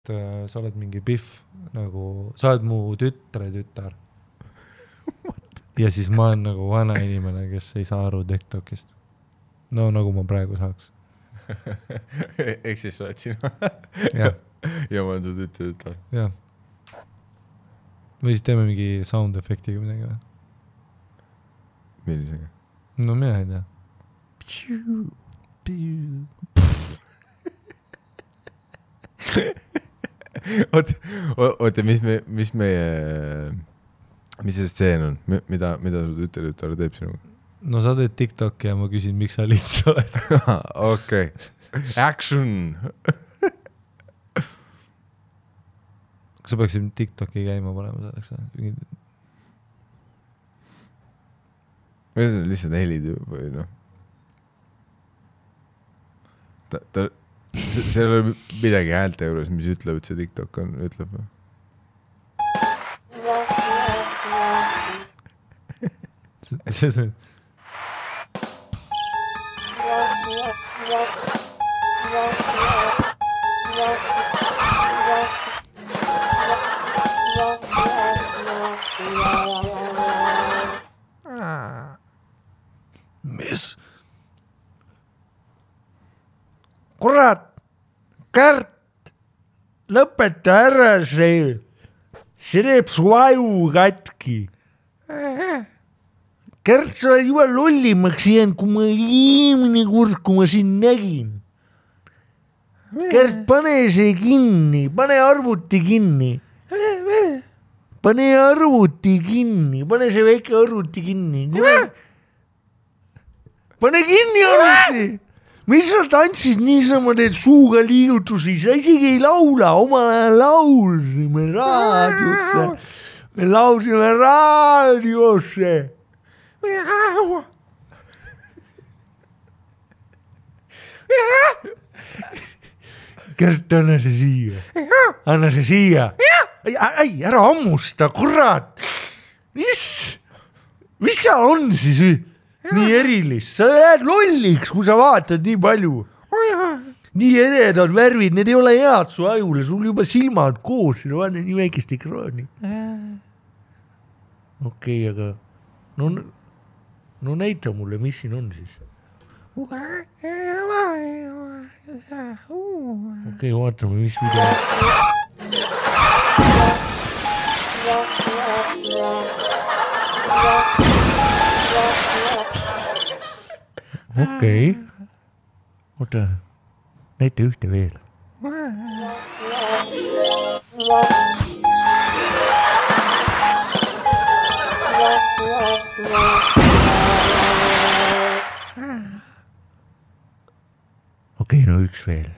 sa oled mingi Biff, nagu sa oled mu tütre tütar. Ja siis ma olen nagu vana inimene, kes ei saa aru TikTokist. No nagu ma praegu saaks. Ehk siis sa oled sina. Ja. Ja ma olen su tütar. Jah. Või siis teeme mingi sound efektiga midagi või? Millisega? No mina ei tea. Oota, mis see stseen on? Mida su tütar teeb sinuga? No sa teed TikToki ja ma küsin, miks sa lits oled. Okei. Action! Kas sa peaksid TikToki käima panema selleks? Või see on lihtsalt helid või noh. See ei ole midagi häälte juures, mis ütleb, et see TikTok on, ütleb või? See on... Mis? Kurat, Kärt, lõpeta ära see teeb su aju katki. Kärt, sa oled juba lollimaks jäänud, kui ma eelmine kord, kui ma siin nägin. Kärt, pane see kinni, pane arvuti kinni. Pane arvuti kinni, pane see väike arvuti kinni. Pane kinni arvuti. Mis sa tantsid niisama, teed suuga liigutusi, sa isegi ei laula, oma laulsime raadiosse. Me laulsime raadiosse. Kärt, anna see siia. Anna see siia. Ei, ära ammusta, kurat. Mis sa on siis nii erilist? Sa jääd lolliks, kui sa vaatad nii palju. Nii eredad värvid, need ei ole head su ajule, sul juba silmad koos, vaata nii väikest ekraani. Okei, aga no näita mulle, mis siin on siis. Okei, vaatame, mis video. Okei. Oota, näita ühte veel. Okei, no üks veel.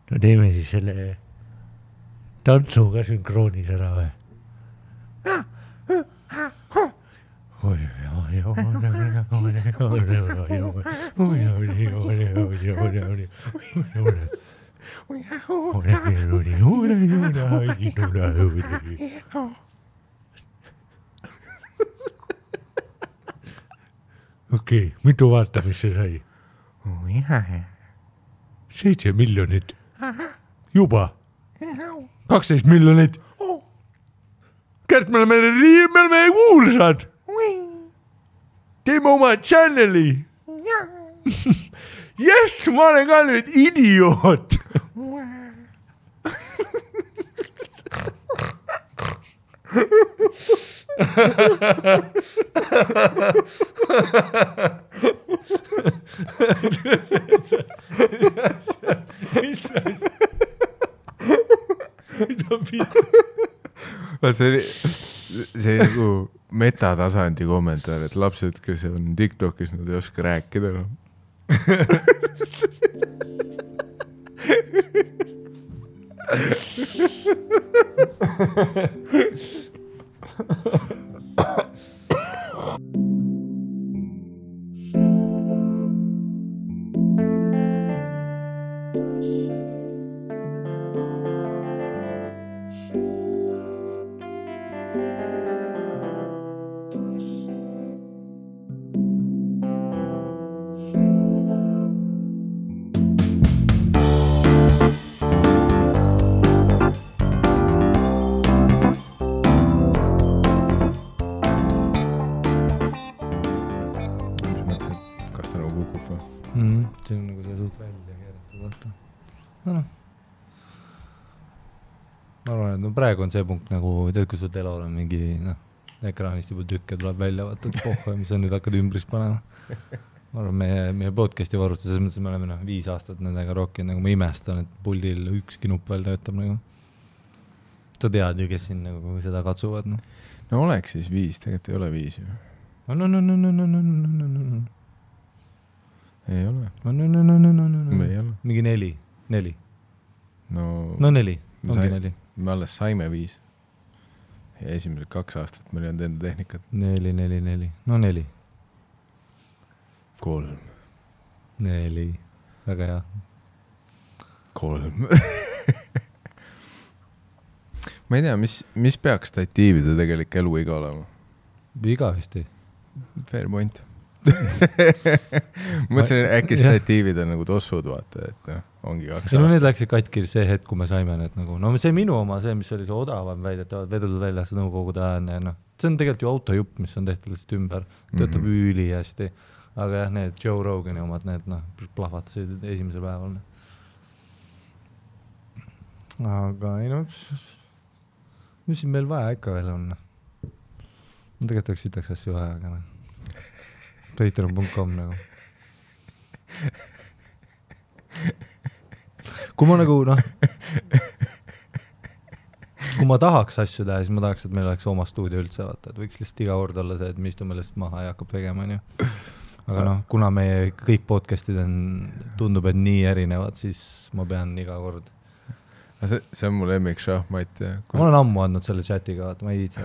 No teeme siis selle tantsuga sünkroonis ära või? Okei, mitu vaatamist see sai? 7 miljonit. Juba. 12 miljonit. Kärt, me oleme kuulsad. Teeme oma channeli. Yes, ma olen ka nüüd idioot. Mis asja? See nagu metatasandi kommentaar, et lapsed, kes on TikTokis, nad ei oska rääkida. siit välja keeratud. No. Ma arvan, et praegu on see punkt nagu, tead, kui sul telol on mingi, ekraanist juba tükke tuleb välja, vaata, et mis sa nüüd hakkad ümbris panema. Ma arvan, meie podcasti varustus, selles mõttes, et me oleme 5 aastat nendega rockinud, nagu ma imestan, et puldil ükski nupp veel töötab nagu. Sa tead ju, kes siin nagu seda katsuvad. No oleks siis 5, tegelikult ei ole 5 ju. Ei ole. Ei ole. Mingi 4. No 4, ongi 4. Me alles saime 5. Ja esimesed 2 aastat meil ei olnud enda tehnikat. 4. No 4. 3. 4. Väga hea. 3. Ma ei tea, mis peaks statiivide tegelik eluiga olema? Igavesti. Fair point. Mõtlesin, äkki statiivid on nagu tossud, vaata, et ongi 2 aastat. No need läksid katki see hetk, kui me saime need nagu, no see minu oma, see, mis oli see odavam väidetavad, vedutud väljas nõukogude ajane, no. See on tegelikult ju autojupp, mis on tehtud lihtsalt ümber, töötab üli hästi, aga jah, need Joe Rogani omad, need plahvatasid esimesel päeval. Aga ei no, mis siin meil vaja ikka veel on? Ma tegelikult sitaks asju vaja, aga patreon.com nagu. Kui ma nagu, kui ma tahaks asju teha, siis ma tahaks, et meil oleks oma stuudio üldse, vaata, et võiks lihtsalt iga kord olla see, et me istume lihtsalt maha ja hakkab tegema, on ju. Aga kuna meie kõik podcastid on, tundub, et nii erinevad, siis ma pean iga kord. See on mu lemmik šahmat. Ma olen ammu andnud selle chatiga, vaata, ma ei viitsi.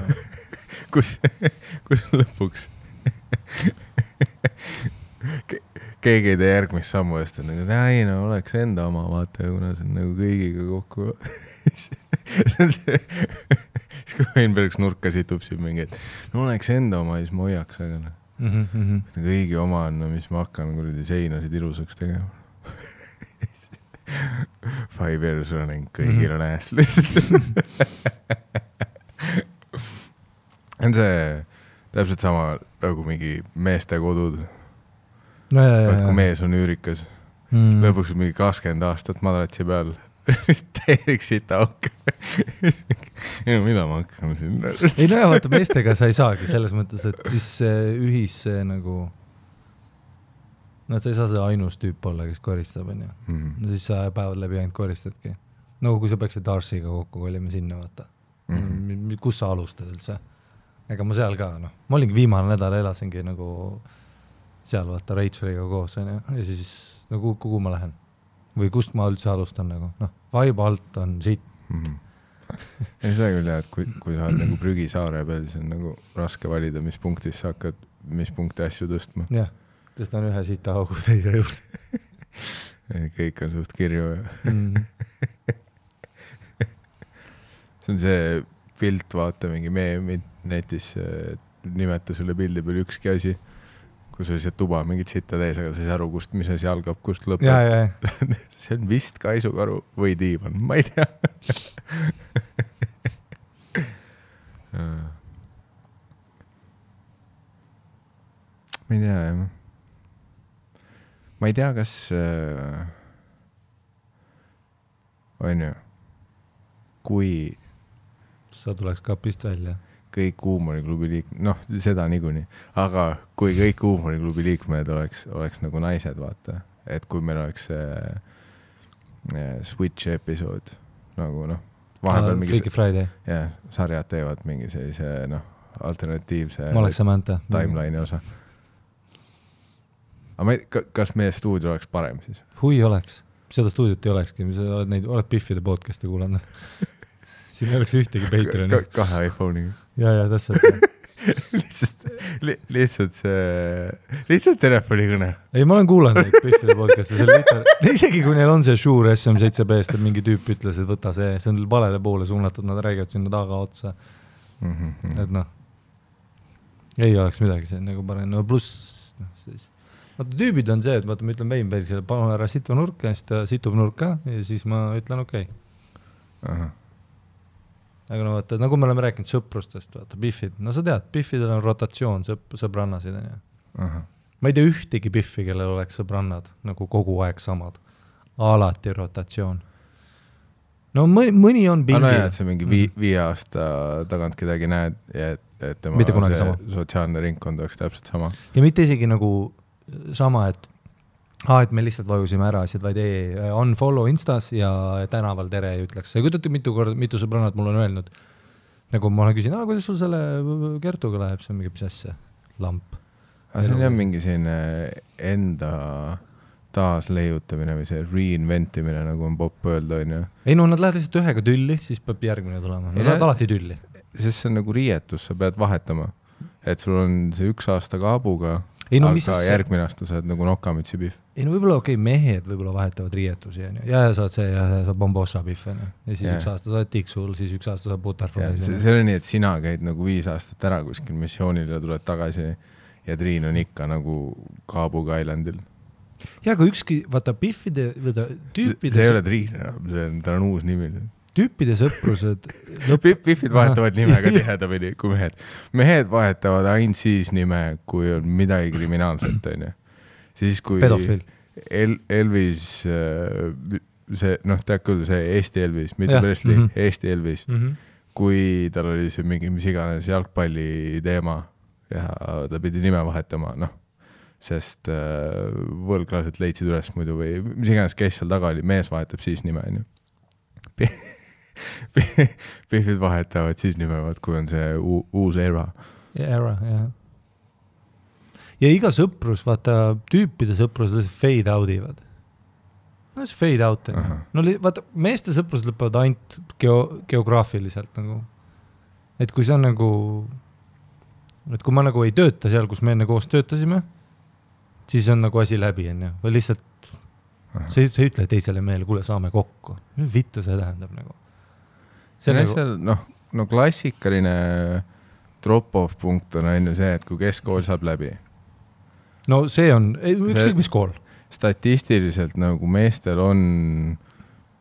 Kus lõpuks keegi ei tee järgmist sammu eest, et nagu, ei no oleks enda oma, vaata, kuna see on nagu kõigiga kokku. See on see, siis kui Weinbergs nurka situb siin mingi, et no oleks enda oma, siis ma hoiaks, aga kõigi oma on, mis ma hakkan kuradi seinasid ilusaks tegema. 5 years running, kõigil on ääs lihtsalt. On see täpselt sama nagu mingi meeste kodud. Kui mees on üürikas. Lõpuks mingi 20 aastat madratsi peal. Täielik sita auk. Mida ma hakkan siin? Ei no jah, vaata meestega sa ei saagi selles mõttes, et siis ühis see nagu sa ei saa see ainus tüüp olla, kes koristab, on ju. No siis sa päevad läbi ainult koristadki. Nagu kui sa peaksid Darsiga kokku kolime sinna, vaata. Kus sa alustad üldse? Ega ma seal ka, Ma olingi viimane nädal elasingi nagu seal, vaata, Racheliga koos, on ju. Ja siis, kuhu ma lähen? Või kust ma üldse alustan nagu? Vibe alt on shit. Ei seda küll jah, et kui sa oled nagu prügisaare peal, siis on nagu raske valida, mis punktis sa hakkad, mis punkti asju tõstma. Jah. Tõstan ühe sita augu teise juurde. Kõik on suht kirju. See on see pilt, vaata mingi meemid netis, nimeta selle pildi peal ükski asi, kus oli see tuba mingit sitta tees, aga sa ei saa aru, mis asi algab, kust lõpeb. See on vist kaisukaru või diivan, ma ei tea. Ma ei tea, jah. Ma ei tea, kas on ju, kui sa tuleks kapist välja. Kõik huumoriklubi liikmed, seda niikuinii, aga kui kõik huumoriklubi liikmed oleks nagu naised, vaata, et kui meil oleks Switch episood, nagu vahepeal mingi Freaky Friday. Jah, sarjad teevad mingi sellise, alternatiivse timeline'i osa. Aga kas meie stuudio oleks parem siis? Hui oleks. Seda stuudiot ei olekski. Oled Biffide podcasti kuulanud. Siin ei oleks ühtegi Patreoni. 2 iPhone'iga. Ja, täpselt. lihtsalt telefonikõne. Ei, ma olen kuulanud neid Biffide podcasti. Isegi kui neil on see Shure SM7B-st, et mingi tüüp ütles, et võta see on valele poole suunatud, nad räägivad sinna taga otsa. Et ei oleks midagi see nagu parem. Pluss, siis vaata, tüübid on see, et vaata, ma ütlen Weinbergsile, palun ära situ nurka, ja siis ta situb nurka ja siis ma ütlen okei. Aga vaata, nagu me oleme rääkinud sõprustest, vaata, Biffid. Sa tead, Biffidel on rotatsioon sõbrannasid. ma ei tea ühtegi Biffi, kellel oleks sõbrannad nagu kogu aeg samad. Alati rotatsioon. No mõni on pingil. No jah, et see mingi 5 aasta tagant kedagi näed ja et tema sotsiaalne ringkond oleks täpselt sama. Ja mitte isegi nagu sama, et me lihtsalt vajusime ära asjad, vaid unfollow Instas ja tänaval tere ei ütleks. Ja kujutate mitu sõbrannad mul on öelnud, nagu ma küsin, kuidas sul selle Kertuga läheb, see on mingi asja, lamp. Aga see on mingi selline enda taasleiutamine või see reinventimine, nagu on popp öelda, on ju. Ei no, nad lähevad lihtsalt ühega tülli, siis peab järgmine tulema. Nad lähevad alati tülli. Sest see on nagu riietus, sa pead vahetama. Et sul on see 1 aasta kaabuga, aga järgmine aasta saad nagu nokamütsi Biff. Ei no võib-olla mehed võib-olla vahetavad riietusi ja saad see ja saad bombossa Biff ja siis 1 aasta saad tiksul, siis 1 aasta saad butterflies. See on nii, et sina käid nagu 5 aastat ära kuskil missioonil ja tuled tagasi ja Triin on ikka nagu Kaabuga Islandil. Ja aga ükski, vaata Biffide, tüüpide... See ei ole Triin, ta on uus nimi. Tüüpide sõprused... Biffid vahetavad nimega tihedamini kui mehed. Mehed vahetavad ainult siis nime, kui on midagi kriminaalset, on ju. Siis kui pedofil. Elvis, see, tead küll, see Eesti Elvis, mitte Presley, Eesti Elvis, kui tal oli see mingi mis iganes jalgpalli teema ja ta pidi nime vahetama, sest võlglased leidsid üles muidu või mis iganes kes seal taga oli, mees vahetab siis nime, on ju. Biffid vahetavad siis nimevad, kui on see uus era. Era, jah. Ja iga sõprus, vaata, tüüpide sõprus fade outivad. No see fade out. No vaata, meeste sõprus lõpevad ainult geograafiliselt nagu. Et kui see on nagu, et kui ma nagu ei tööta seal, kus me enne koos töötasime, siis on nagu asi läbi, või lihtsalt sa ei ütle teisele meele, kuule, saame kokku. Vittu see tähendab nagu. See nagu... klassikaline drop-off punkt on ainult see, et kui keskkool saab läbi. No see on, ükskõik mis kool. Statistiliselt nagu meestel on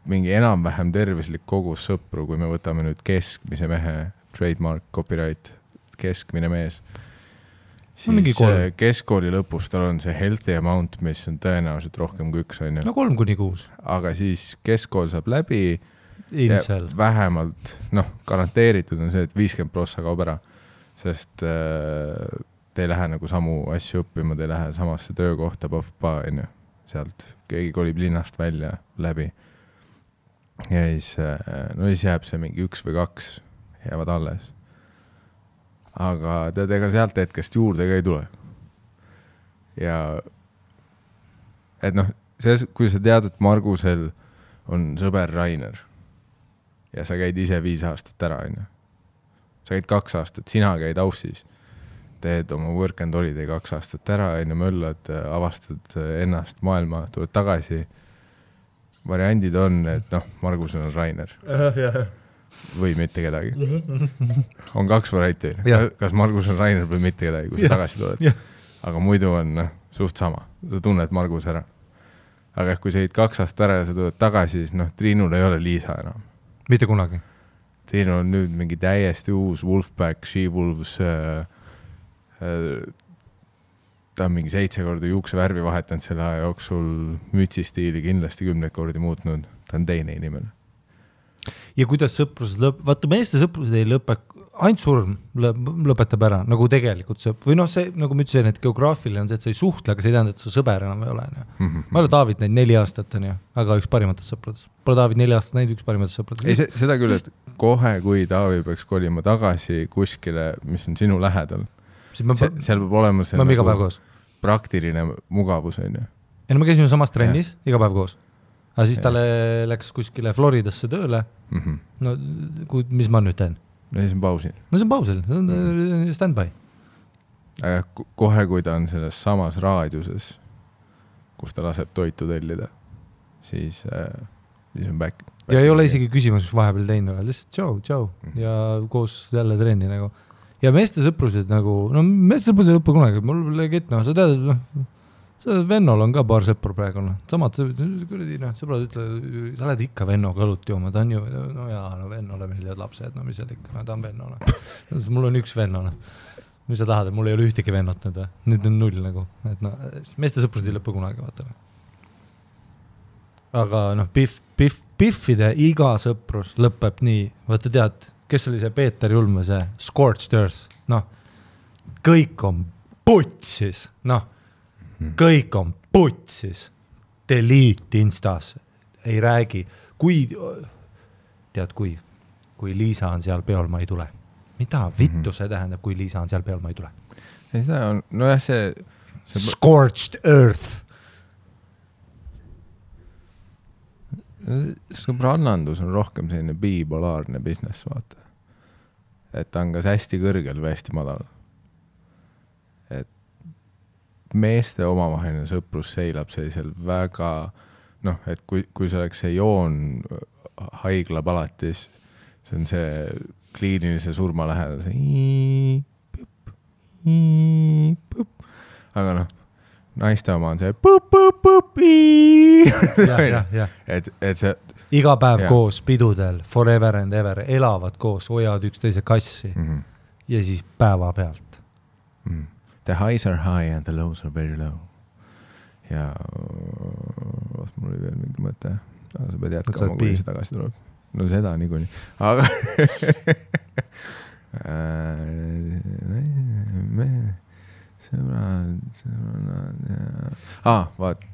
mingi enam-vähem tervislik kogus sõpru, kui me võtame nüüd keskmise mehe, trademark, copyright, keskmine mees. Siis keskkooli lõpus tal on see healthy amount, mis on tõenäoliselt rohkem kui 1, on ju. No 3-6. Aga siis keskkool saab läbi Insel. Vähemalt, garanteeritud on see, et 50% kaob ära, sest te ei lähe nagu samu asju õppima, te ei lähe samasse töökohta, on ju, sealt keegi kolib linnast välja läbi. Ja siis jääb see mingi 1 või 2 jäävad alles. Aga tead, ega sealt hetkest juurde ka ei tule. Ja et kui sa tead, et Margusel on sõber Rainer ja sa käid ise 5 aastat ära, on ju. Sa käid 2 aastat, sina käid Aussis, teed oma work and holiday 2 aastat ära, on ju, möllad, avastad ennast maailma, tuled tagasi. Variandid on, et Margusel on Rainer. Või mitte kedagi. On 2 varianti. Kas Margus on Rainer või mitte kedagi, kui sa tagasi tuled. Aga muidu on suht sama. Sa tunned Margus ära. Aga kui sa 2 aastat ära ja sa tuled tagasi, siis Triinul ei ole Liisa enam. Mitte kunagi. Triinul on nüüd mingi täiesti uus Wolfpack, She-Wolves. Ta on mingi 7 korda juukse värvi vahetanud selle aja jooksul, mütsistiili kindlasti 10 kordi muutnud. Ta on teine inimene. Ja kuidas sõprused vaata meeste sõprused ei lõpe, ainult surm lõpetab ära, nagu tegelikult või see, nagu ma ütlesin, et geograafiline on see, et sa ei suhtle, aga see ei tähenda, et su sõber enam ei ole. Ma olen David näinud 4 aastat, aga üks parimatest sõpradest. Pole David 4 aastat näinud üks parimatest sõpradest. Ei, seda küll, et kohe, kui David peaks kolima tagasi kuskile, mis on sinu lähedal, seal peab olema see nagu praktiline mugavus. Ei, no me käisime samas trennis iga päev koos. Aga siis talle läks kuskile Floridasse tööle. No, mis ma nüüd teen? No siis on pausil. No see on pausil, see on stand-by. Aga kohe, kui ta on selles samas raadiuses, kus ta laseb toitu tellida, siis on back. Ja ei ole isegi küsimus, mis vahepeal teinud ole. Lihtsalt tšau. Ja koos jälle trenni nagu. Ja meeste sõprused nagu, meeste sõprused ei lõppe kunagi. Mul legit, sa tead, Vennol on ka paar sõpru praegu. Samad sõbrad ütle, sa oled ikka Vennoga õlut jooma, ta on ju, Vennole meeldivad lapsed, mis seal ikka, ta on Vennole. Mul on üks Vennole. mis sa tahad, et mul ei ole ühtegi vennot nüüd, nüüd on 0 nagu, et no, meeste sõprused ei lõppe kunagi, vaata. Aga noh, Biffide iga sõprus lõpeb nii, vaata tead, kes oli see Peeter Julme, see Scorched Earth, noh, kõik on putsis, noh, kõik on putsis, delete Instas, ei räägi, kui Liisa on seal peol, ma ei tule. Mida vittu see tähendab, kui Liisa on seal peol, ma ei tule? Ei seda on, no jah, see... Scorched Earth. Sõbrannandus on rohkem selline bipolaarne business, vaata. Et ta on kas hästi kõrgel või hästi madal. Et meeste omavaheline sõprus seilab sellisel väga, noh, et kui see oleks see joon haigla palatis, see on see kliinilise surma lähedal, see aga noh, naiste oma on see et see iga päev koos pidudel, forever and ever, elavad koos, hoiavad üksteise kassi ja siis päeva pealt. The highs are high and the lows are very low. Ja mul oli veel mingi mõte. Sa pead jätkama, kui see tagasi tuleb. No seda niikuinii. Aga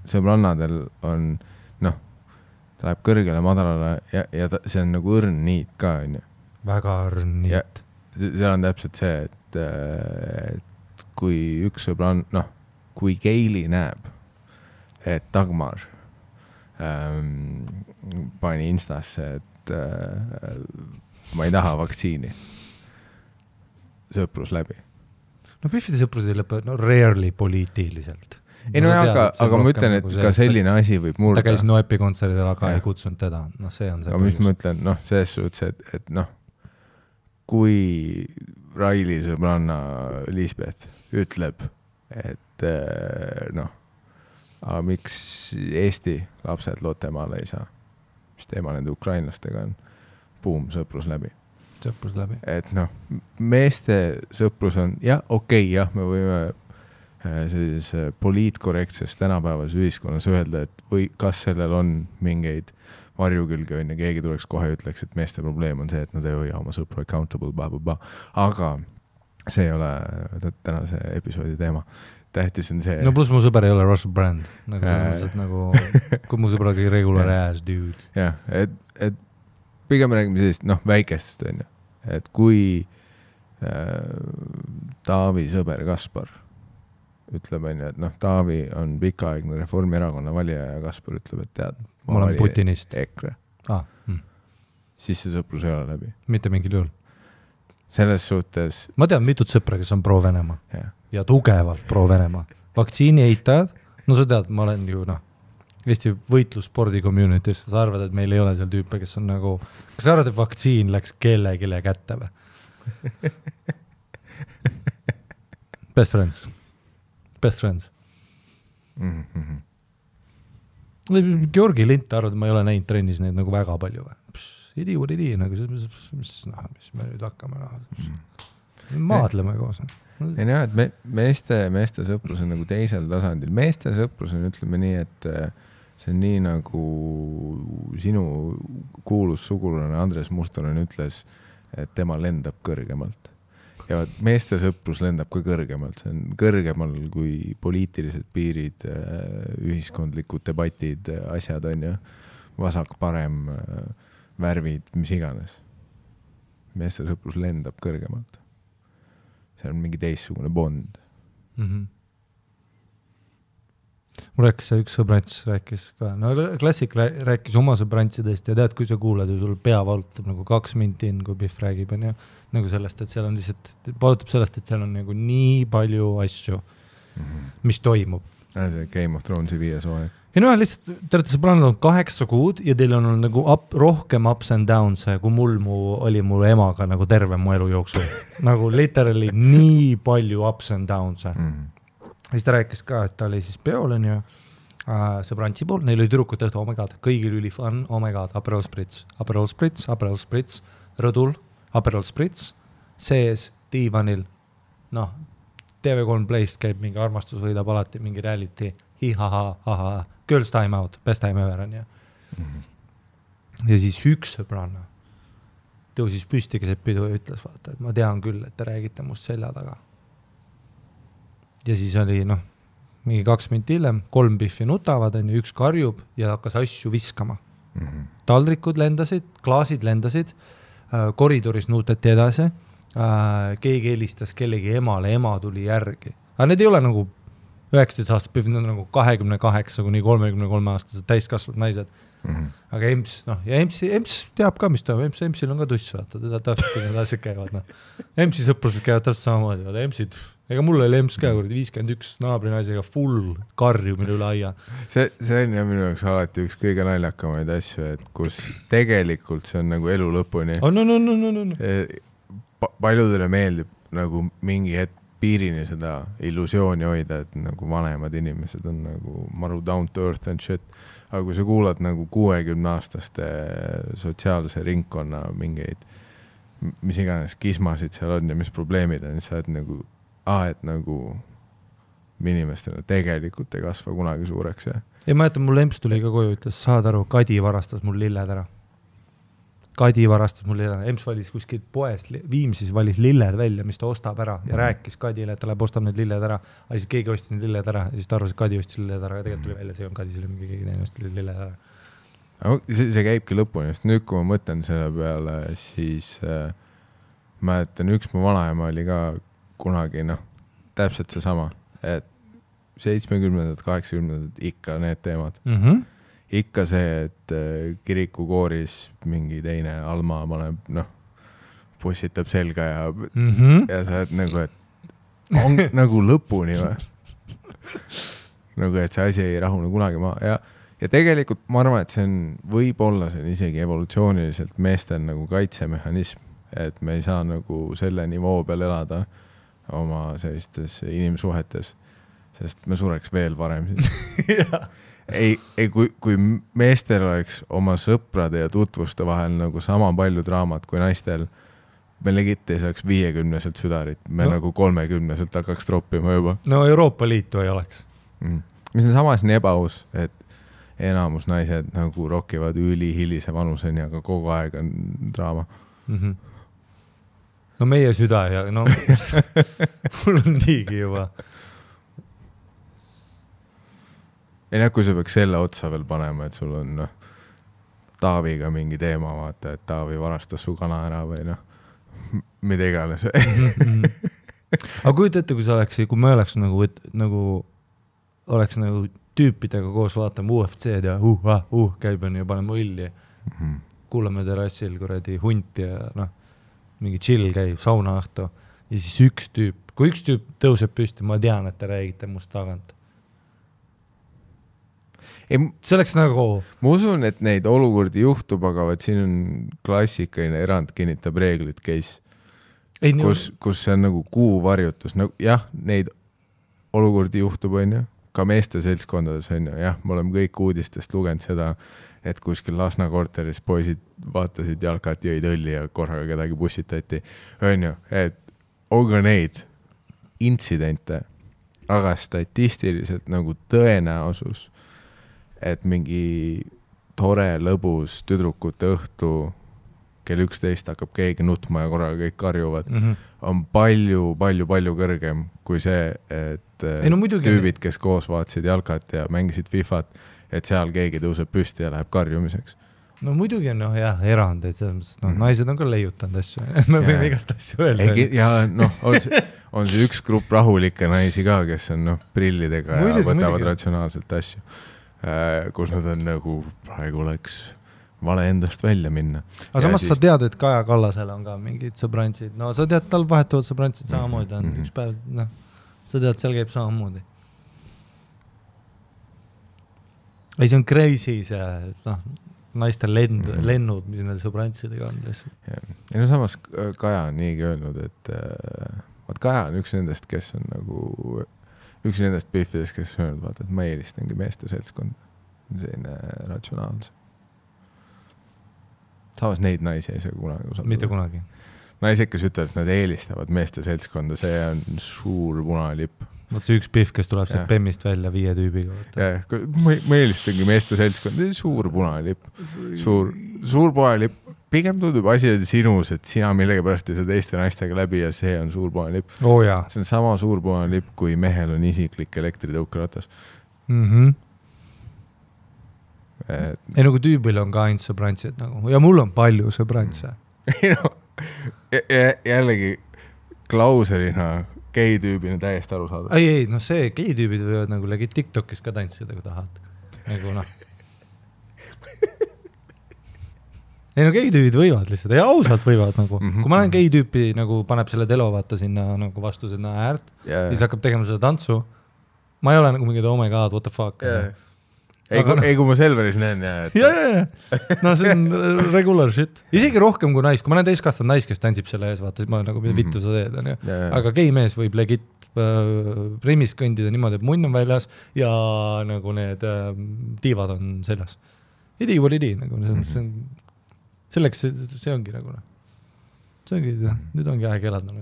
sõbrannadel on, noh, ta läheb kõrgele, madalale ja see on nagu õrn niit ka, on ju. Väga õrn niit. Seal on täpselt see, et kui üks sõbrann, noh, kui Keili näeb, et Dagmar pani Instasse, et ma ei taha vaktsiini. Sõprus läbi. No Biffide sõprus ei lõpe, no rarely poliitiliselt. Ei no aga ma ütlen, et ka selline asi võib murda. Ta käis Noepi kontserdil, aga ei kutsunud teda. No see on see aga mis ma ütlen, noh, selles suhtes, et noh, kui Raili sõbranna Lisbeth ütleb, et noh, aga miks Eesti lapsed Lottemaale ei saa? Mis teema nende ukrainlastega on? Boom, sõprus läbi. Sõprus läbi. Et noh, meeste sõprus on, jah, okei, jah, me võime sellises poliitkorrektses tänapäevas ühiskonnas öelda, et või kas sellel on mingeid varjukülge on ja keegi tuleks kohe ütleks, et meeste probleem on see, et nad ei hoia oma sõpru accountable, aga see ei ole tänase episoodi teema. Tähtis on see... No plus mu sõber ei ole Russell Brand. Nagu kui mu sõber oli regular ass dude. Jah, et pigem räägime sellist, noh, väikestest on ju. Et kui Taavi sõber Kaspar ütleb, et noh, Taavi on pikaaegne Reformierakonna valija ja Kaspar ütleb, et tead, ma olen Putinist. EKRE. Siis see sõprus ei ole läbi. Mitte mingil juhul. Selles suhtes... Ma tean mitut sõpra, kes on pro-Venemaa. Ja tugevalt pro-Venemaa. Vaktsiini eitajad, no sa tead, ma olen ju, noh, Eesti võitlusspordi communities, sa arvad, et meil ei ole seal tüüpe, kes on nagu... Kas sa arvad, et vaktsiin läks kellelegi kätte või? Best friends. Georgi Lint arvad, et ma ei ole näinud trennis neid nagu väga palju või? Idi, nagu mis me nüüd hakkame maadleme koos. Ei näe, et meeste sõprus on nagu teisel tasandil. Meeste sõprus on, ütleme nii, et see on nii nagu sinu kuulus sugulane Andres Mustonen ütles, et tema lendab kõrgemalt. Ja meeste sõprus lendab ka kõrgemalt. See on kõrgemal kui poliitilised piirid, ühiskondlikud debatid, asjad on ju, vasak, parem, värvid, mis iganes. Meeste sõprus lendab kõrgemalt. See on mingi teissugune bond. Mul rääkis üks sõbrants, rääkis ka, no klassik rääkis oma sõbrantsidest ja tead, kui sa kuuled ja sul pea valutab nagu 2 minti in, kui Biff räägib, on ju, nagu sellest, et seal on lihtsalt, valutab sellest, et seal on nagu nii palju asju, mis toimub. Game of Thronesi 5 hooaeg. Ja no lihtsalt, te olete sõbrannad on 8 kuud ja teil on nagu rohkem ups and downs, kui oli mu emaga nagu terve mu elu jooksul. Nagu literally nii palju ups and downs. Siis ta rääkis ka, et ta oli siis peol, on ju, sõbrantsi pool, neil oli tüdrukut õhtu, oh my god, kõigil üli fun, oh my god, Aperol Spritz, rõdul, Aperol Spritz, sees, diivanil, noh, TV3 Playst käib mingi armastus võidab alati mingi reality, hi-ha-ha-ha-ha, girls time out, best time ever on ja. Ja siis üks sõbranna tõusis püsti keset pidu ja ütles, vaata, et ma tean küll, et te räägite must selja taga. Ja siis oli, noh, mingi 2 minti hiljem, 3 pihvi nutavad, on ju, üks karjub ja hakkas asju viskama. Taldrikud lendasid, klaasid lendasid, koridoris nuutati edasi, keegi helistas kellegi emale, ema tuli järgi. Aga need ei ole nagu 19 aastat, need on nagu 28 kuni 33 aastased täiskasvad naised. Aga EMS, noh, ja EMS teab ka, mis toimub, EMS-il on ka tuss, vaata, teda täpselt, kui need asjad käivad, noh. EMS-i sõprused käivad täpselt samamoodi, vaata, EMS-id, ega mul oli EMS ka, 51 naabrinaisega full karjumine üle aia. See on ja minu jaoks alati üks kõige naljakamaid asju, et kus tegelikult see on nagu elu lõpuni. Paljudele meeldib nagu mingi hetk piirini seda illusiooni hoida, et nagu vanemad inimesed on nagu maru down to earth and shit. Aga kui sa kuulad nagu 60-aastaste sotsiaalse ringkonna mingeid, mis iganes kismasid seal on ja mis probleemid on, siis sa oled nagu, et nagu inimestele tegelikult ei kasva kunagi suureks. Ja? Ei, ma jätan, mul EMS tuli ka koju, ütles, saad aru, Kadi varastas mul lilled ära. EMS valis kuskil poest, Viimsis valis lilled välja, mis ta ostab ära ja rääkis Kadile, et ta läheb ostab need lilled ära. Aga siis keegi ostis need lilled ära ja siis ta arvas, et Kadi ostis lilled ära ja tegelikult tuli välja, see on Kadis, keegi teine ostis lilled ära. See käibki lõpuni, sest nüüd kui ma mõtlen selle peale, siis mäletan, üks mu vanaema oli ka kunagi, noh, täpselt see sama, et 70-ndad, 80-ndad ikka need teemad. Ikka see, et kirikukooris mingi teine Alma paneb, noh, pussitab selga ja sa oled nagu, et on nagu lõpuni või? Nagu, et see asi ei rahune kunagi maha. Ja tegelikult ma arvan, et see on, võib-olla see on isegi evolutsiooniliselt meestel nagu kaitsemehhanism, et me ei saa nagu selle nivoo peal elada oma sellistes inimsuhetes, sest me sureks veel varem siis. Ei, kui meestel oleks oma sõprade ja tutvuste vahel nagu sama palju draamat kui naistel, me legit ei saaks 50-selt südarit, me nagu 30-selt hakkaks troppima juba. No Euroopa Liitu ei oleks. Mis on samas nii ebaaus, et enamus naised nagu rokivad ülihilise vanuseni, aga kogu aeg on draama. No meie süda ja no mul on niigi juba. Ei näe, kui sa peaks selle otsa veel panema, et sul on Taaviga mingi teema, vaata, et Taavi varastas su kana ära või mida iganes. Aga kujuta ette, kui sa oleks, kui me oleks nagu oleks nagu tüüpidega koos vaatama UFC-d ja käib on ja paneme õlli. Kuulame terrassil kuradi hunti ja mingi chill käib, sauna õhtu ja siis üks tüüp, kui üks tüüp tõuseb püsti, ma tean, et te räägite must tagant. See oleks nagu... Ma usun, et neid olukordi juhtub, aga siin on klassikaline erand kinnitab reeglid case, kus see on nagu kuuvarjutus. Jah, neid olukordi juhtub, on ju, ka meeste seltskondades on ju. Jah, me oleme kõik uudistest lugenud seda, et kuskil Lasna korteris poisid vaatasid jalkat, jõid õlli ja korraga kedagi bussitati. On ju, et on ka neid intsidente, aga statistiliselt nagu tõenäosus, et mingi tore, lõbus tüdrukute õhtu kell 11 hakkab keegi nutma ja korraga kõik karjuvad, on palju kõrgem kui see, et tüübid, kes koos vaatasid jalkat ja mängisid Fifat, et seal keegi tõuseb püsti ja läheb karjumiseks. No muidugi on erand, et naised on ka leiutanud asju, me võime igast asju öelda. Ja on see üks grupp rahulikke naisi ka, kes on prillidega ja võtavad ratsionaalselt asju. Kus nad on nagu praegu oleks vale endast välja minna. Aga samas sa tead, et Kaja Kallasel on ka mingid sõbrantsid. No sa tead, tal vahetuvad sõbrantsid samamoodi on üks päev, sa tead, seal käib samamoodi. Ei, see on crazy see, naistel lennud, mis need sõbrantsidega on lihtsalt. Ja no samas Kaja on niigi öelnud, et Kaja on üks nendest, kes on nagu üks nendest pihvides, kes on öelnud, et ma eelistangi meeste seltskond. Selline ratsionaalse. Samas neid naisi ei saa kunagi usaldada. Mitte kunagi. naised, kes ütlevad, et nad eelistavad meeste seltskonda, see on suur punalipp. Võt see üks pihv, kes tuleb sealt Bemmist välja 5 tüübiga. Ma eelistangi meeste seltskonda, suur punalipp. Suur punalipp. Pigem tundub asi sinus, et sina millegipärast ei saa teiste naistega läbi ja see on suur punalipp. Oh, jaa. See on sama suur punalipp, kui mehel on isiklik elektritõukeratas. Ei nagu tüübil on ka ainult sõbrantsid nagu. Ja mul on palju sõbrantse. Jällegi klauselina gei-tüübina täiesti aru saada. Ei, no see gei-tüübid võivad nagu legit TikTokis ka tantsida, kui tahad. Nagu noh. Ei no gei-tüübid võivad lihtsalt, ja ausalt võivad nagu. Kui ma olen gei-tüüpi nagu paneb selle telo vaata sinna nagu vastusena äärt, siis hakkab tegema seda tantsu. Ma ei ole nagu mingid oh my god, what the fuck. Ei, kui ma Selveris näen. No see on regular shit. Isegi rohkem kui nais. Kui ma olen täiskastanud nais, kes tantsib selle ees, vaata, siis ma olen nagu vittu sa teed. Aga gei-mees võib legit rimis kõndida niimoodi, et munn on väljas ja nagu need tiivad on seljas. Idi või idi. Selleks see ongi nagu. See ongi, nüüd ongi aeg elada.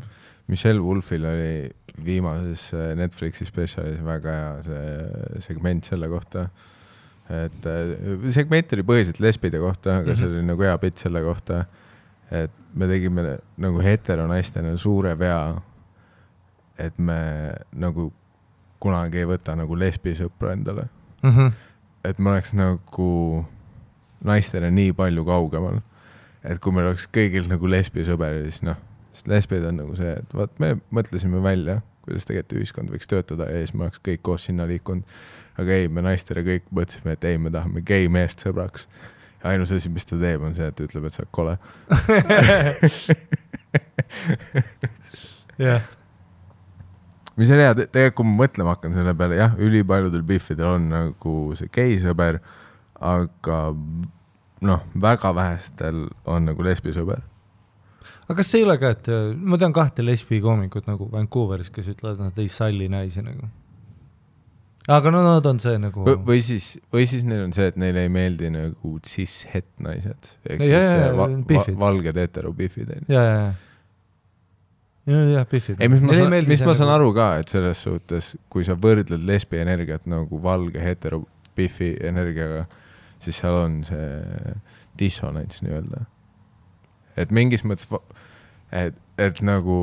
Michelle Wolfil oli viimases Netflixi spetsialis väga hea see segment selle kohta. Et segment oli põhiliselt lesbide kohta, aga see oli nagu hea pitt selle kohta, et me tegime nagu heteronaistena suure vea, et me nagu kunagi ei võta nagu lesbisõpra endale. Et me oleks nagu naistena nii palju kaugemal, et kui meil oleks kõigil nagu lesbisõber, siis noh, sest lesbid on nagu see, et vaat me mõtlesime välja, kuidas tegelikult ühiskond võiks töötada ja siis me oleks kõik koos sinna liikunud. Aga ei, me naistele kõik mõtlesime, et ei, me tahame gei meest sõbraks. Ja ainus asi, mis ta teeb, on see, et ütleb, et sa kole. Mis on hea, tegelikult kui ma mõtlema hakkan selle peale, jah, ülipaljudel biffidel on nagu see gei sõber, aga noh, väga vähestel on nagu lesbisõber. Aga kas see ei ole ka, et ma tean 2 lesbi koomikut nagu Vancouveris, kes ütlevad, et nad ei salli naisi nagu. Aga no nad on see nagu... Või siis neil on see, et neile ei meeldi nagu cis-het naised. Ehk siis valged hetero-biffid. Jah, biffid. Mis ma saan aru ka, et selles suhtes, kui sa võrdled lesbi energiat nagu valge hetero-biffi energiaga, siis seal on see dissonants nii-öelda. Et mingis mõttes, et nagu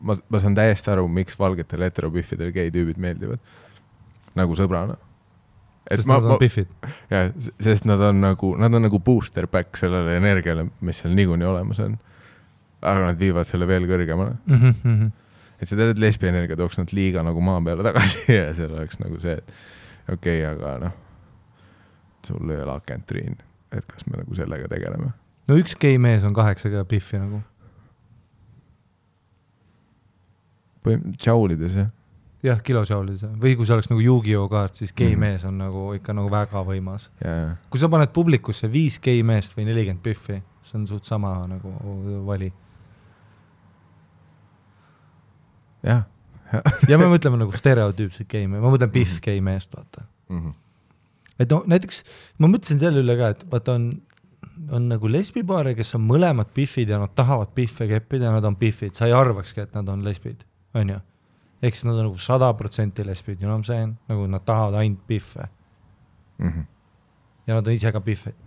ma saan täiesti aru, miks valgetel hetero-biffidel gei-tüübid meeldivad. Nagu sõbrana. Sest nad on biffid. Jah, sest nad on nagu booster back sellele energiale, mis seal niikuinii olemas on. Aga nad viivad selle veel kõrgemale. Et see tead, et lesbi energia tooks nad liiga nagu maa peale tagasi ja seal oleks nagu see, et okei, aga noh, sul ei ole akentriin, et kas me nagu sellega tegeleme. No üks gei mees on 8 biffi nagu. Tšaulides, jah? Jah, kilotšaulides. Või kui see oleks nagu Yu-Gi-Oh kaart, siis gei mees on nagu ikka nagu väga võimas. Kui sa paned publikusse 5 gei meest või 40 biffi, see on suht sama nagu vali. Jah. Ja me mõtleme nagu stereotüüpsed gei mees. Ma mõtlen biff gei meest, vaata. Et no näiteks, ma mõtlesin selle üle ka, et vaata on nagu lesbipaare, kes on mõlemad biffid ja nad tahavad biffe keppida ja nad on biffid. Sa ei arvakski, et nad on lesbid, on ju? Ehk siis nad on nagu 100% lesbid, you know what I'm saying? Nagu nad tahavad ainult biffe. Ja nad on ise ka biffid.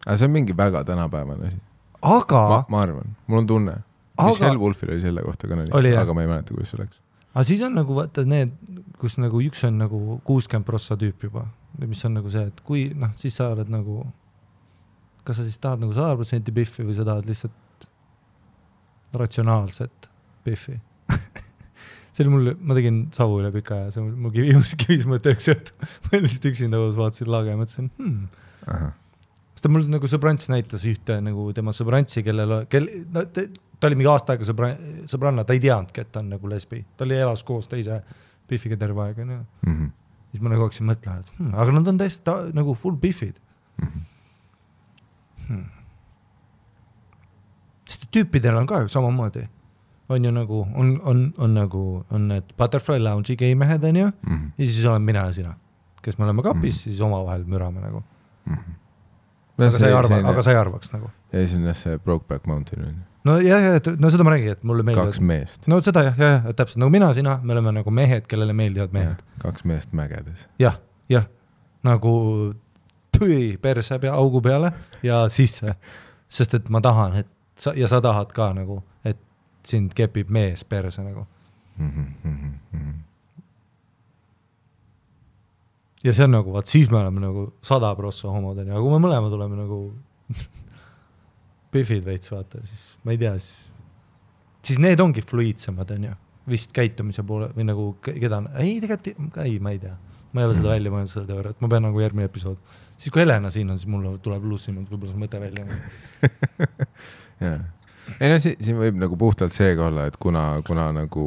Aga see on mingi väga tänapäevane asi. Aga... Ma arvan, mul on tunne. Michelle Wolfil oli selle kohta ka aga ma ei mäleta, kuidas see oleks. Aga siis on nagu, vaata need, kus nagu üks on nagu 60% tüüp juba. Mis on nagu see, et kui, noh, siis sa oled nagu... Kas sa siis tahad nagu 100% biffi või sa tahad lihtsalt ratsionaalset biffi? See oli mul, ma tegin savu üle pika ja see mul kivis mõte üks õhtu. Ma lihtsalt üksinda vaatasin laage ja mõtlesin, Sest ta mul nagu sõbrants näitas ühte nagu tema sõbrantsi, ta oli mingi aasta aega sõbranna, ta ei teadnudki, et ta on nagu lesbi. Ta oli elas koos teise biffiga terve aega. Siis ma nagu hakkasin mõtlema, et aga nad on täiesti nagu full biffid. Sest tüüpidel on ka ju samamoodi. On ju nagu, on need Butterfly Lounge'i gei mehed, on ju, ja siis olen mina ja sina, kes me oleme kapis, siis oma vahel mürame nagu. Aga sa ei arvaks nagu. Ja siis on see Brokeback Mountain. no no seda ma räägin, et mulle meeldivad 2 meest. No seda jah, täpselt, nagu mina, sina, me oleme nagu mehed, kellele meeldivad mehed. 2 meest mägedes. Jah, nagu tüi perse augu peale ja sisse, sest et ma tahan, et sa tahad ka nagu, et sind kepib mees perse nagu. Ja see on nagu, vaat siis me oleme nagu 100% homod, ja kui me mõlemad oleme nagu püfid veits, vaata, siis ma ei tea, siis need ongi fluiidsemad, on ju, vist käitumise poole, või nagu keda, tegelikult, ma ei tea, ma ei ole seda välja mõelnud seda teooriat, ma pean nagu järgmine episood. Siis kui Helena siin on, siis mul tuleb lussimalt võib-olla see mõte välja. Jaa. Ei no siin võib nagu puhtalt seega olla, et kuna nagu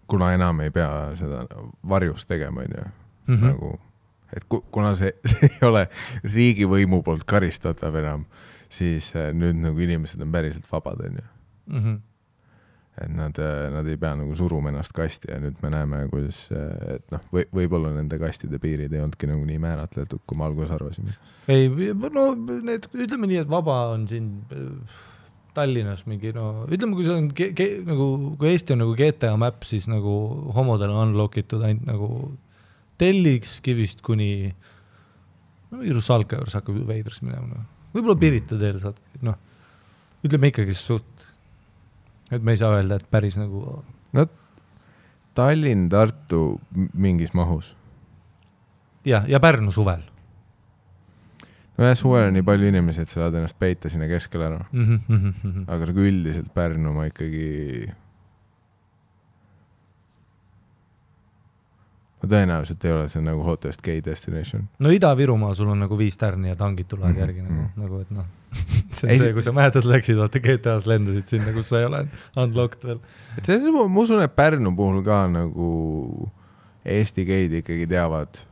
kuna enam ei pea seda varjus tegema, nagu, et kuna see ei ole riigivõimu poolt karistatav enam, siis nüüd nagu inimesed on päriselt vabad, on ju. Et nad ei pea nagu suruma ennast kasti ja nüüd me näeme, kuidas, et noh, võib-olla nende kastide piirid ei olnudki nagu nii määratletud, kui me alguses arvasime. Ei, no ütleme nii, et vaba on siin Tallinnas mingi, no ütleme, kui see on nagu, kui Eesti on nagu GTA map, siis nagu homodel on unlockitud ainult nagu Telliks kivist kuni Rusalka juures hakkab veidras minema. Võib-olla Pirita teel saad, noh, ütleme ikkagi suht, et me ei saa öelda, et päris nagu no Tallinn, Tartu mingis mahus. Ja Pärnu suvel. No jah, suvel on nii palju inimesi, et sa saad ennast peita sinna keskele ära. Aga nagu üldiselt Pärnu ma ikkagi ma tõenäoliselt ei ole see nagu hottest gay destination. No Ida-Virumaal sul on nagu 5 tärni ja tangid tulevad järgi nagu, et noh, see on see, kui sa mähetad läksid, vaata GTA-s lendasid sinna, kus sa ei ole unlocked veel. Et see, ma usun, et Pärnu puhul ka nagu Eesti geid ikkagi teavad,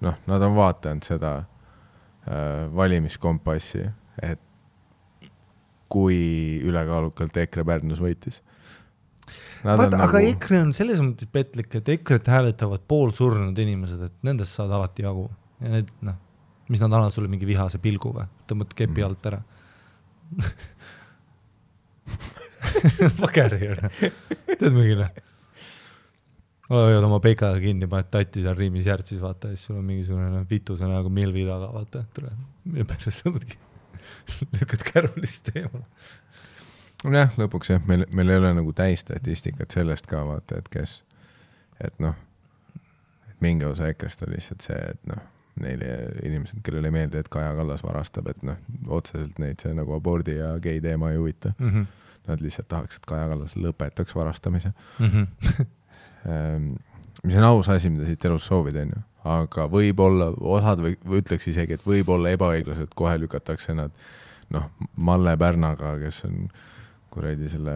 noh, nad on vaatanud seda valimiskompassi, et kui ülekaalukalt EKRE Pärnus võitis. Aga nagu EKRE on selles mõttes petlik, et EKRE-t hääletavad poolsurnud inimesed, et nendest saad alati jagu. Ja need, noh, mis nad annavad sulle mingi vihase pilgu või? Tõmbad kepi alt ära. Pakeri on. Tead mingile? Hoiad oma peikaga kinni, paned tatti seal riimis järtsis, vaata, ja siis sul on mingisugune vitusena nagu milvi taga, vaata, mille pärast tõmbadki lükkad kärulist teemal. Jah, lõpuks jah, meil ei ole nagu täistatistikat sellest ka, vaata, et kes, et noh, et mingi osa EKRE-st on lihtsalt see, et noh, neile inimesed, kellele ei meeldi, et Kaja Kallas varastab, et noh, otseselt neid see nagu abordi ja gei teema ei huvita. Nad lihtsalt tahaks, et Kaja Kallas lõpetaks varastamise. Mis on aus asi, mida siit elus soovid, on ju. Aga võib-olla, osad või ütleks isegi, et võib-olla ebaõiglaselt kohe lükatakse nad, noh, Malle Pärnaga, kes on kuradi selle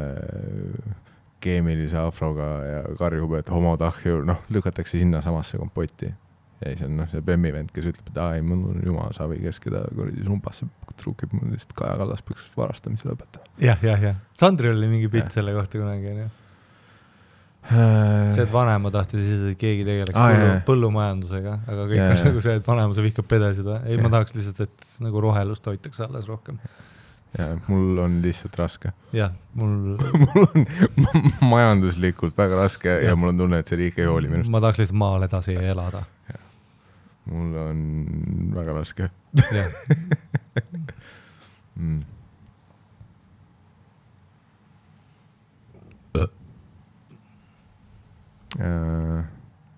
keemilise afroga ja karjub, et homotahju, noh, lükatakse sinna samasse kompotti. Ja siis on noh, see Bemmi-vend, kes ütleb, et ai, mul on jumal savi, kes keda kuradi sumpasse trukib, mul lihtsalt Kaja Kallas peaks varastamise lõpetama. Jah. Sandri oli mingi pilt selle kohta kunagi, on ju. See, et vanema tahtis siis, et keegi tegeleks põllumajandusega, aga kõik on nagu see, et vanema sa vihkab pedesid. Ei, ma tahaks lihtsalt, et nagu rohelust hoitaks alles rohkem. Ja, mul on lihtsalt raske. Jah, mul on majanduslikult väga raske ja mul on tunne, et see riik ei hooli minust. Ma tahaks lihtsalt maal edasi elada. Ja. Mul on väga raske. Jah.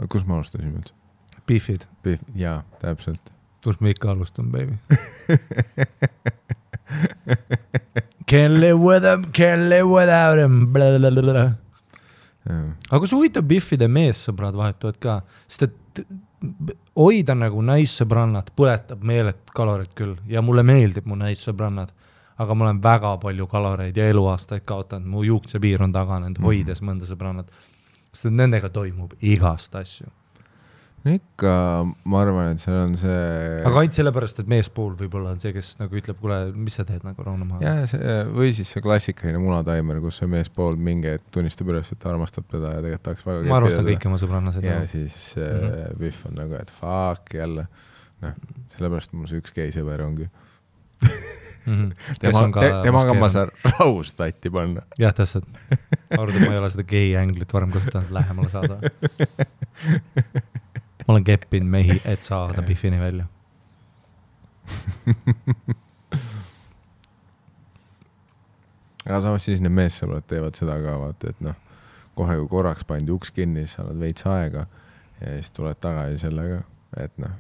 Kus ma alustasime üldse? Beefid. Jaa, täpselt. Kus me ikka alustan, baby? Can't live without him. Aga kui huvitav Biffide meessõbrad vahetuvad ka, sest et hoida nagu naissõbrannad põletab meelet kaloreid küll ja mulle meeldib mu naissõbrannad, aga ma olen väga palju kaloreid ja eluaastaid kaotanud, mu juuksepiir on taganenud, hoides mõnda sõbrannad. Sest et nendega toimub igast asju. Ikka, ma arvan, et seal on see... Aga ainult sellepärast, et meespool võib-olla on see, kes nagu ütleb, kuule, mis sa teed nagu rauna maha? Ja, või siis see klassikaline munataimer, kus see meespool mingi tunnistab üles, et ta armastab teda ja tegelikult tahaks väga... Ma armastan kõik oma sõbrannased. Ja siis Biff on nagu, et fuck jälle. noh, sellepärast mul see üks gei sõber ongi. Temaga ma saan rahust tatti panna. Jah, täpselt. Arvad, ma ei ole seda gei änglit varem kasutanud lähemale saada. Ma olen keppinud mehi, et saada Biffini välja. Aga samas siis need meessõbrad teevad seda ka, vaata, et noh, kohe kui korraks pandi uks kinni, siis saad veits aega ja siis tuled tagasi sellega, et noh,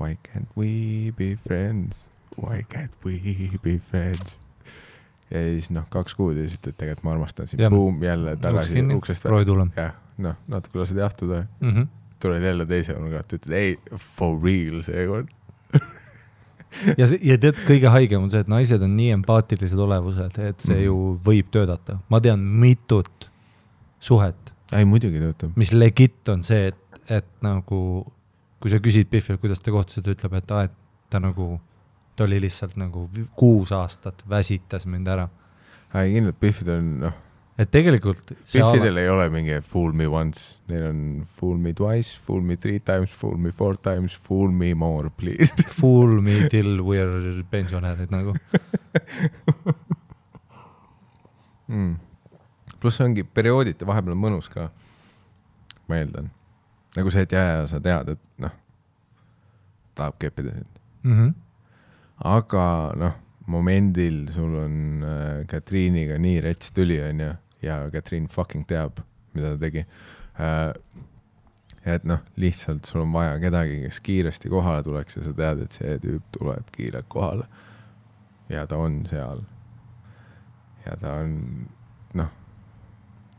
why can't we be friends? Why can't we be friends? Ja siis noh, 2 kuud ja siis ütled, tegelikult ma armastan siin, boom, jälle tagasi uksest välja. Jah, noh, natuke lased jahtuda. Tuled jälle teise nurgalt, ütled, ei, for real seekord. ja tead, kõige haigem on see, et naised on nii empaatilised olevused, et see ju võib töödata. Ma tean mitut suhet. Ei, muidugi töötab. Mis legit on see, et nagu, kui sa küsid Biffil, kuidas te kohtused, ütleb, et ta nagu, ta oli lihtsalt nagu 6 aastat väsitas mind ära. Ei, kindlalt Biffid on, noh. Et tegelikult Biffidel ei ole mingi fool me once, neil on fool me twice, fool me 3 times, fool me 4 times, fool me more, please. Fool me till we're pensionärid nagu. Pluss ongi periooditi vahepeal mõnus ka, ma eeldan. Nagu see, et sa tead, et noh, tahab keppida sind. Aga noh, momendil sul on Katriiniga nii rets tüli on ja Katriin fucking teab, mida ta tegi. Et noh, lihtsalt sul on vaja kedagi, kes kiiresti kohale tuleks ja sa tead, et see tüüp tuleb kiirelt kohale. Ja ta on seal. Ja ta on, noh,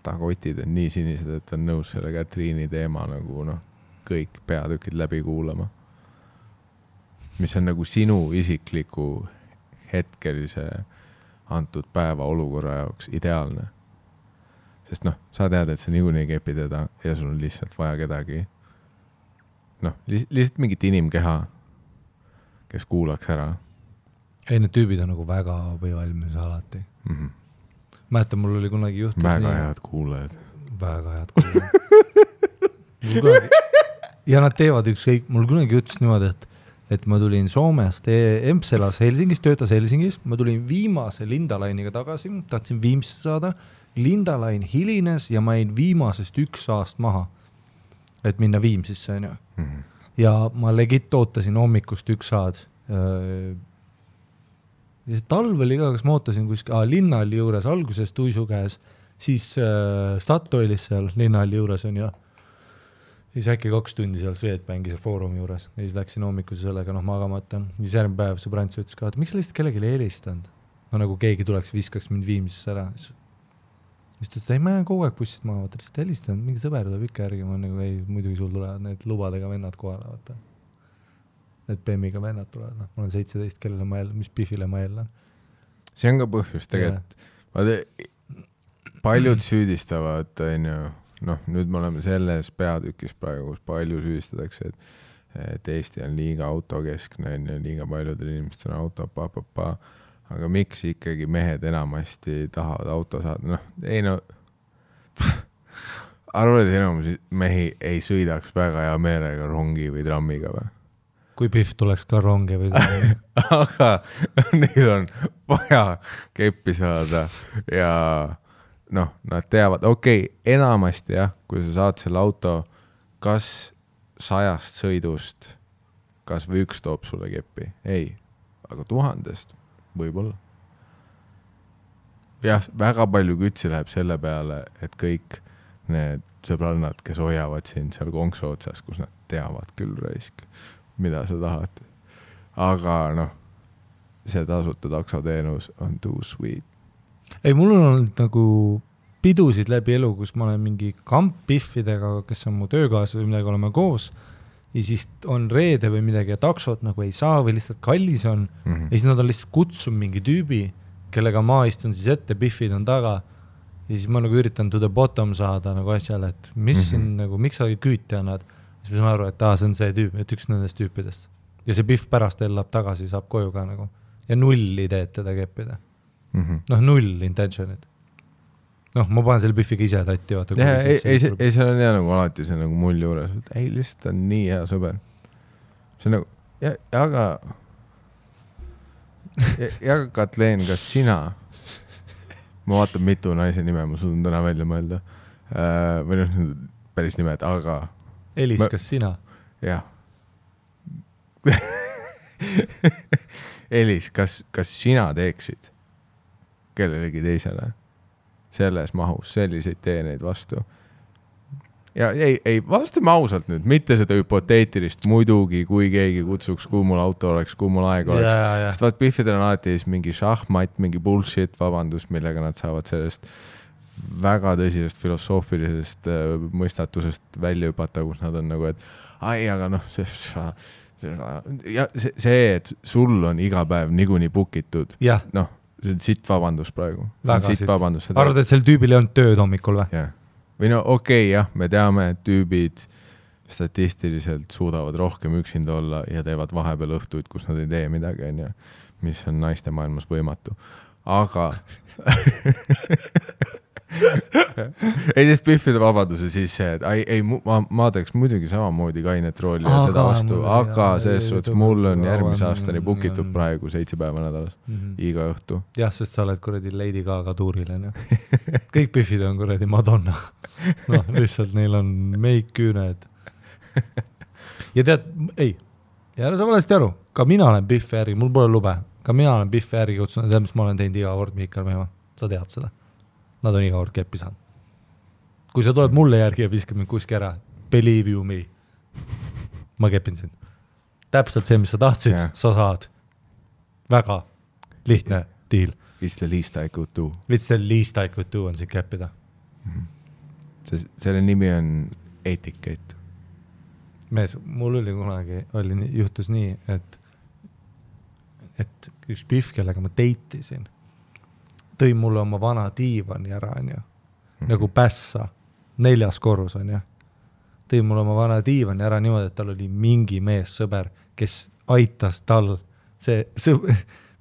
ta kotid on nii sinised, et ta on nõus selle Katriini teema nagu noh, kõik peatükid läbi kuulama. Mis on nagu sinu isikliku hetkelise antud päeva olukorra jaoks ideaalne. Sest noh, sa tead, et sa niikuinii kepi teda ja sul on lihtsalt vaja kedagi. Noh, lihtsalt mingit inimkeha, kes kuulaks ära. Ei, need tüübid on nagu väga valmis alati. Mäletan, mul oli kunagi juhtus väga head kuulajad. Väga head kuulajad. Ja nad teevad ükskõik, mul kunagi juhtus niimoodi, et ma tulin Soomest, Empselas Helsingis, töötas Helsingis, ma tulin viimase Lindalainiga tagasi, tahtsin Viimsisse saada, Lindalain hilines ja ma jäin viimasest 1 aast maha, et minna Viimsisse. Ja ma legit ootasin hommikust 1 saad. Ja talv oli ka, kas ma ootasin kuskil Linnalli juures, alguses Tuisu käes, siis Statoilis seal Linnalli juures on ja siis äkki 2 tundi seal Swedbanki seal foorumi juures ja siis läksin hommikuse sellega magamata. Siis järgmine päev sõbrants ütles ka, et miks sa lihtsalt kellegi helistanud? No nagu keegi tuleks, viskaks mind Viimsisse ära. Siis ta ütles, ei, ma jään kogu aeg bussist maha, vaata, lihtsalt helistanud, mingi sõber tuleb ikka järgi, ma nagu, ei, muidugi sul tulevad need lubadega vennad kohale, vaata. Need BEM-iga vennad tulevad, ma olen 17, kellele ma jälle, mis Biffile ma jälle. See on ka põhjus tegelikult. Paljud süüdistavad, noh, nüüd me oleme selles peatükis praegu, kus palju süüdistatakse, et Eesti on liiga autokeskne, liiga paljudel inimestel on auto, aga miks ikkagi mehed enamasti tahavad auto saada? Noh, ei no, arvad, et enamus mehi ei sõidaks väga hea meelega rongi või trammiga või? Kui Biff tuleks ka rongi või trammi. Aga neil on vaja keppi saada ja noh, nad teavad, okei, enamasti jah, kui sa saad selle auto, kas 100 sõidust, kas või 1 toob sulle keppi? Ei, aga 1000 võib-olla. Jah, väga palju kütsi läheb selle peale, et kõik need sõbrannad, kes hoiavad sind seal konksu otsas, kus nad teavad küll raisk, mida sa tahad. Aga noh, see tasuta taksoteenus on too sweet. Ei, mul on olnud nagu pidusid läbi elu, kus ma olen mingi kampbiffidega, kes on mu töökaaslased või midagi, oleme koos ja siis on reede või midagi ja taksot nagu ei saa või lihtsalt kallis on ja siis nad on lihtsalt kutsunud mingi tüübi, kellega ma istun siis ette, biffid on taga ja siis ma nagu üritan to the bottom saada nagu asjale, et mis siin nagu, miks sa küüti annad, siis ma saan aru, et see on see tüüp, et üks nendest tüüpidest ja see biff pärast ellab tagasi, saab koju ka nagu ja 0 ideed teda keppida. Noh, 0 intentionit. noh, ma panen selle Biffiga ise tatti, vaata. Ei, seal on hea nagu alati see nagu mull juures. Ei, lihtsalt on nii hea sõber. See on nagu, aga Katleen, kas sina, ma vaatan mitu naise nime, ma suudan täna välja mõelda, või noh, päris nimed, aga Elis, kas sina? Jah. Elis, kas sina teeksid kellelegi teisele selles mahus selliseid teeneid vastu? Ja ei, vastame ausalt nüüd, mitte seda hüpoteetilist muidugi, kui keegi kutsuks, kui mul auto oleks, kui mul aeg oleks. Sest vaat Biffidel on alati mingi šahmat, mingi bullshit vabandus, millega nad saavad sellest väga tõsisest filosoofilisest mõistatusest välja hüpata, kus nad on nagu, et ai, aga noh, see, et sul on iga päev niikuinii bukitud, noh, see on sitt vabandus praegu. Sitt vabandus. Arvad, et sel tüübil ei olnud tööd hommikul või? Jah. Või no okei, jah, me teame, et tüübid statistiliselt suudavad rohkem üksinda olla ja teevad vahepeal õhtuid, kus nad ei tee midagi, mis on naiste maailmas võimatu. Aga ei, sest Biffide vabaduse siis see, et ei, ma teeks muidugi samamoodi kainet rooli ja seda vastu, aga selles suhtes mul on järgmise aastani bukitud praegu 7 päeva nädalas, iga õhtu. Jah, sest sa oled kuradi Lady Gaga tuuril, kõik Biffid on kuradi Madonna. Noh, lihtsalt neil on meik, küüned. Ja tead, ei, ja sa valesti aru, ka mina olen Biffi äri, mul pole lube, ka mina olen Biffi äri kutsunud, tead, mis ma olen teinud iga kord Mihkel Meemaa, sa tead seda. Nad on iga kord keppi saanud. Kui sa tuled mulle järgi ja viskab mind kuski ära, believe you me. Ma kepin sind. Täpselt see, mis sa tahtsid, sa saad. Väga lihtne deal. It's the least I could do. It's the least I could do on siin keppida. Selle nimi on etiket. Mees, mul oli kunagi, juhtus nii, et üks Biff, kellega ma deitisin, tõi mulle oma vana diivani ära, nagu pässa, 4. korrus, tõi mulle oma vana diivani ära niimoodi, et tal oli mingi mees sõber, kes aitas tal,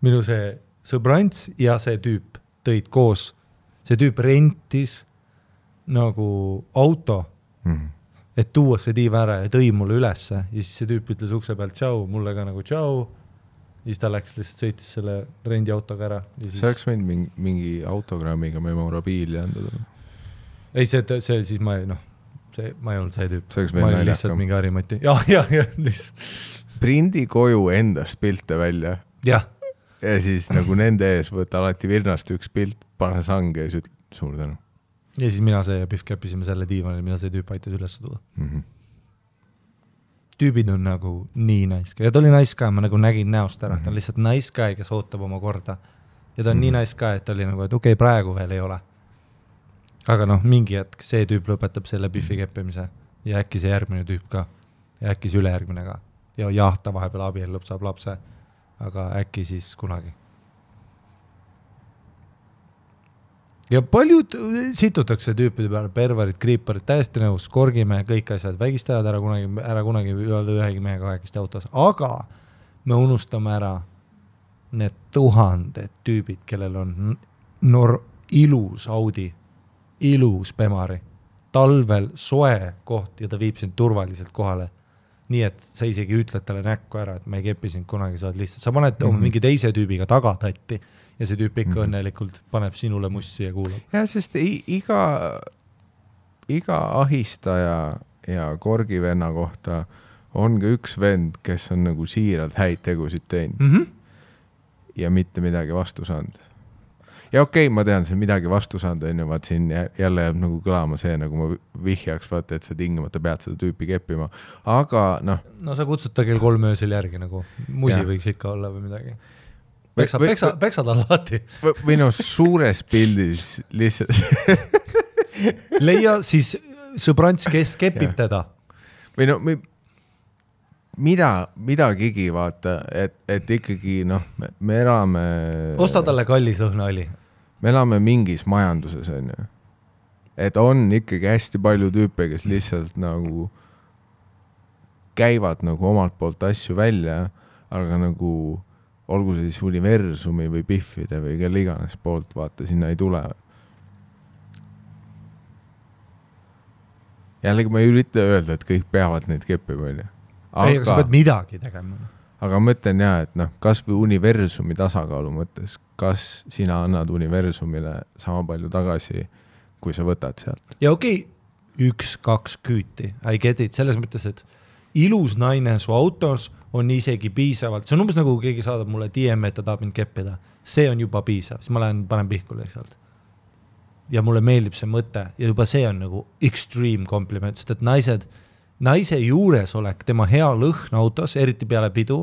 minu see sõbrants ja see tüüp tõid koos, see tüüp rentis nagu auto, et tuua see diiv ära ja tõi mulle ülesse ja siis see tüüp ütles ukse pealt tšau, mulle ka nagu tšau. Siis ta läks lihtsalt sõitis selle rendiautoga ära. See oleks võinud mingi autogrammiga memorabiili andada. Ei, see siis ma ei olnud see tüüp. See oleks ma veel olin lihtsalt mingi harimati. Ja, lihtsalt. Prindi koju endast pilte välja. Ja siis nagu nende ees võtta alati virnast üks pilt, pane sange ja siis suur tänu. Ja siis mina see ja Biff käpisime selle diivanil, mida see tüüp aitas üles tuua. Tüübid on nagu nii nice guy. Ja ta oli nice guy, ma nagu nägin näost ära. Ta on lihtsalt nice guy, kes ootab oma korda. Ja ta on nii nice guy, et ta oli nagu, et okei, praegu veel ei ole. Aga noh, mingi hetk see tüüp lõpetab selle Biffi keppimise. Ja äkki see järgmine tüüp ka. Ja äkki see ülejärgmine ka. Ja jah, ta vahepeal abiellub, saab lapse. Aga äkki siis kunagi. Ja paljud situtakse tüüpide peale, perverid, kriiparid, täiesti nõus, korgime kõik asjad, vägistajad ära kunagi öelda ühegi mehe kahekesti autos, aga me unustame ära need 1000 tüübid, kellel on ilus Audi, ilus Bemari, talvel soe koht ja ta viib sind turvaliselt kohale. Nii, et sa isegi ütled talle näkku ära, et me ei kepi sind kunagi, sa lihtsalt, sa paned oma mingi teise tüübiga tagatatti ja see tüüp ikka õnnelikult paneb sinule mussi ja kuulab. Ja, sest iga ahistaja ja korgivenna kohta on ka üks vend, kes on nagu siiralt häid tegusid teinud ja mitte midagi vastu saanud. Ja okei, ma tean, see midagi vastu saanud on ju, vaat siin jälle jääb nagu kõlama see, nagu ma vihjaks, vaata, et sa tingimata pead seda tüüpi keppima, aga noh. No sa kutsud ta kell 3 öösel järgi nagu, musi võiks ikka olla või midagi. Peksad alati. Või no suures pildis lihtsalt. Leia siis sõbrants, kes kepib teda. Või no midagigi vaata, et ikkagi noh, me elame. Osta talle kallis lõhnaõli. Me elame mingis majanduses, on ju. Et on ikkagi hästi palju tüüpe, kes lihtsalt nagu käivad nagu omalt poolt asju välja, aga nagu olgu see siis universumi või Biffide või kelle iganes poolt, vaata, sinna ei tule. jällegi ma ei ürita öelda, et kõik peavad neid keppima, ei, aga sa pead midagi tegema. Aga ma mõtlen jah, et noh, kas või universumi tasakaalu mõttes, kas sina annad universumile sama palju tagasi, kui sa võtad sealt? Ja okei, 1-2 küüti, I get it, selles mõttes, et ilus naine su autos on isegi piisavalt, see on umbes nagu keegi saadab mulle DM, et ta tahab mind keppida, see on juba piisav, siis ma panen pihkule sealt. Ja mulle meeldib see mõte ja juba see on nagu extreme compliment, sest et naise juures olek, tema hea lõhn autos, eriti peale pidu,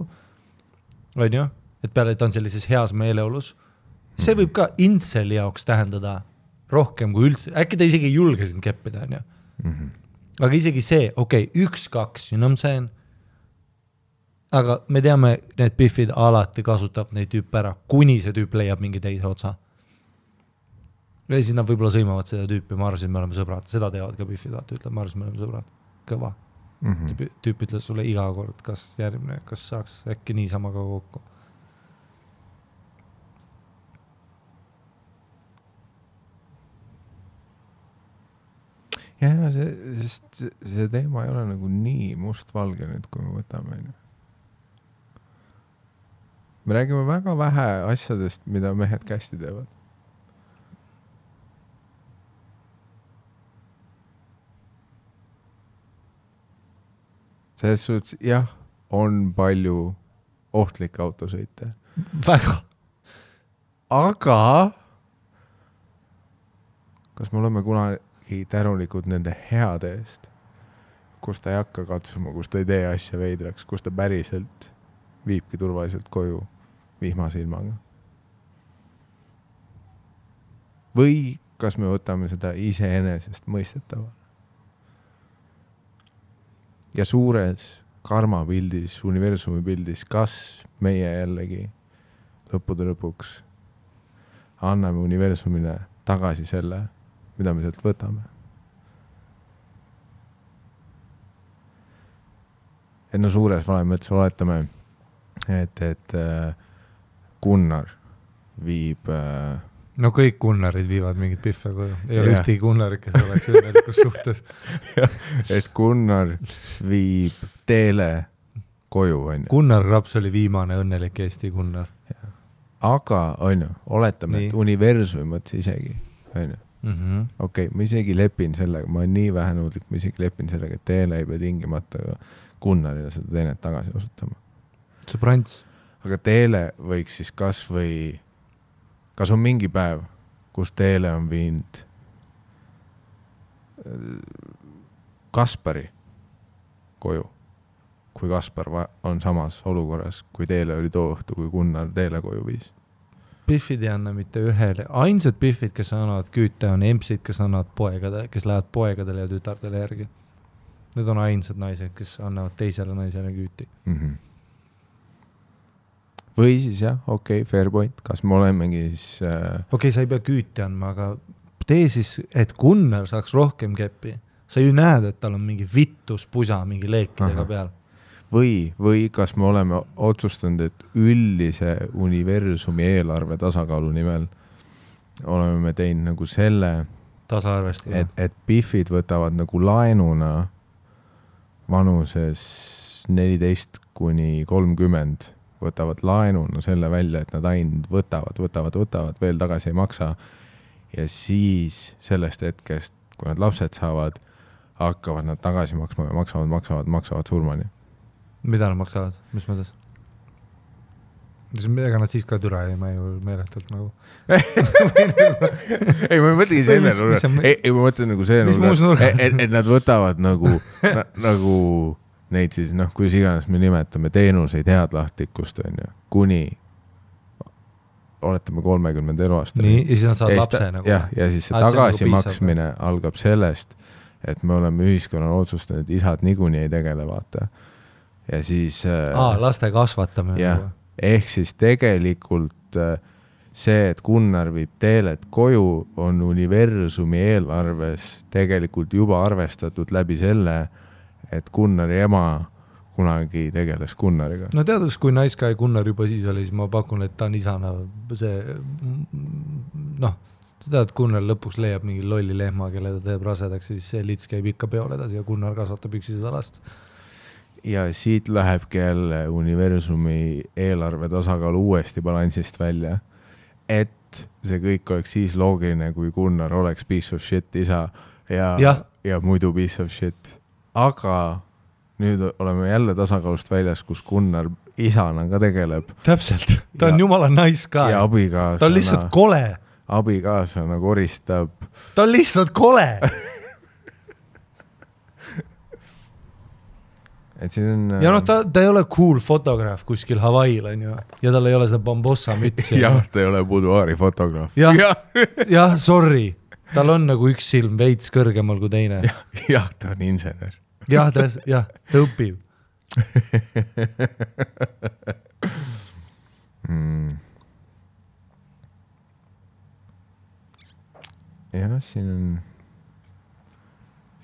on ju, et peale ta on sellises heas meeleolus, see võib ka intseli jaoks tähendada rohkem kui üldse, äkki ta isegi ei julge sind keppida, on ju. Aga isegi see, okei, 1-2, you know what I'm saying? Aga me teame, need biffid alati kasutab neid tüüpe ära, kuni see tüüp leiab mingi teise otsa. Ja siis nad võib-olla sõimavad seda tüüpi, ma arvasin, me oleme sõbrad, seda teevad ka biffid, ütleb, ma arvasin, me oleme sõbrad, kõva. Tüüp ütles sulle iga kord, kas järgmine, kas saaks äkki niisama ka kokku. Ja see teema ei ole nagu nii mustvalge nüüd, kui me võtame. Me räägime väga vähe asjadest, mida mehed kästi teevad. Selles suhtes, jah, on palju ohtlikke autosõite. Väga. Aga kas me oleme kunagi tänulikud nende heade eest, kus ta ei hakka katsuma, kus ta ei tee asja veidraks, kus ta päriselt viibki turvaliselt koju vihmase ilmaga? Või kas me võtame seda iseenesest mõistetavale? Ja suures karmapildis, universumi pildis, kas meie jällegi lõppude lõpuks anname universumile tagasi selle, mida me sealt võtame? Et no suures valem mõttes oletame, et Gunnar viib... No kõik Gunnarid viivad mingit piffe koju. Ei ole ühtegi Gunnarid, kes oleks õnnelikus suhtes. Et Gunnar viib Teele koju, on ju. Gunnar Raps oli viimane õnnelik Eesti Gunnar. Aga, on ju, oletame, et universumi mõttes isegi, on ju. Okei, ma isegi lepin sellega, ma olen nii vähenõudlik, ma isegi lepin sellega, et Teele ei pea tingimata Gunnarile seda teenet tagasi osutama. See prants. Aga Teele võiks siis kas on mingi päev, kus Teele on viinud Kaspari koju, kui Kaspar on samas olukorras, kui Teele oli too õhtu, kui Gunnar Teele koju viis? Biffid ei anna mitte ühele. Ainsad biffid, kes annavad küüte, on empsid, kes annavad poegadele, kes lähevad poegadele ja tütardele järgi. Need on ainsad naised, kes annavad teisele naisele küüti. Või siis jah, okei, fair point, kas me olemegi siis... Okei, sa ei pea küüti andma, aga tee siis, et Gunnar saaks rohkem keppi. Sa ju näed, et tal on mingi vittus pusa mingi leekidega peal. Või kas me oleme otsustanud, et üldise universumi eelarve tasakaalu nimel oleme me teinud nagu selle, et biffid võtavad nagu laenuna vanuses 14-30 võtavad laenuna selle välja, et nad ainult võtavad, veel tagasi ei maksa. Ja siis sellest hetkest, kui nad lapsed saavad, hakkavad nad tagasi maksma ja maksavad surmani. Mida nad maksavad? Mis mõttes? Ega nad siis ka türa ei ju meeletult nagu. Ei, ma ei mõtlegi selle nurga. Ei, ma mõtlen nagu see nurga, et nad võtavad nagu neid siis, kui iganes me nimetame teenuseid headlahtlikkust, on ju, kuni oletame 30 eluaastani. Nii, ja siis nad saavad lapse nagu. Ja siis see tagasimaksmine algab sellest, et me oleme ühiskonnal otsustanud, et isad niikuinii ei tegele, vaata. Ja siis... laste kasvatamine. Jah, ehk siis tegelikult see, et Gunnar viib Teelet koju, on universumi eelarves tegelikult juba arvestatud läbi selle, et Gunnari ema kunagi tegeles Gunnariga. No teades, kui Gunnar juba siis oli, siis ma pakun, et ta on isana see, sa tead, Gunnar lõpuks leiab mingi lolli lehma, kelle ta teeb rasedaks, siis see lits käib ikka peol edasi ja Gunnar kasvatab üksi seda last. Ja siit lähebki jälle universumi eelarve tasakaal uuesti balansist välja, et see kõik oleks siis loogiline, kui Gunnar oleks piece of shit isa ja muidu piece of shit. Aga nüüd oleme jälle tasakaalust väljas, kus Gunnar isana ka tegeleb. Täpselt, ta on jumala nice ka. Ja abikaasana. Ta on lihtsalt kole. Abikaasana koristab. Ta on lihtsalt kole. Et siin on... Ja noh, ta ei ole cool fotograaf kuskil Hawaiil, on ju. Ja tal ei ole seda bambossa mütsi. Jah, ta ei ole buduaari fotograaf. Jah, sorry. Tal on nagu üks silm veits kõrgemal kui teine. Jah, ta on insener. Jah, ta õpib. Ja siin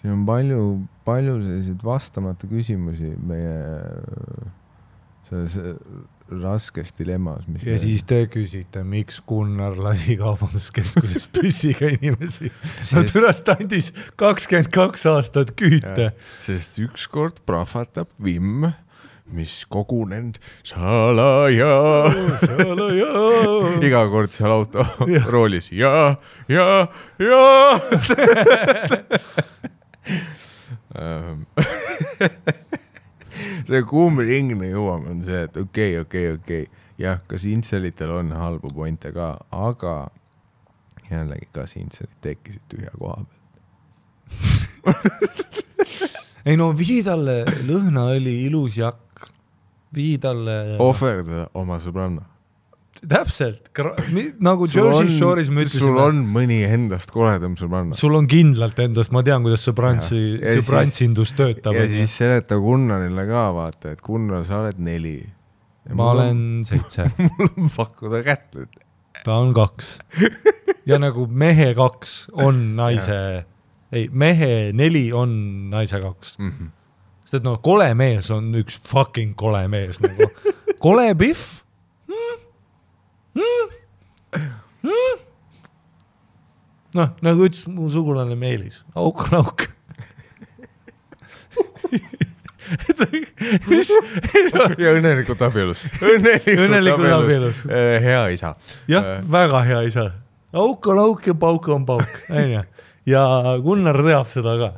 on palju selliseid vastamata küsimusi meie selles raskes dilemmas. Ja siis te küsite, miks Gunnar lasi kaubanduskeskuses püssiga inimesi. Türast andis 22 aastat küüte. Sest ükskord prahvatab vimm, mis kogunend salaja. Iga kord seal auto roolis ja. See kuumringne jõuame on see, et okei. Jah, kas intselitel on halbu pointe ka, aga jällegi kas intselid tekkisid tühja koha pealt. Ei no vii talle lõhnaõli, ilus jakk, vii talle... Ohverda oma sõbranna. Täpselt, nagu Jersey Shore'is me ütlesime. Sul on mõni endast koledam sõbranna. Sul on kindlalt endast, ma tean, kuidas sõbrantsindus töötab. Ja siis seleta Gunnarile ka vaata, et Gunnar, sa oled 4. Ma olen 7. Mul on pakkuda kätt nüüd. Ta on 2. Ja nagu mehe 2 on naise... Ei, mehe 4 on naise 2. Sest et no, kole mees on üks fucking kole mees. Nagu. Kole Biff? Noh, nagu ütles mu sugulane Meelis. Auk on auk. Mis? Ja õnnelikult abielus. Õnnelikult abielus. Hea isa. Jah, väga hea isa. Auk on auk ja pauk on pauk. Ja Gunnar teab seda ka.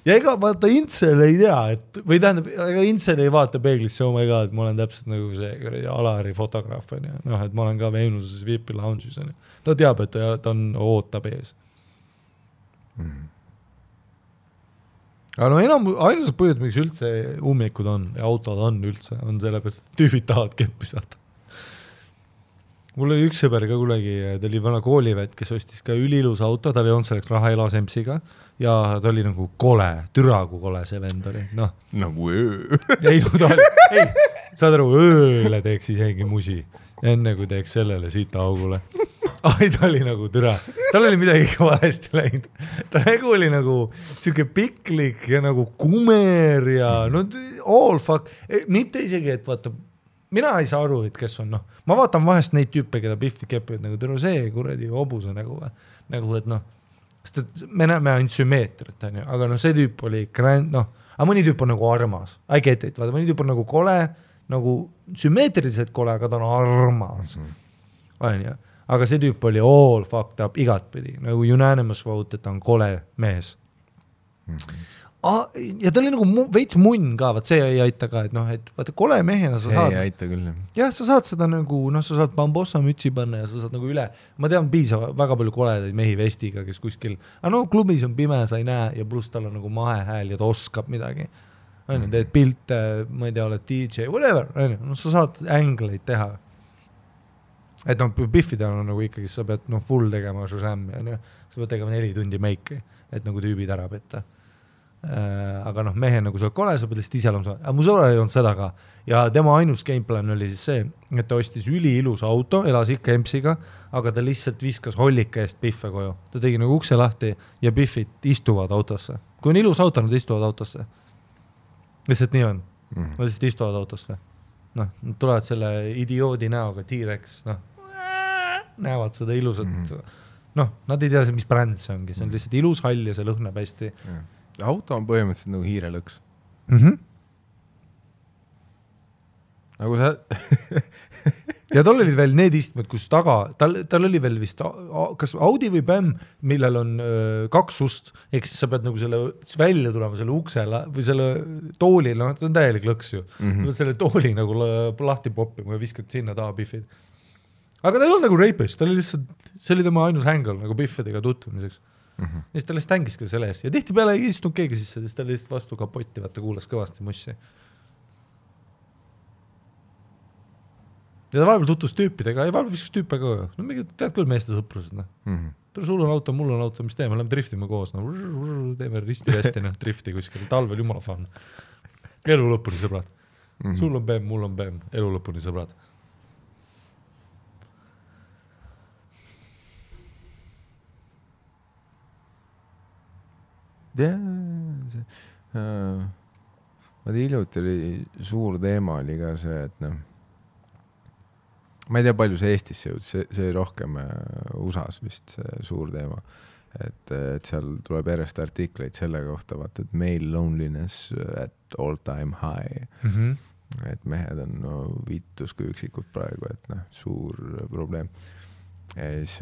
Ja ega vaata Intsel ei tea, et, või tähendab, ega Intsel ei vaata peeglisse, oh my god, et ma olen täpselt nagu see Alari fotograaf, noh, et ma olen ka Veenuses VIP lounge'is. Ta teab, et ta on ootab ees. Aga no ainus põhjus, miks üldse ummikud on ja autod on üldse, on sellepärast, et tüübid tahavad keppi saada. Mul oli üks sõber ka kunagi, ta oli vana koolivet, kes ostis ka ülilus auto, ta oli olnud selleks raha elasemsiga ja ta oli nagu kole, türagu kole see vend oli. No. Nagu öö. Ei, no ta oli, saad aru, ööle teeks isegi musi, enne kui teeks sellele siita augule. Ai, ta oli nagu türa. Tal oli midagi valesti läinud. Ta nagu oli nagu siuke piklik ja nagu kumer ja no all fuck. Mitte isegi, et vaata, mina ei saa aru, et kes on, noh. Ma vaatan vahest neid tüüpe, keda Biffi kepivad, nagu türa see kuradi hobuse nagu, et noh, sest et me näeme ainult sümmeetrit, aga noh, see tüüp oli grand, noh, aga mõni tüüp on nagu armas. I get it, vaata, mõni tüüp on nagu kole, nagu sümmeetriliselt kole, aga ta on armas. Aga see tüüp oli all fucked up igatpidi, nagu unanimous vote, et ta on kole mees. Ja ta oli nagu veits munn ka, vaat see ei aita ka, et noh, et vaata kole mehena sa saad. See ei aita küll. Jah, sa saad seda nagu, noh, sa saad bambossa mütsi panna ja sa saad nagu üle. Ma tean piisava väga palju koledaid mehi vestiga, kes kuskil, aga no klubis on pime, sa ei näe ja pluss tal on nagu mahehääl ja ta oskab midagi. Teed pilte, ma ei tea, oled DJ, whatever, no sa saad ängleid teha. Et noh, Biffidel on nagu ikkagi, sa pead noh, full tegema Shazam ja sa pead tegema 4 tundi meiki, et nagu tüübid ära petta. Aga noh, mehe nagu sa oled kole, sa pead lihtsalt ise olema. Aga mu sõbral ei olnud seda ka. Ja tema ainus gameplan oli siis see, et ta ostis üliilus auto, elas ikka EMS-iga, aga ta lihtsalt viskas hollika eest Biffe koju. Ta tegi nagu ukse lahti ja Biffid istuvad autosse. Kui on ilus auto, nad istuvad autosse. Lihtsalt nii on. Nad lihtsalt istuvad autosse. Noh, nad tulevad selle idioodi näoga, T-Rex, noh, näevad seda ilusat. noh, nad ei tea, mis bränd see ongi, see on lihtsalt ilus hall ja see lõhnab hästi. Auto on põhimõtteliselt nagu hiirelõks. Nagu sa... ja tal olid veel need istmed, kus taga, tal oli veel vist kas Audi või BM, millel on 2 ust, ehk siis sa pead nagu selle välja tulema selle uksele või selle tooli, no see on täielik lõks ju. Selle tooli nagu lahti poppima ja viskad sinna taha biffid. Aga ta ei olnud nagu rapist, ta oli lihtsalt, see oli tema ainus hängel nagu biffidega tutvumiseks. Ja siis ta lihtsalt hängis ka selle ees ja tihti peale ei istunud keegi sisse, siis ta oli lihtsalt vastu kapotti, vaata kuulas kõvasti mussi. Ja ta vahepeal tutvus tüüpidega, ja vahepeal viskas tüüpe ka. No mingi, tead küll meeste sõprused, noh. Sul on auto, mul on auto, mis teeme, oleme driftima koos, no teeme risti-resti, noh, drifti kuskil, talvel jumala fan. Elu lõpuni, sõbrad. Sul on BM, mul on BM, elu lõpuni, sõbrad. Hiljuti oli suur teema oli ka see, et noh, ma ei tea, palju see Eestisse jõud, see rohkem USAs vist see suur teema, et seal tuleb järjest artikleid selle kohta, vaata, et male loneliness at all time high, et mehed on no, vittus kui üksikud praegu, et noh, suur probleem. Ja siis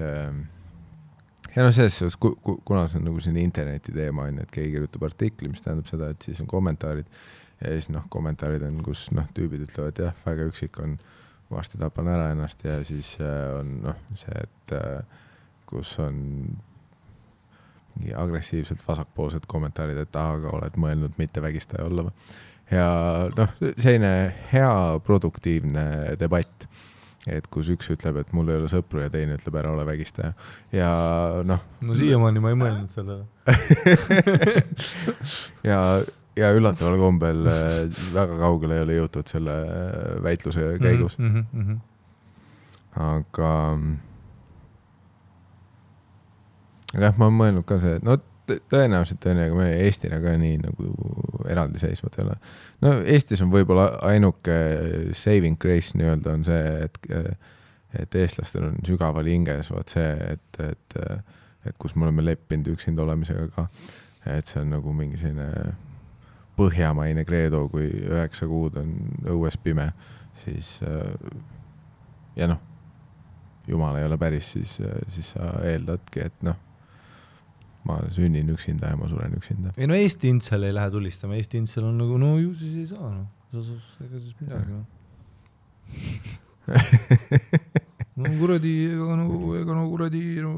ja no selles, kuna see on nagu siin interneti teema, et keegi kirjutab artikli, mis tähendab seda, et siis on kommentaarid ja siis noh, kommentaarid on, kus noh, tüübid ütlevad, jah, väga üksik on, varsti tapan ära ennast ja siis on noh, see, et kus on mingi agressiivselt vasakpoolsed kommentaarid, et aga oled mõelnud mitte vägistaja olla. Ja noh, selline hea produktiivne debatt. Et kus üks ütleb, et mul ei ole sõpru ja teine ütleb, ära ole vägistaja. Ja noh... No siiamaani ma ei mõelnud selle. ja üllataval kombel väga kaugele ei ole jõutud selle väitluse käigus. Aga jah, ma olen mõelnud ka see, no tõenäoliselt aga me Eestina ka nii nagu eraldi seisvad ei ole. No Eestis on võib-olla ainuke saving grace nii-öelda on see, et eestlastel on sügaval hinges vaat see, et kus me oleme leppinud üksinda olemisega ka, et see on nagu mingi selline põhjamaine kreedo, kui 9 kuud on õues pime, siis ja noh, jumal ei ole päris, siis sa eeldadki, et noh, ma sünnin üksinda ja ma suren üksinda. Ei no Eesti intsel ei lähe tulistama, Eesti intsel on nagu, no ju siis ei saa, no. Ega siis midagi, no. No kuradi, ega no kuradi, no,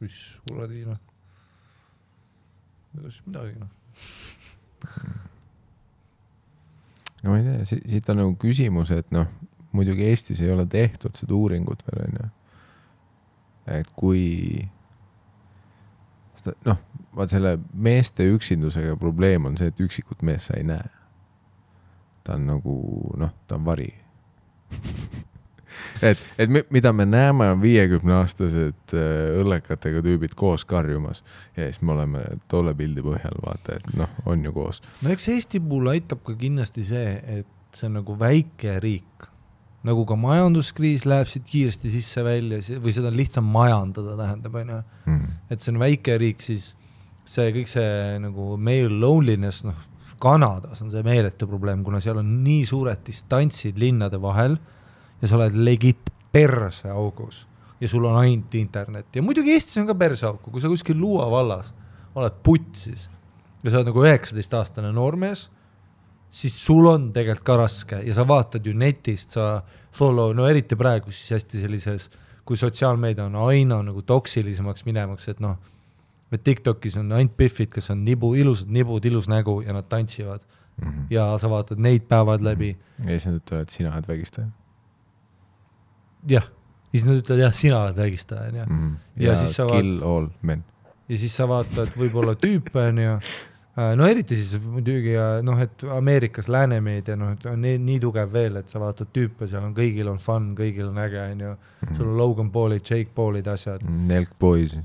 mis kuradi, no. Ega siis midagi, no. No ma ei tea, siit on nagu küsimus, et noh, muidugi Eestis ei ole tehtud seda uuringut veel, on ju. Et kui noh, vaat selle meeste üksindusega probleem on see, et üksikut mees sa ei näe. Ta on nagu, noh, ta on vari. et mida me näeme on 50-aastased õllekatega tüübid koos karjumas ja siis me oleme tolle pildi põhjal, vaata, et noh, on ju koos. No eks Eesti puhul aitab ka kindlasti see, et see on nagu väike riik. Nagu ka majanduskriis läheb siit kiiresti sisse välja või seda on lihtsam majandada, tähendab, on ju. Et see on väike riik, siis see kõik see nagu male loneliness, noh, Kanadas on see meeletu probleem, kuna seal on nii suured distantsid linnade vahel ja sa oled legit perse augus ja sul on ainult internet. Ja muidugi Eestis on ka perse auku, kui sa kuskil Luua vallas oled putsis ja sa oled nagu 19-aastane noormees, siis sul on tegelikult ka raske ja sa vaatad ju netist, sa follow, no eriti praegu siis hästi sellises, kui sotsiaalmeedia on aina nagu toksilisemaks minemaks, et noh, et TikTokis on ainult biffid, kes on ilusad nibud, ilus nägu ja nad tantsivad ja sa vaatad neid päevad läbi. Ja siis nad ütlevad, et sina oled vägistaja. Jah, siis nad ütlevad, jah, sina oled vägistaja. Ja siis sa kill all men. Ja siis sa vaatad võib-olla tüüpe on ju, no eriti siis muidugi, noh, et Ameerikas läänemeedia, noh, et on nii tugev veel, et sa vaatad tüüpe, seal on kõigil on fun, kõigil on äge, on ju, sul on Logan Paulid, Jake Paulid, asjad. Nelk boys.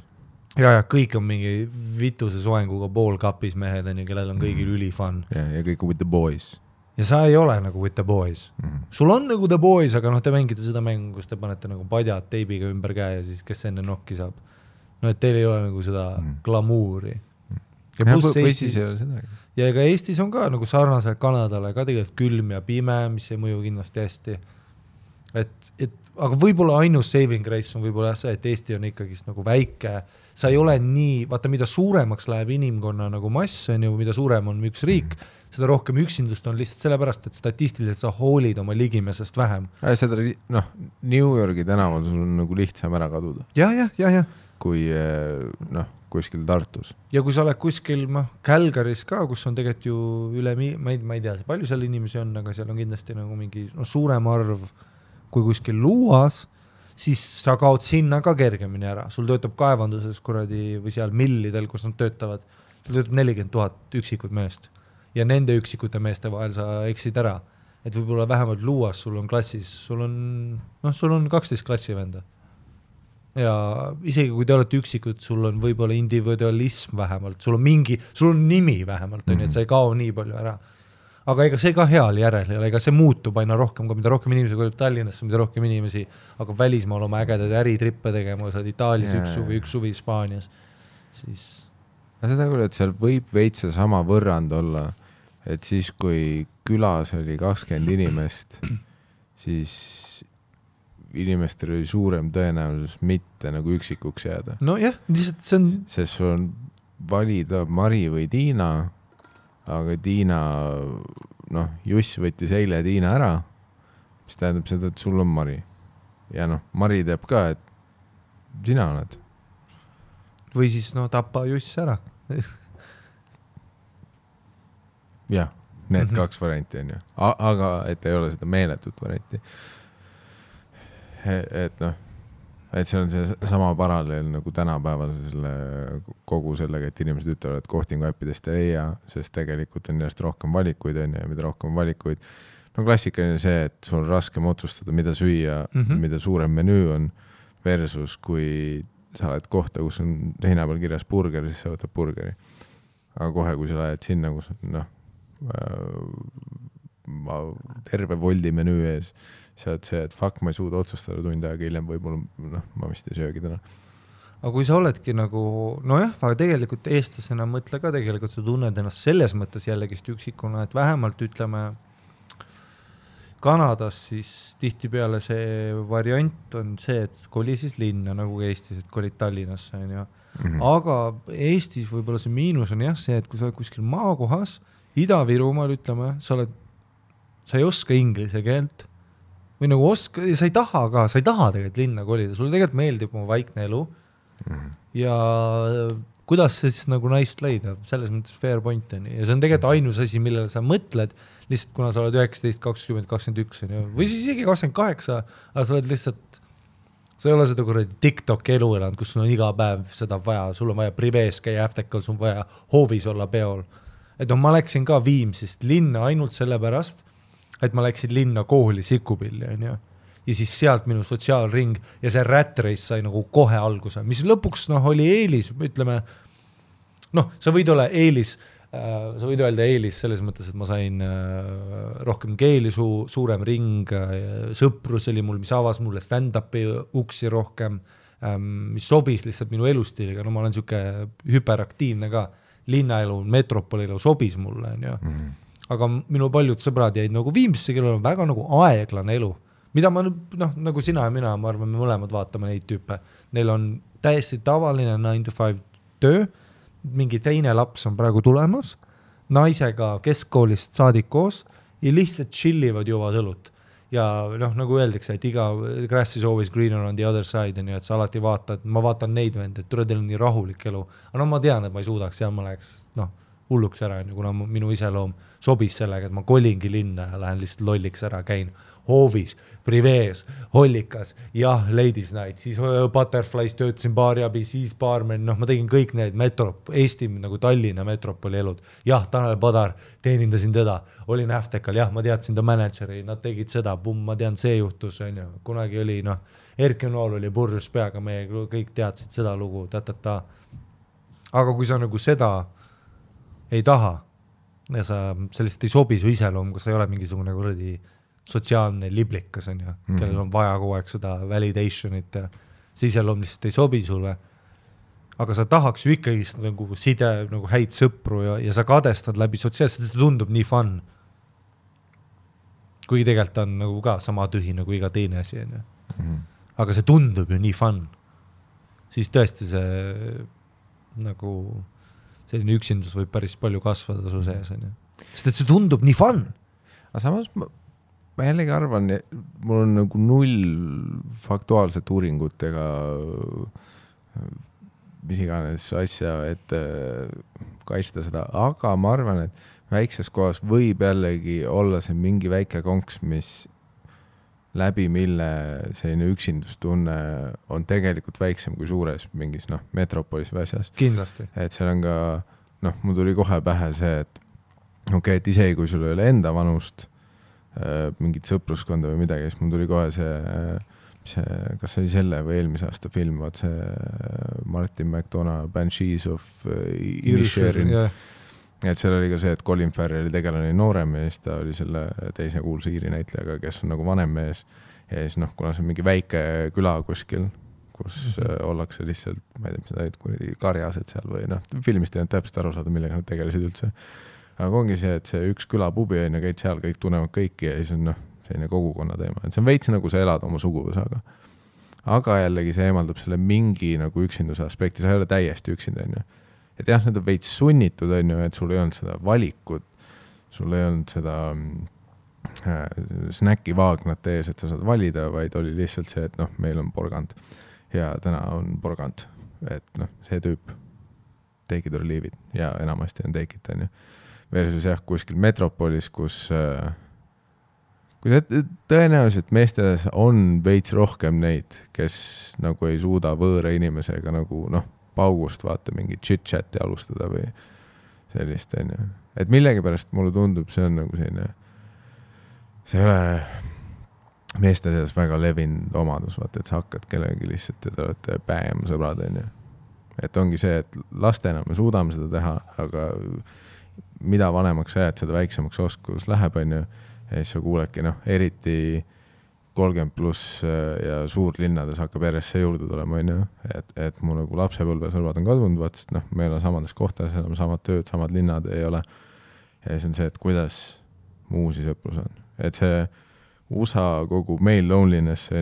Ja kõik on mingi vituse soenguga poolkapis mehed, on ju, kellel on kõigil üli fun. Ja kõik with the boys. Ja sa ei ole nagu with the boys. Sul on nagu the boys, aga noh, te mängite seda mängu, kus te panete nagu padjad teibiga ümber käe ja siis kes enne nokki saab. no et teil ei ole nagu seda glamuuri. Või siis ei ole seda. Ja ega Eestis on ka nagu sarnaselt Kanadale ka tegelikult külm ja pime, mis ei mõju kindlasti hästi. Aga võib-olla ainus saving grace on võib-olla see, et Eesti on ikkagi nagu väike, sa ei ole nii, vaata mida suuremaks läheb inimkonna nagu mass, on ju, mida suurem on üks riik, seda rohkem üksindust on lihtsalt sellepärast, et statistiliselt sa hoolid oma ligimesest vähem. Seda, New Yorgi tänaval sul on nagu lihtsam ära kaduda. Ja. Kui kuskil Tartus. Ja kui sa oled kuskil Calgary's ka, kus on tegelikult ju üle, ma ei tea, palju seal inimesi on, aga seal on kindlasti nagu mingi suurem arv kui kuskil Luuas, siis sa kaod sinna ka kergemini ära. Sul töötab kaevanduses või seal millidel, kus nad töötavad, sul töötab 40 000 üksikud meest. Ja nende üksikute meeste vahel sa eksid ära. Et võib-olla vähemalt Luuas sul on klassis, sul on 12 klassivenda. Ja isegi kui te olete üksikud, sul on võib-olla individualism vähemalt, sul on nimi vähemalt, et sa ei kao nii palju ära. Aga ega see ka heal järel, ega see muutub aina rohkem, mida rohkem inimesi kolib Tallinnasse, mida rohkem inimesi hakkab välismaal oma ägedad äritrippe tegema, sa oled Itaalias üks suvi Hispaanias. Siis... Seda küll, et seal võib veitsa sama võrrand olla, et siis kui külas oli 20 inimest, siis inimestel oli suurem tõenäosus mitte nagu üksikuks jääda. No jah, lihtsalt see on... Sest sul on valida Mari või Tiina, aga Tiina, Juss võttis eile Tiina ära, mis tähendab seda, et sul on Mari. Ja Mari teeb ka, et sina oled. Või siis tappa Juss ära. Jah, need kaks varianti on ju. Aga et ei ole seda meeletut varianti. Et see on see sama paralleel nagu tänapäeval kogu sellega, et inimesed ütlevad, et kohtingu äppidest ei leia, sest tegelikult on järjest rohkem valikuid on ja mida rohkem valikuid. Klassikaline see, et sul on raskem otsustada, mida süüa, mida suurem menüü on versus kui sa oled kohta, kus on heina peal kirjas burger, siis sa võtad burgeri. Aga kohe, kui sa lähed sinna, kus terve voldi menüü ees, sa oled see, et ma ei suuda otsustada tund aega hiljem, võib-olla ma vist ei söögi täna. Aga kui sa oledki nagu, aga tegelikult eestlasena mõtle ka tegelikult, sa tunned ennast selles mõttes jällegist üksikuna, et vähemalt ütleme Kanadas siis tihtipeale see variant on see, et koli siis linna nagu Eestis, et kolid Tallinnasse on ju. Aga Eestis võib-olla see miinus on jah see, et kui sa oled kuskil maakohas, Ida-Virumaal ütleme, sa ei oska inglise keelt või nagu sa ei taha tegelikult linna kolida, sulle tegelikult meeldib oma vaikne elu ja kuidas see siis nagu naist leida, selles mõttes fair point on ja see on tegelikult ainus asi, millele sa mõtled, lihtsalt kuna sa oled 19, 20, 21 või siis isegi 28, aga sa oled lihtsalt, sa ei ole seda kuradi TikTok elu elanud, kus sul on iga päev seda vaja, sul on vaja privees käia äftekal, sul on vaja hoovis olla peol. Et ma läksin ka Viimsist linna ainult sellepärast, et ma läksin linna kooli Sikupilli ja siis sealt minu sotsiaalring ja see rat race sai nagu kohe alguse, mis lõpuks oli eelis, ütleme, sa võid olla eelis, sa võid öelda eelis selles mõttes, et ma sain rohkem keeli, suurem ring, sõprus oli mul, mis avas mulle stand-upi uksi rohkem, mis sobis lihtsalt minu elustiiliga, ma olen siuke hüperaktiivne ka, linnaelu, metropolielu sobis mulle, aga minu paljud sõbrad jäid nagu Viimsisse, kellel on väga nagu aeglane elu, mida ma nagu sina ja mina, ma arvan, me mõlemad vaatame neid tüüpe. Neil on täiesti tavaline 9-5 töö, mingi teine laps on praegu tulemas, naisega keskkoolist saadik koos ja lihtsalt chillivad juvad õlut. Ja nagu öeldakse, et iga grass is always greener on the other side, et sa alati vaatad, ma vaatan neid vende, et teil on nii rahulik elu. Aga ma tean, et ma ei suudaks ja ma läheks hulluks ära, kuna minu iseloom sobis sellega, et ma kolingi linna ja lähen lihtsalt lolliks ära, käin hoovis, privees, hollikas, jah, ladies night, siis Butterflies töötasin baariabi, siis baarmen, ma tegin kõik need Eesti nagu Tallinna metropoli elud. Jah, Tanel Padar, teenindasin teda, olin äftekal, jah, ma teadsin ta manager'i, nad tegid seda, ma tean, see juhtus, kunagi oli, Erki Nool oli purjus peaga, me kõik teadsid seda lugu, Aga kui sa nagu seda ei taha ja sa sellist ei sobi su iseloom, kus sa ei ole mingisugune kuradi sotsiaalne liblikas on kellel on vaja kogu aeg seda validationit ja see iseloom lihtsalt ei sobi sulle, aga sa tahaks ju ikkagi nagu side, nagu häid sõpru ja sa kadestad läbi sotsiaalselt, see tundub nii fun. Kuigi tegelikult on nagu ka sama tühi nagu iga teine asi. Aga see tundub ju nii fun. Siis tõesti see nagu selline üksindus võib päris palju kasvada su sees. Sest et see tundub nii fun. Aga samas ma jällegi arvan, mul on nagu 0 faktuaalset uuringut ega mis iganes asja, et kaitsta seda, aga ma arvan, et väikses kohas võib jällegi olla see mingi väike konks, mis läbi mille selline üksindustunne on tegelikult väiksem kui suures mingis metropolis või asjas. Kindlasti. Et seal on ka, mul tuli kohe pähe see, et et isegi kui sul ei ole enda vanust, mingit sõpruskonda või midagi, siis mul tuli kohe see, kas oli selle või eelmise aasta film, vaat see Martin McDonough Banshees of Inisherin. Et seal oli ka see, et Colin Farrelli tegelane oli noorem ja siis ta oli selle teise kuulsa Iiri näitlejaga, kes on nagu vanem mees. Ja siis kuna see on mingi väike küla kuskil, kus ollakse lihtsalt, ma ei tea, mis nad olid, karjased seal või filmist ei olnud täpselt aru saada, millega nad tegelesid üldse. Aga ongi see, et see üks külapubi on ja käid seal, kõik tunnevad kõiki ja siis on selline kogukonna teema. Et see on veits nagu sa elad oma suguvõsaga. Aga jällegi see eemaldab selle mingi nagu üksinduse aspekti, sa ei ole täiesti üksinda. Et jah, need on veits sunnitud, et sul ei olnud seda valikut, sul ei olnud seda snäki vaagnat ees, et sa saad valida, vaid oli lihtsalt see, et meil on porgand ja täna on porgand. Et see tüüp take it or leave it ja enamasti on take it, versus jah, kuskil metropolis, kus tõenäoliselt meesteles on veits rohkem neid, kes nagu ei suuda võõra inimesega nagu paugust vaata mingi chit-chati alustada või sellist, et millegi pärast mulle tundub, see on nagu selline, see ei ole meeste seas väga levinud omadus, vaata, et sa hakkad kellegi lihtsalt ja te olete päem sõbrad, et ongi see, et lastena me suudame seda teha, aga mida vanemaks sa jääd, seda väiksemaks oskus läheb, ja siis sa kuuledki, eriti 30 pluss ja suurlinnades hakkab järjest see juurde tulema, et mu nagu lapsepõlvesõlvad on kadunud, vaat, sest me ei ole samades kohtades, enam samad tööd, samad linnad ei ole. Ja siis on see, et kuidas muusi sõprus on. Et see USA kogu male loneliness,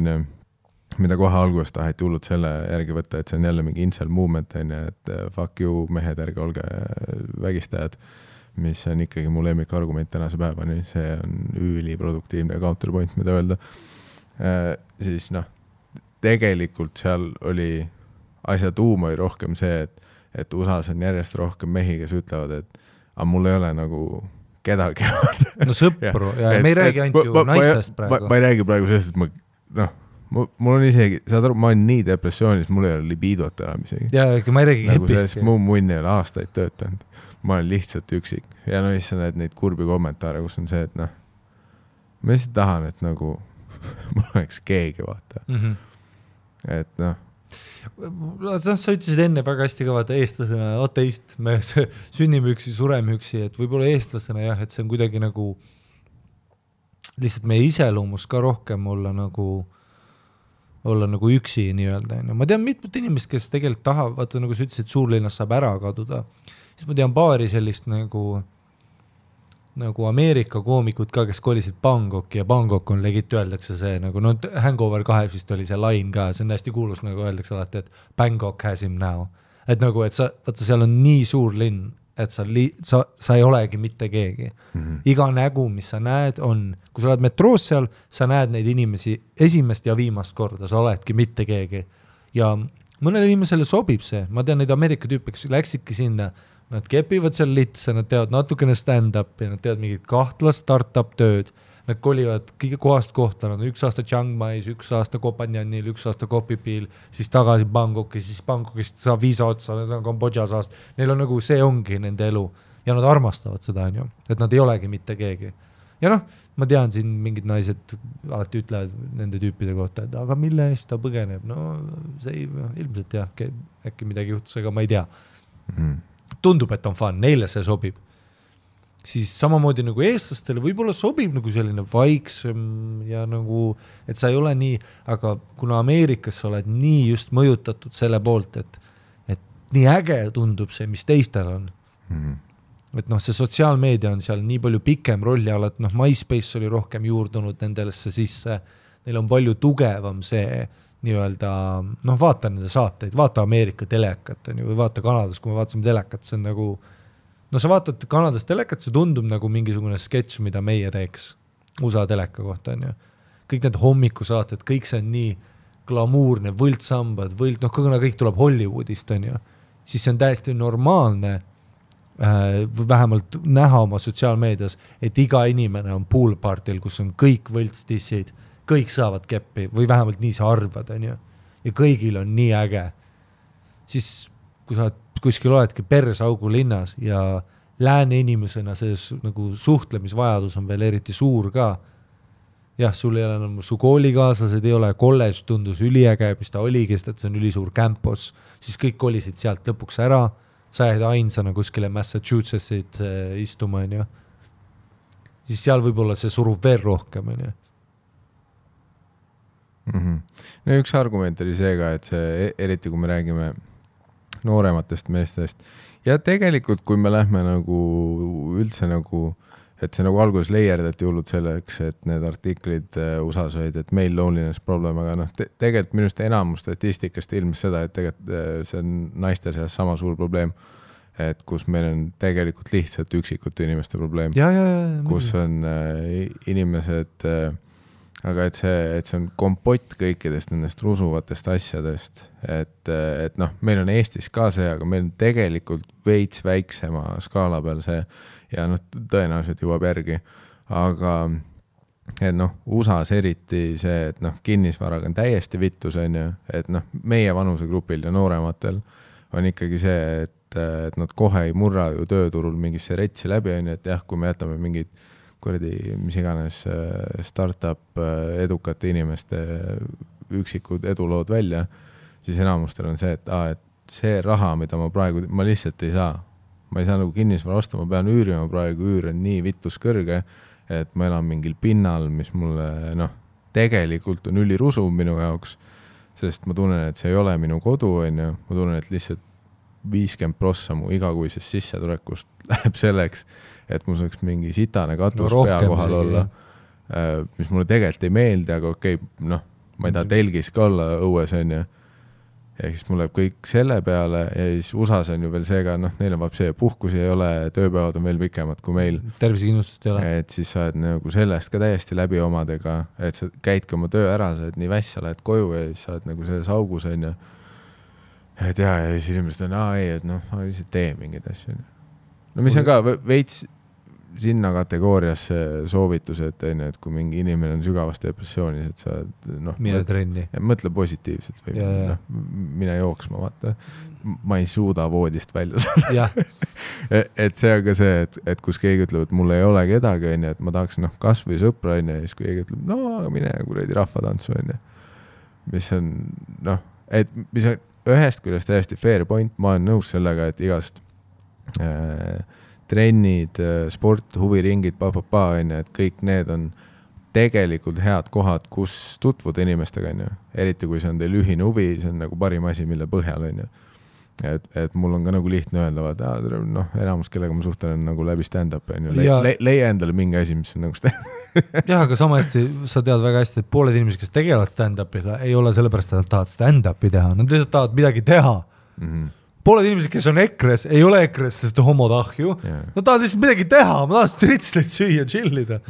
mida kohe alguses taheti hullud selle järgi võtta, et see on jälle mingi incel movement, et fuck you, mehed, ärge olge vägistajad, mis on ikkagi mu lemmikargument tänase päevani, see on üliproduktiivne counterpoint, mida öelda. Siis tegelikult seal oli asja tuum oli rohkem see, et USA-s on järjest rohkem mehi, kes ütlevad, et mul ei ole nagu kedagi. No sõpru, ja me ei räägi ainult ju naistest praegu. Ma ei räägi praegu sellest, et mul on isegi, saad aru, ma olen nii depressioonis, mul ei ole libiidot enam isegi. Ja ma ei räägi nagu kepist. Mu munn ei ole aastaid töötanud. Ma olen lihtsalt üksik. Ja siis sa näed neid kurbi kommentaare, kus on see, et ma lihtsalt tahan, et nagu mul oleks keegi, vaata. Et sa ütlesid enne väga hästi ka, vaata, eestlasena, ateist, me sünnime üksi, sureme üksi, et võib-olla eestlasena jah, et see on kuidagi nagu lihtsalt meie iseloomus ka rohkem olla nagu üksi nii-öelda. Ma tean mitmed inimesed, kes tegelikult tahavad, vaata nagu sa ütlesid, suurlinnas saab ära kaduda. Siis ma tean paari sellist nagu Ameerika koomikut ka, kes kolisid Bangkoki ja Bangkok on legit öeldakse see nagu, Hangover 2 vist oli see line ka, see on hästi kuulus, nagu öeldakse alati, et Bangkok has him now. Et nagu, et vaata, seal on nii suur linn, et sa ei olegi mitte keegi. Iga nägu, mis sa näed, on, kui sa oled metroos seal, sa näed neid inimesi esimest ja viimast korda, sa oledki mitte keegi. Ja mõnele inimesele sobib see, ma tean neid Ameerika tüüpe, kes läksidki sinna, nad kepivad seal litse, nad teevad natukene stand-up ja nad teevad mingid kahtlast start-up tööd, nad kolivad kõige kohast kohta, nad on 1 aasta Chiang Mai's, 1 aasta Kopanjanil, 1 aasta Kopipil, siis tagasi Bangkoki, siis Bangkokist saab viisa otsa, nad on Kambodžas aast, neil on nagu, see ongi nende elu ja nad armastavad seda, et nad ei olegi mitte keegi. Ja ma tean siin mingid naised alati ütlevad nende tüüpide kohta, et aga mille eest ta põgeneb, see ilmselt jah, äkki midagi juhtus, aga ma ei tea. Tundub, et on fun, neile see sobib. Siis samamoodi nagu eestlastele võib-olla sobib nagu selline vaiksem ja nagu, et sa ei ole nii, aga kuna Ameerikas sa oled nii just mõjutatud selle poolt, et nii äge tundub see, mis teistel on. Et noh, see sotsiaalmeedia on seal nii palju pikem rolli all, et noh, MySpace oli rohkem juurdunud nendesse sisse, neil on palju tugevam see nii-öelda, noh, vaata nende saateid, vaata Ameerika telekat on ju, või vaata Kanadas, kui me vaatasime telekat, see on nagu, no sa vaatad Kanadas telekat, see tundub nagu mingisugune sketš, mida meie teeks USA teleka kohta on ju. Kõik need hommikusaated, kõik see on nii glamuurne, võltsambad, kuna kõik tuleb Hollywoodist on ju, siis see on täiesti normaalne vähemalt näha oma sotsiaalmeedias, et iga inimene on poolpartil, kus on kõik võltstissid, kõik saavad keppi või vähemalt nii sa arvad on ju. Ja kõigil on nii äge. Siis kui sa kuskil oledki persaugu linnas ja lääne inimesena see nagu suhtlemisvajadus on veel eriti suur ka. Jah, sul ei ole enam su koolikaaslased, ei ole kolledž tundus üliäge, mis ta oligi, et see on ülisuur campus, siis kõik kolisid sealt lõpuks ära, sa jäid ainsana kuskile Massachusettsit istuma on ju. Siis seal võib-olla see surub veel rohkem on ju. No üks argument oli see ka, et see, eriti kui me räägime noorematest meestest ja tegelikult kui me lähme nagu üldse nagu, et see nagu alguses leierdati hullud selleks, et need artiklid USAs olid, et meil loneliness problem, aga noh, tegelikult minust enamus statistikast ilmnes seda, et tegelikult see on naiste seas sama suur probleem, et kus meil on tegelikult lihtsalt üksikute inimeste probleem, kus on inimesed aga et see on kompott kõikidest nendest rusuvatest asjadest, et noh, meil on Eestis ka see, aga meil on tegelikult veits väiksema skaala peal see ja noh, tõenäoliselt jõuab järgi, aga et noh, USAs eriti see, et noh, kinnisvaraga on täiesti vittus on ju, et noh, meie vanusegrupil ja noorematel on ikkagi see, et nad kohe ei murra ju tööturul mingisse retsi läbi on ju, et jah, kui me jätame mingid mis iganes startup edukate inimeste üksikud edulood välja, siis enamustel on see, et see raha, mida ma lihtsalt ei saa. Ma ei saa nagu kinnisvara osta, ma pean üürima praegu, üür on nii vitus kõrge, et ma elan mingil pinnal, mis mulle tegelikult on ülirusuv minu jaoks, sest ma tunnen, et see ei ole minu kodu, on ju. Ma tunnen, et lihtsalt 50% mu igakuisest sissetulekust läheb selleks, et mul saaks mingi sitane katus pea kohal olla, mis mulle tegelikult ei meeldi, aga okei, noh, ma ei taha telgis ka olla õues, on ju. Ja siis mul läheb kõik selle peale ja siis USAs on ju veel see ka, noh, neil on see puhkusi ei ole, tööpäevad on veel pikemad kui meil. Tervisekindlustust ei ole. Et siis sa oled nagu sellest ka täiesti läbi omadega, et sa käidki oma töö ära, sa oled nii väss, sa lähed koju ja siis sa oled nagu selles augus, on ju. Et ja siis inimesed on, et noh, ma lihtsalt tee mingeid asju. No mis on ka veits sinna kategooriasse soovitused, et kui mingi inimene on sügavas depressioonis, et sa mine trenni. Mõtle positiivselt või mine jooksma, vaata. Ma ei suuda voodist välja saada. Et see on ka see, et kus keegi ütleb, et mul ei ole kedagi, et ma tahaks kas või sõpra, ja siis keegi ütleb, no mine kuradi rahvatantsu, mis on, et mis on ühest küljest täiesti fair point, ma olen nõus sellega, et igast trennid, sport, huviringid, et kõik need on tegelikult head kohad, kus tutvuda inimestega, eriti kui see on teil ühine huvi, see on nagu parim asi, mille põhjal, et mul on ka nagu lihtne öelda, enamus, kellega ma suhtlen nagu läbi stand-up, leia endale mingi asi, mis on nagu stand-up. Jah, aga sama hästi, sa tead väga hästi, et pooled inimesed, kes tegelevad stand-up'iga, ei ole sellepärast, et nad tahavad stand-up'i teha, nad lihtsalt tahavad midagi teha. Pooled inimesed, kes on EKRE-s, ei ole EKRE-s, sest homod ahju. Nad tahavad lihtsalt midagi teha, ma tahan stritsleid süüa, chillida.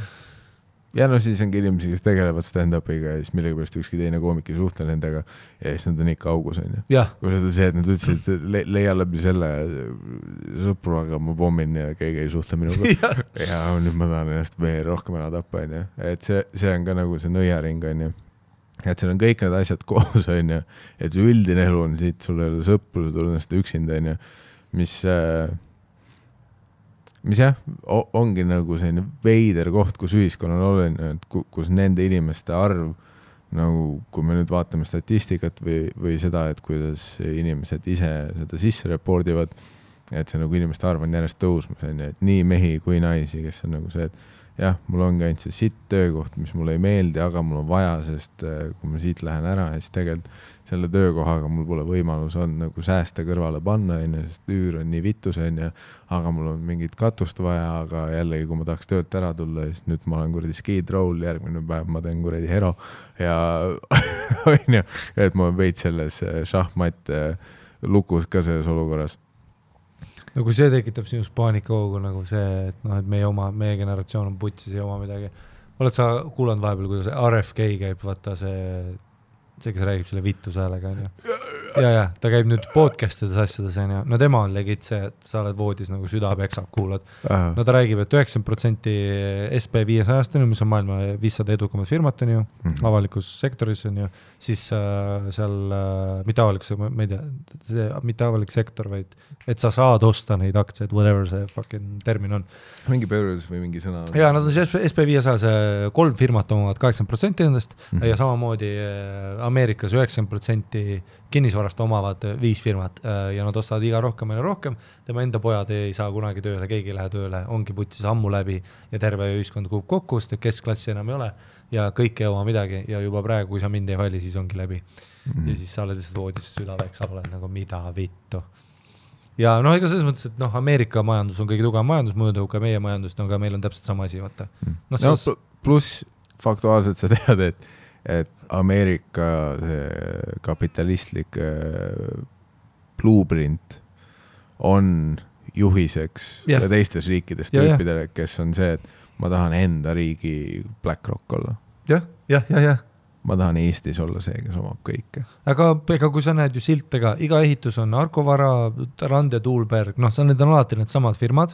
Ja siis ongi inimesi, kes tegelevad stand-up'iga ja siis millega pärast ükski teine koomik ei suhtle nendega ja siis nad on ikka augus, on ju. Kui seda see, et nad ütlesid, et leia läbi selle sõpru, aga ma pommin ja keegi ei suhtle minuga. Ja nüüd ma tahan ennast veel rohkem ära tappa, on ju. Et see on ka nagu see nõiaring, on ju. Et seal on kõik need asjad koos, on ju. Et see üldine elu on siit, sul ei ole sõpru, sa tuled ennast üksinda, on ju. Mis jah, ongi nagu selline veider koht, kus ühiskonnal olen, kus nende inimeste arv, nagu kui me nüüd vaatame statistikat või seda, et kuidas inimesed ise seda sisse repordivad, et see nagu inimeste arv on järjest tõusmas, et nii mehi kui naisi, kes on nagu see, jah, mul ongi ainult see sitt töökoht, mis mulle ei meeldi, aga mul on vaja, sest kui ma siit lähen ära, siis tegelikult selle töökohaga mul pole võimalus on nagu säästa kõrvale panna, sest üür on nii vitus, aga mul on mingit katust vaja, aga jällegi, kui ma tahaks töölt ära tulla, siis nüüd ma olen kuradi skid roll, järgmine päev ma teen kuradi hero ja et ma veid selles šahmat lukus ka selles olukorras. No kui see tekitab sinust paanikahoogu nagu see, et et meie generatsioon on putsis ja oma midagi. Oled sa kuulanud vahepeal, kuidas RFK käib, vaata see, kes räägib selle vittus häälega, on ju. Ja, ta käib nüüd podcast'ides asjades, on ju. No tema on legit see, et sa oled voodis nagu süda peksab, kuulad. No ta räägib, et 90% SP500 on ju, mis on maailma 500 edukamad firmat on ju, avalikus sektoris on ju, siis seal mitte avalikus, ma ei tea, see mitte avalik sektor, vaid et sa saad osta neid aktsiaid, whatever see fucking termin on. Mingi pöörus või mingi sõna? Ja nad on see SP500, see 3 firmat omavad 80% nendest ja samamoodi Ameerikas 90% kinnisvarast omavad 5 firmat ja nad ostavad iga rohkem ja rohkem. Tema enda pojad ei saa kunagi tööle, keegi ei lähe tööle, ongi putsis ammu läbi ja terve ühiskond kuub kokku, sest keskklassi enam ei ole ja kõik ei oma midagi ja juba praegu, kui sa mind ei vali, siis ongi läbi. Ja siis sa oled lihtsalt voodis südaveks, sa oled nagu mida vittu. Ja ega selles mõttes, et Ameerika majandus on kõige tugevam majandus, mõõdu ka meie majandust, aga meil on täpselt sama asi, vaata. Pluss faktuaalselt sa tead, et Ameerika kapitalistlik blueprint on juhiseks ja teistes riikides tüüpidele, kes on see, et ma tahan enda riigi BlackRock olla. Jah. Ma tahan Eestis olla see, kes omab kõike. Aga kui sa näed ju siltega, iga ehitus on Arkovara, Rand ja Tuulberg, need on alati need samad firmad,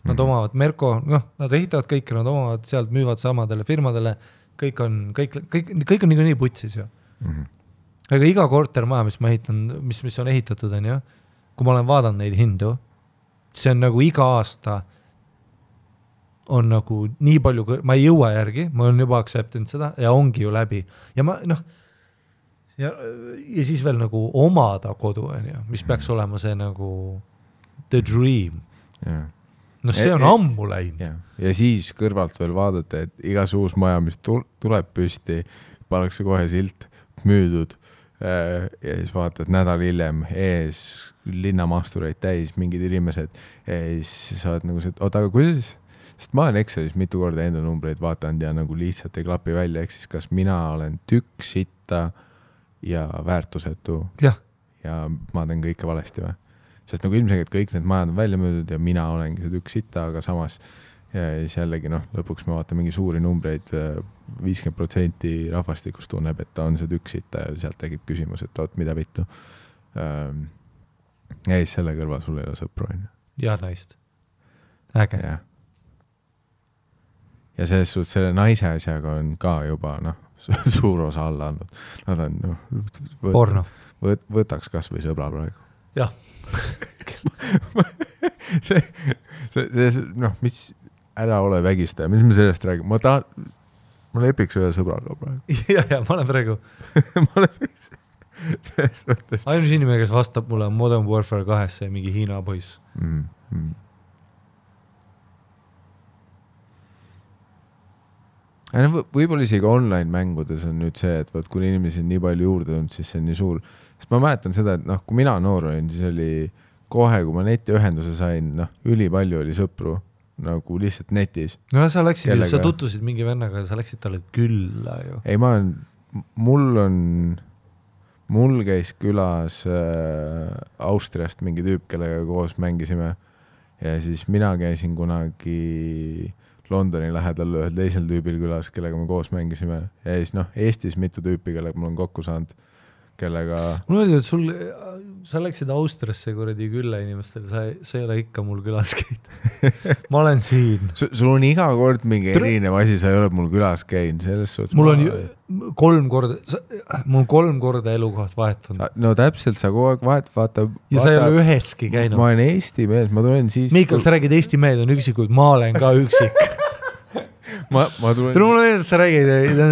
nad omavad Merko, nad ehitavad kõike, nad omavad sealt, müüvad samadele firmadele, kõik on nii putsis ju. Aga iga kortermaja, mis ma ehitan, mis on ehitatud, on ju, kui ma olen vaadanud neid hindu, see on nagu iga aasta on nagu nii palju, ma ei jõua järgi, ma olen juba aktseptinud seda ja ongi ju läbi. Ja ja siis veel nagu omada kodu, on ju, mis peaks olema see nagu the dream. See on ammu läinud. Ja siis kõrvalt veel vaadata, et igas uus maja, mis tuleb püsti, pannakse kohe silt müüdud ja siis vaatad nädal hiljem ees linnamastureid täis, mingid inimesed ja siis sa oled nagu see, aga kuidas? Sest ma olen Excelis mitu korda enda numbreid vaatanud ja nagu lihtsalt ei klapi välja, ehk siis kas mina olen tükk sitta ja väärtusetu ja ma teen kõike valesti või? Sest nagu ilmselgelt kõik need majad on välja müüdud ja mina olengi see tükk sitta, aga samas ja siis jällegi lõpuks me vaatame mingi suuri numbreid, 50% rahvastikust tunneb, et ta on see tükk sitta ja sealt tegib küsimus, et oot, mida vittu. Ja siis selle kõrval sul ei ole sõpru. Ja naist. Äge. Ja selles suhtes selle naise asjaga on ka juba suur osa alla andnud. Nad on võtaks kas või sõbra praegu. Jah. mis ära ole vägistaja, mis me sellest räägime? Ma lepiks ühe sõbraga praegu. Ja, ma olen praegu. Ma lepiks. Ainus inimene, kes vastab mulle Modern Warfare 2 ja mingi Hiina poiss. Võib-olla isegi online mängudes on nüüd see, et kui inimesi on nii palju juurde tulnud, siis see on nii suur. Sest ma mäletan seda, et kui mina noor olin, siis oli kohe, kui ma netiühenduse sain, üli palju oli sõpru nagu lihtsalt netis. No sa läksid, sa tutvusid mingi vennaga, sa läksid talle külla ju. Ei, mul käis külas Austriast mingi tüüp, kellega koos mängisime ja siis mina käisin kunagi Londoni lähedal ühel teisel tüübil külas, kellega me koos mängisime ja siis Eestis mitu tüüpi, kellega mul on kokku saanud, kellega... Mul oli, et sa läksid Austriasse kuradi külla inimestel, sa ei ole ikka mul külas käid. Ma olen siin. Sul on iga kord mingi erinev asi, sa ei ole mul külas käinud, selles suhtes... Mul on 3 korda elukoht vahetanud. No täpselt, sa kogu aeg vaata... Ja sa ei ole üheski käinud. Ma olen Eesti mees, ma tulen siis... Miikal, sa räägid Eesti mehed on üksikud, ma olen ka üksik. Ma tulen... Mulle meeldib, et sa räägid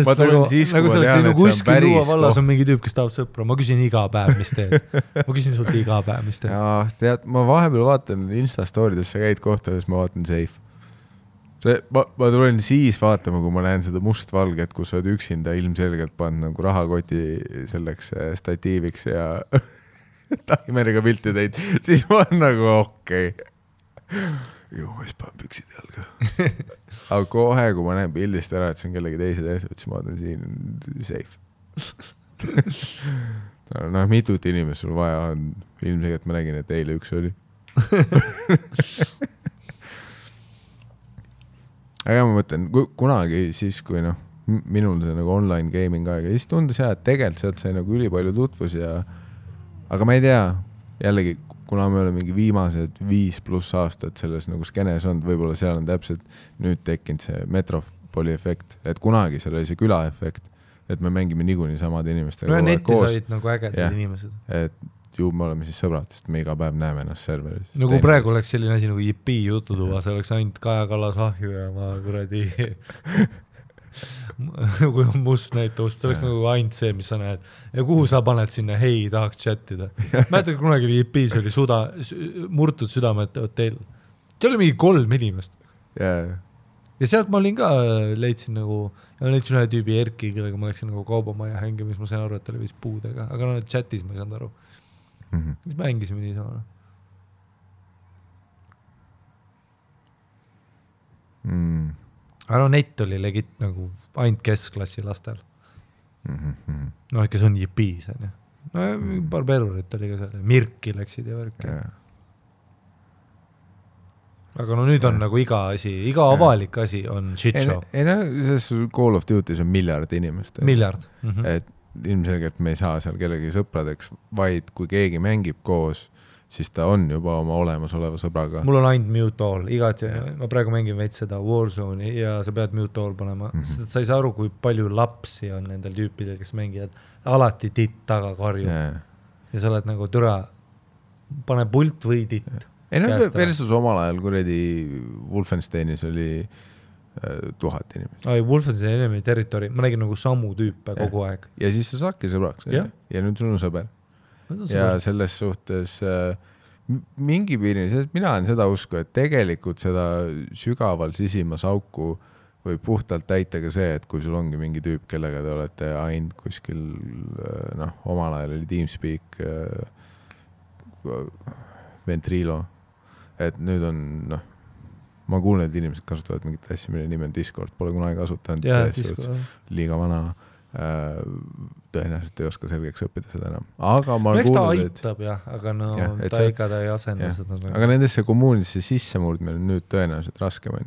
ma tulen siis, kui ma tean, et see on päris koht. Vallas on mingi tüüp, kes tahab sõpra. Ma küsin iga päev, mis teed. Ma küsin sult iga päev, mis teed. Ja, tead, ma vahepeal vaatan Insta-stoorides, sa käid kohtades, ma vaatan safe. ma tulen siis vaatama, kui ma näen seda mustvalget, kus sa oled üksinda ilmselgelt pannud nagu rahakoti selleks statiiviks ja taimeriga pilti teid, siis ma olen nagu okei. Ju, ma siis panen püksid jalga. Aga kohe, kui ma näen pildist ära, et see on kellegi teise teised, siis ma olen siin safe. No, mitut inimest sul vaja on. Ilmselgelt ma nägin, et eile üks oli. Aga ma mõtlen, kunagi siis, kui minul see nagu online gaming aega, siis tundus et tegelikult sealt sai nagu ülipalju tutvus aga ma ei tea, jällegi, kuna me oleme mingi viimased 5+ aastat selles nagu skenes olnud, võib-olla seal on täpselt nüüd tekkinud see Metropoli efekt, et kunagi seal oli see küla efekt, et me mängime niikuinii samade inimestega no netis olid nagu ägedad inimesed. Et ju me oleme siis sõbrad, sest me iga päev näeme ennast serveris. No kui praegu oleks selline asi nagu JP jututuba, see oleks ainult Kaja Kallas ahju ja ma kuradi kui on must näitavust, see oleks nagu ainult see, mis sa näed. Ja kuhu sa paned sinna, hei, tahaks chattida. Mäletad, kunagi oli JP-s oli murtud südamete hotell. See oli mingi 3 inimest. Ja sealt ma olin ka, leidsin ühe tüübi Erki, kellega ma läksin nagu kaubamaja hängimis, ma sain aru, et ta oli vist puudega, aga chatis ma ei saanud aru. Siis mängisime nii sama. Aga net oli legit nagu ainult keskklassi lastel. Kes on JP-s. Paar perurit oli ka seal. Mirki läksid ja värki. Aga nüüd on nagu iga avalik asi on shit show. Selles Call of Duty's on miljard inimest. Miljard. Et ilmselgelt me ei saa seal kellegi sõpradeks, vaid kui keegi mängib koos, siis ta on juba oma olemasoleva sõbraga. Mul on ainult mute all, ma praegu mängin veits seda Warzone'i ja sa pead mute all panema, sest sa ei saa aru, kui palju lapsi on nendel tüüpidel, kes mängivad alati titt taga karju. Ja sa oled nagu türa, pane pult või titt. Versus omal ajal kuredi Wolfensteinis oli 1000 inimest. Wolfenstein enemy territory, ma nägin nagu samu tüüpe kogu aeg. Ja siis sa saadki sõbraks. Ja nüüd sul on sõber. Ja selles suhtes mingi piirini, sest mina olen seda usku, et tegelikult seda sügaval sisimas auku võib puhtalt täita ka see, et kui sul ongi mingi tüüp, kellega te olete ainult kuskil, omal ajal oli TeamSpeak, Ventrilo, et nüüd on, ma kuulen, et inimesed kasutavad mingit asja, mille nimi on Discord, pole kunagi kasutanud, liiga vana, tõenäoliselt ei oska selgeks õppida seda enam. Aga ma kuulen, ta aitab, aga ta ikka ei asenda seda. Aga nendesse kommuunidesse sissemurdmine on nüüd tõenäoliselt raskem,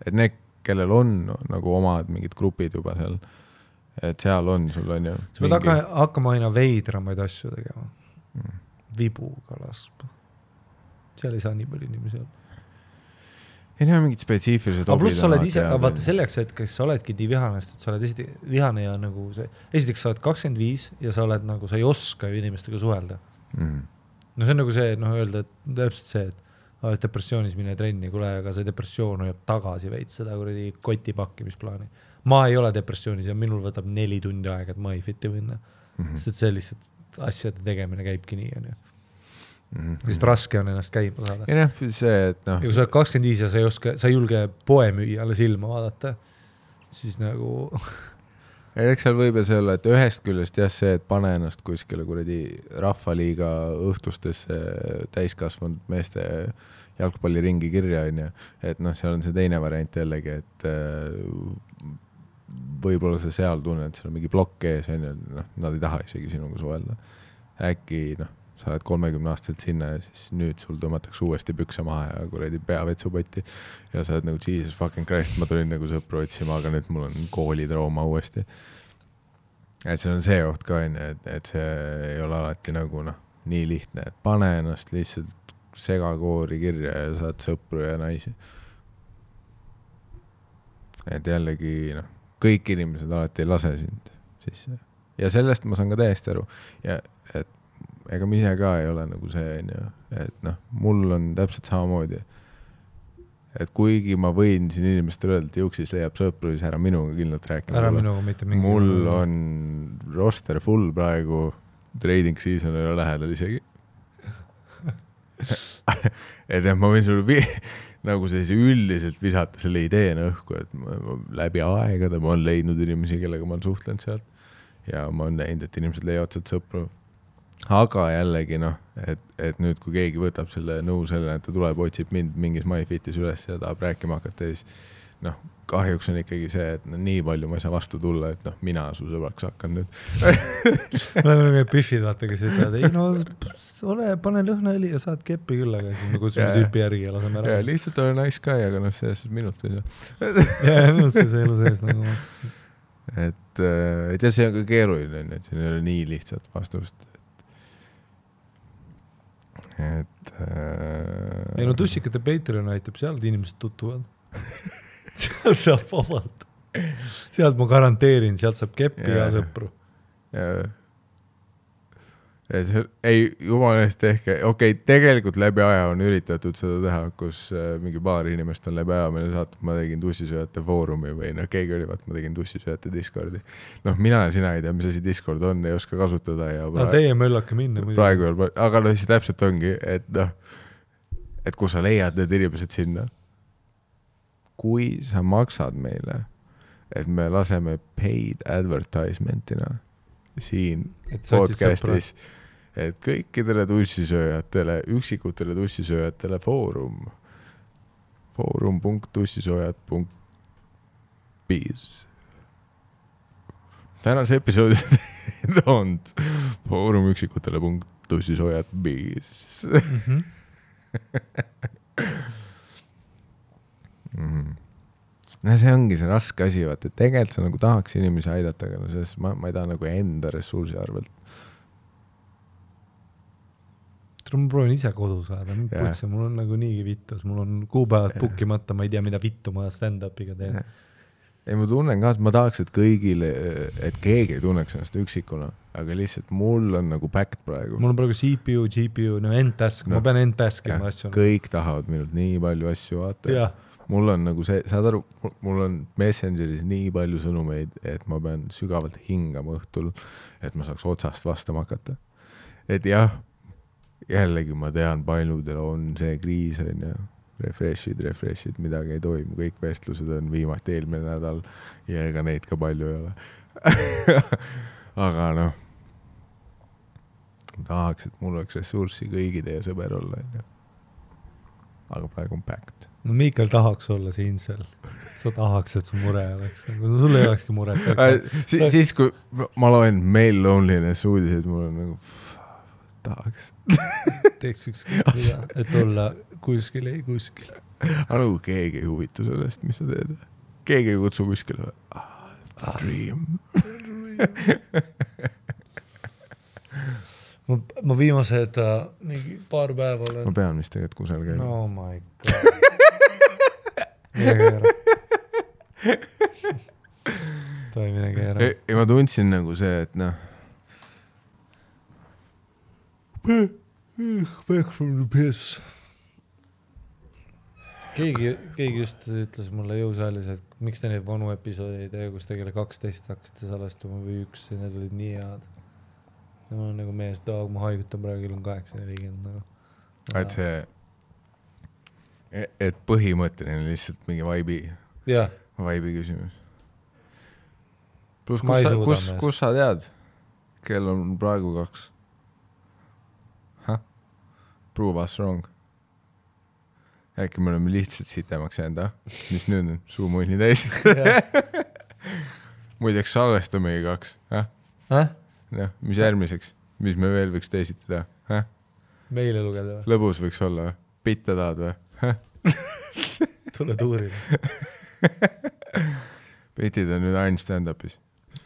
et need, kellel on nagu omad mingid grupid juba seal, et seal on sul on ju. Sa pead hakkama aina veidramaid asju tegema. Vibuga laspa. Seal ei saa nii palju inimesi olla. Ei näe mingid spetsiifilised obid. Pluss sa oled ise, vaata selleks, et kes sa oledki nii vihanest, et sa oled vihane ja nagu see, esiteks sa oled 25 ja sa oled nagu, sa ei oska ju inimestega suhelda. No see on nagu see, öelda, et täpselt see, et depressioonis mine trenni, kule, aga see depressioon hoiab tagasi veits seda kuradi kotipakkimisplaani. Ma ei ole depressioonis ja minul võtab 4 tundi aega, et ma ei fitti minna. Sest et see lihtsalt asjade tegemine käibki nii, on ju. Sest raske on ennast käima saada. Ja see, et ja kui sa oled 25 ja sa ei julge poe müüjale silma vaadata, siis nagu... Eks seal võib see olla, et ühest küljest see, et pane ennast kuskile kuradi rahvaliiga õhtustesse täiskasvanud meeste jalgpalliringi kirja, on ju. Et seal on see teine variant jällegi, et võib-olla sa seal tunned, et seal on mingi blokk ees, on ju, nad ei taha isegi sinuga suhelda. Äkki, sa oled 30-aastaselt sinna ja siis nüüd sul tõmmatakse uuesti pükse maha ja kuradi peavetsupotti ja sa oled nagu Jesus fucking Christ, ma tulin nagu sõpru otsima, aga nüüd mul on koolitrauma uuesti. Et see on see oht ka, et see ei ole alati nagu nii lihtne, et pane ennast lihtsalt segakoori kirja ja saad sõpru ja naisi. Et jällegi kõik inimesed alati ei lase sind sisse. Ja sellest ma saan ka täiesti aru. Ja et ega ma ise ka ei ole nagu see, et mul on täpselt samamoodi, et kuigi ma võin siin inimestele öelda, et Juksis leiab sõpru, siis ära minuga kindlalt rääkima. Ära minuga mitte mingi. Mul on roster full praegu, trading season ei ole lähedal isegi. Et ma võin sulle nagu sellise üldiselt visata selle ideena õhku, et ma läbi aegade ma olen leidnud inimesi, kellega ma olen suhtlenud sealt ja ma olen näinud, et inimesed leiavad sealt sõpru. Aga jällegi et nüüd kui keegi võtab selle nõu selle, et ta tuleb, otsib mind mingis MyFitis üles ja tahab rääkima hakata, siis kahjuks on ikkagi see, et nii palju ma ei saa vastu tulla, et mina su sõbraks hakkan nüüd. Me oleme need piffid, vaata, kes ütlevad, ei ole, pane lõhnaõli ja saad keppi küll, aga siis me kutsume tüüpi järgi ja laseme ära. Ja lihtsalt ole nice guy, aga selles minut ei saa. Ja minut see elu sees nagu. Et ja see on ka keeruline, et siin ei ole nii lihtsalt vastust. Ei tussikate Patreon aitab, sealt inimesed tutuvad. Sealt saab vabalt. Sealt ma garanteerin, sealt saab keppi ja sõpru. Ei, jumalast tehke. Okei, tegelikult läbi aja on üritatud seda teha, kus mingi paar inimest on läbi aja meile saatnud, ma tegin tussisööjate foorumi või keegi oli, ma tegin tussisööjate Discordi. Mina ja sina ei tea, mis asi Discord on, ei oska kasutada. Ja teie möllake minna. Praegu veel, aga siis täpselt ongi, et kui sa leiad need inimesed sinna, kui sa maksad meile, et me laseme paid advertisementina siin podcastis, et kõikidele tussisööjatele, üksikutele tussisööjatele foorum.tussisööjad.biz tänase episoodi on foorum üksikutele.tussisööjad.biz see ongi see raske asi, vaata, et tegelikult sa nagu tahaks inimesi aidata, aga selles ma ei taha nagu enda ressursi arvelt. Ma proovin ise kodu saada, mul on nagu niigi vittus, mul on kuupäevad bookimata, ma ei tea, mida vittu ma stand-upiga teen. Ei, ma tunnen ka, et ma tahaks, et kõigile, et keegi ei tunneks ennast üksikuna, aga lihtsalt mul on nagu packed praegu. Mul on praegu CPU, GPU, end-task, ma pean end-taskima asju. Kõik tahavad minult nii palju asju vaata. Mul on nagu see, saad aru, mul on Messengeris nii palju sõnumeid, et ma pean sügavalt hingama õhtul, et ma saaks otsast vastama hakata. Et jah, jällegi ma tean, paljudel on see kriis, on ja refreshid, midagi ei toimu, kõik vestlused on viimati eelmine nädal ja ega neid ka palju ei ole. Aga tahaks, et mul oleks ressurssi kõigi teie sõber olla. Aga praegu on packed. No Miikal tahaks olla siin seal. Sa tahaks, et su mure oleks. Sul ei olekski mure. Siis kui ma loen Male Loneliness uudiseid, mul on nagu tahaks. Teeks ükskõik mida, et olla kuskil. Aga nagu keegi ei huvitu sellest, mis sa teed. Keegi ei kutsu kuskile. Dream. Ma viimased mingi paar päeva olen. Ma pean vist tegelikult kusel käima. Oh my god. Mine keera. Toi mine keera. Ja ma tundsin nagu see, et back from the piss. Keegi just ütles mulle jõusaalis, et miks te neid vanu episoodi ei tee, kus tegele 12 hakkasite salestama või 1 ja need olid nii head. Ja ma olen nagu mees, ma haigutan praegu on 8:40 nagu. Et see, et põhimõtteline lihtsalt mingi vibe'i küsimus. Plus, kus sa tead? Kell on praegu 2. Prove us wrong. Äkki me oleme lihtsalt sitemaks jäänud, mis nüüd on? Suumunni täis. Muideks salvestamegi 2. Mis järgmiseks? Mis me veel võiks teisiti teha? Meile lugeda või? Lõbus võiks olla või? Pitte tahad või? Tule tuurida. Pitid on nüüd ainult stand-upis.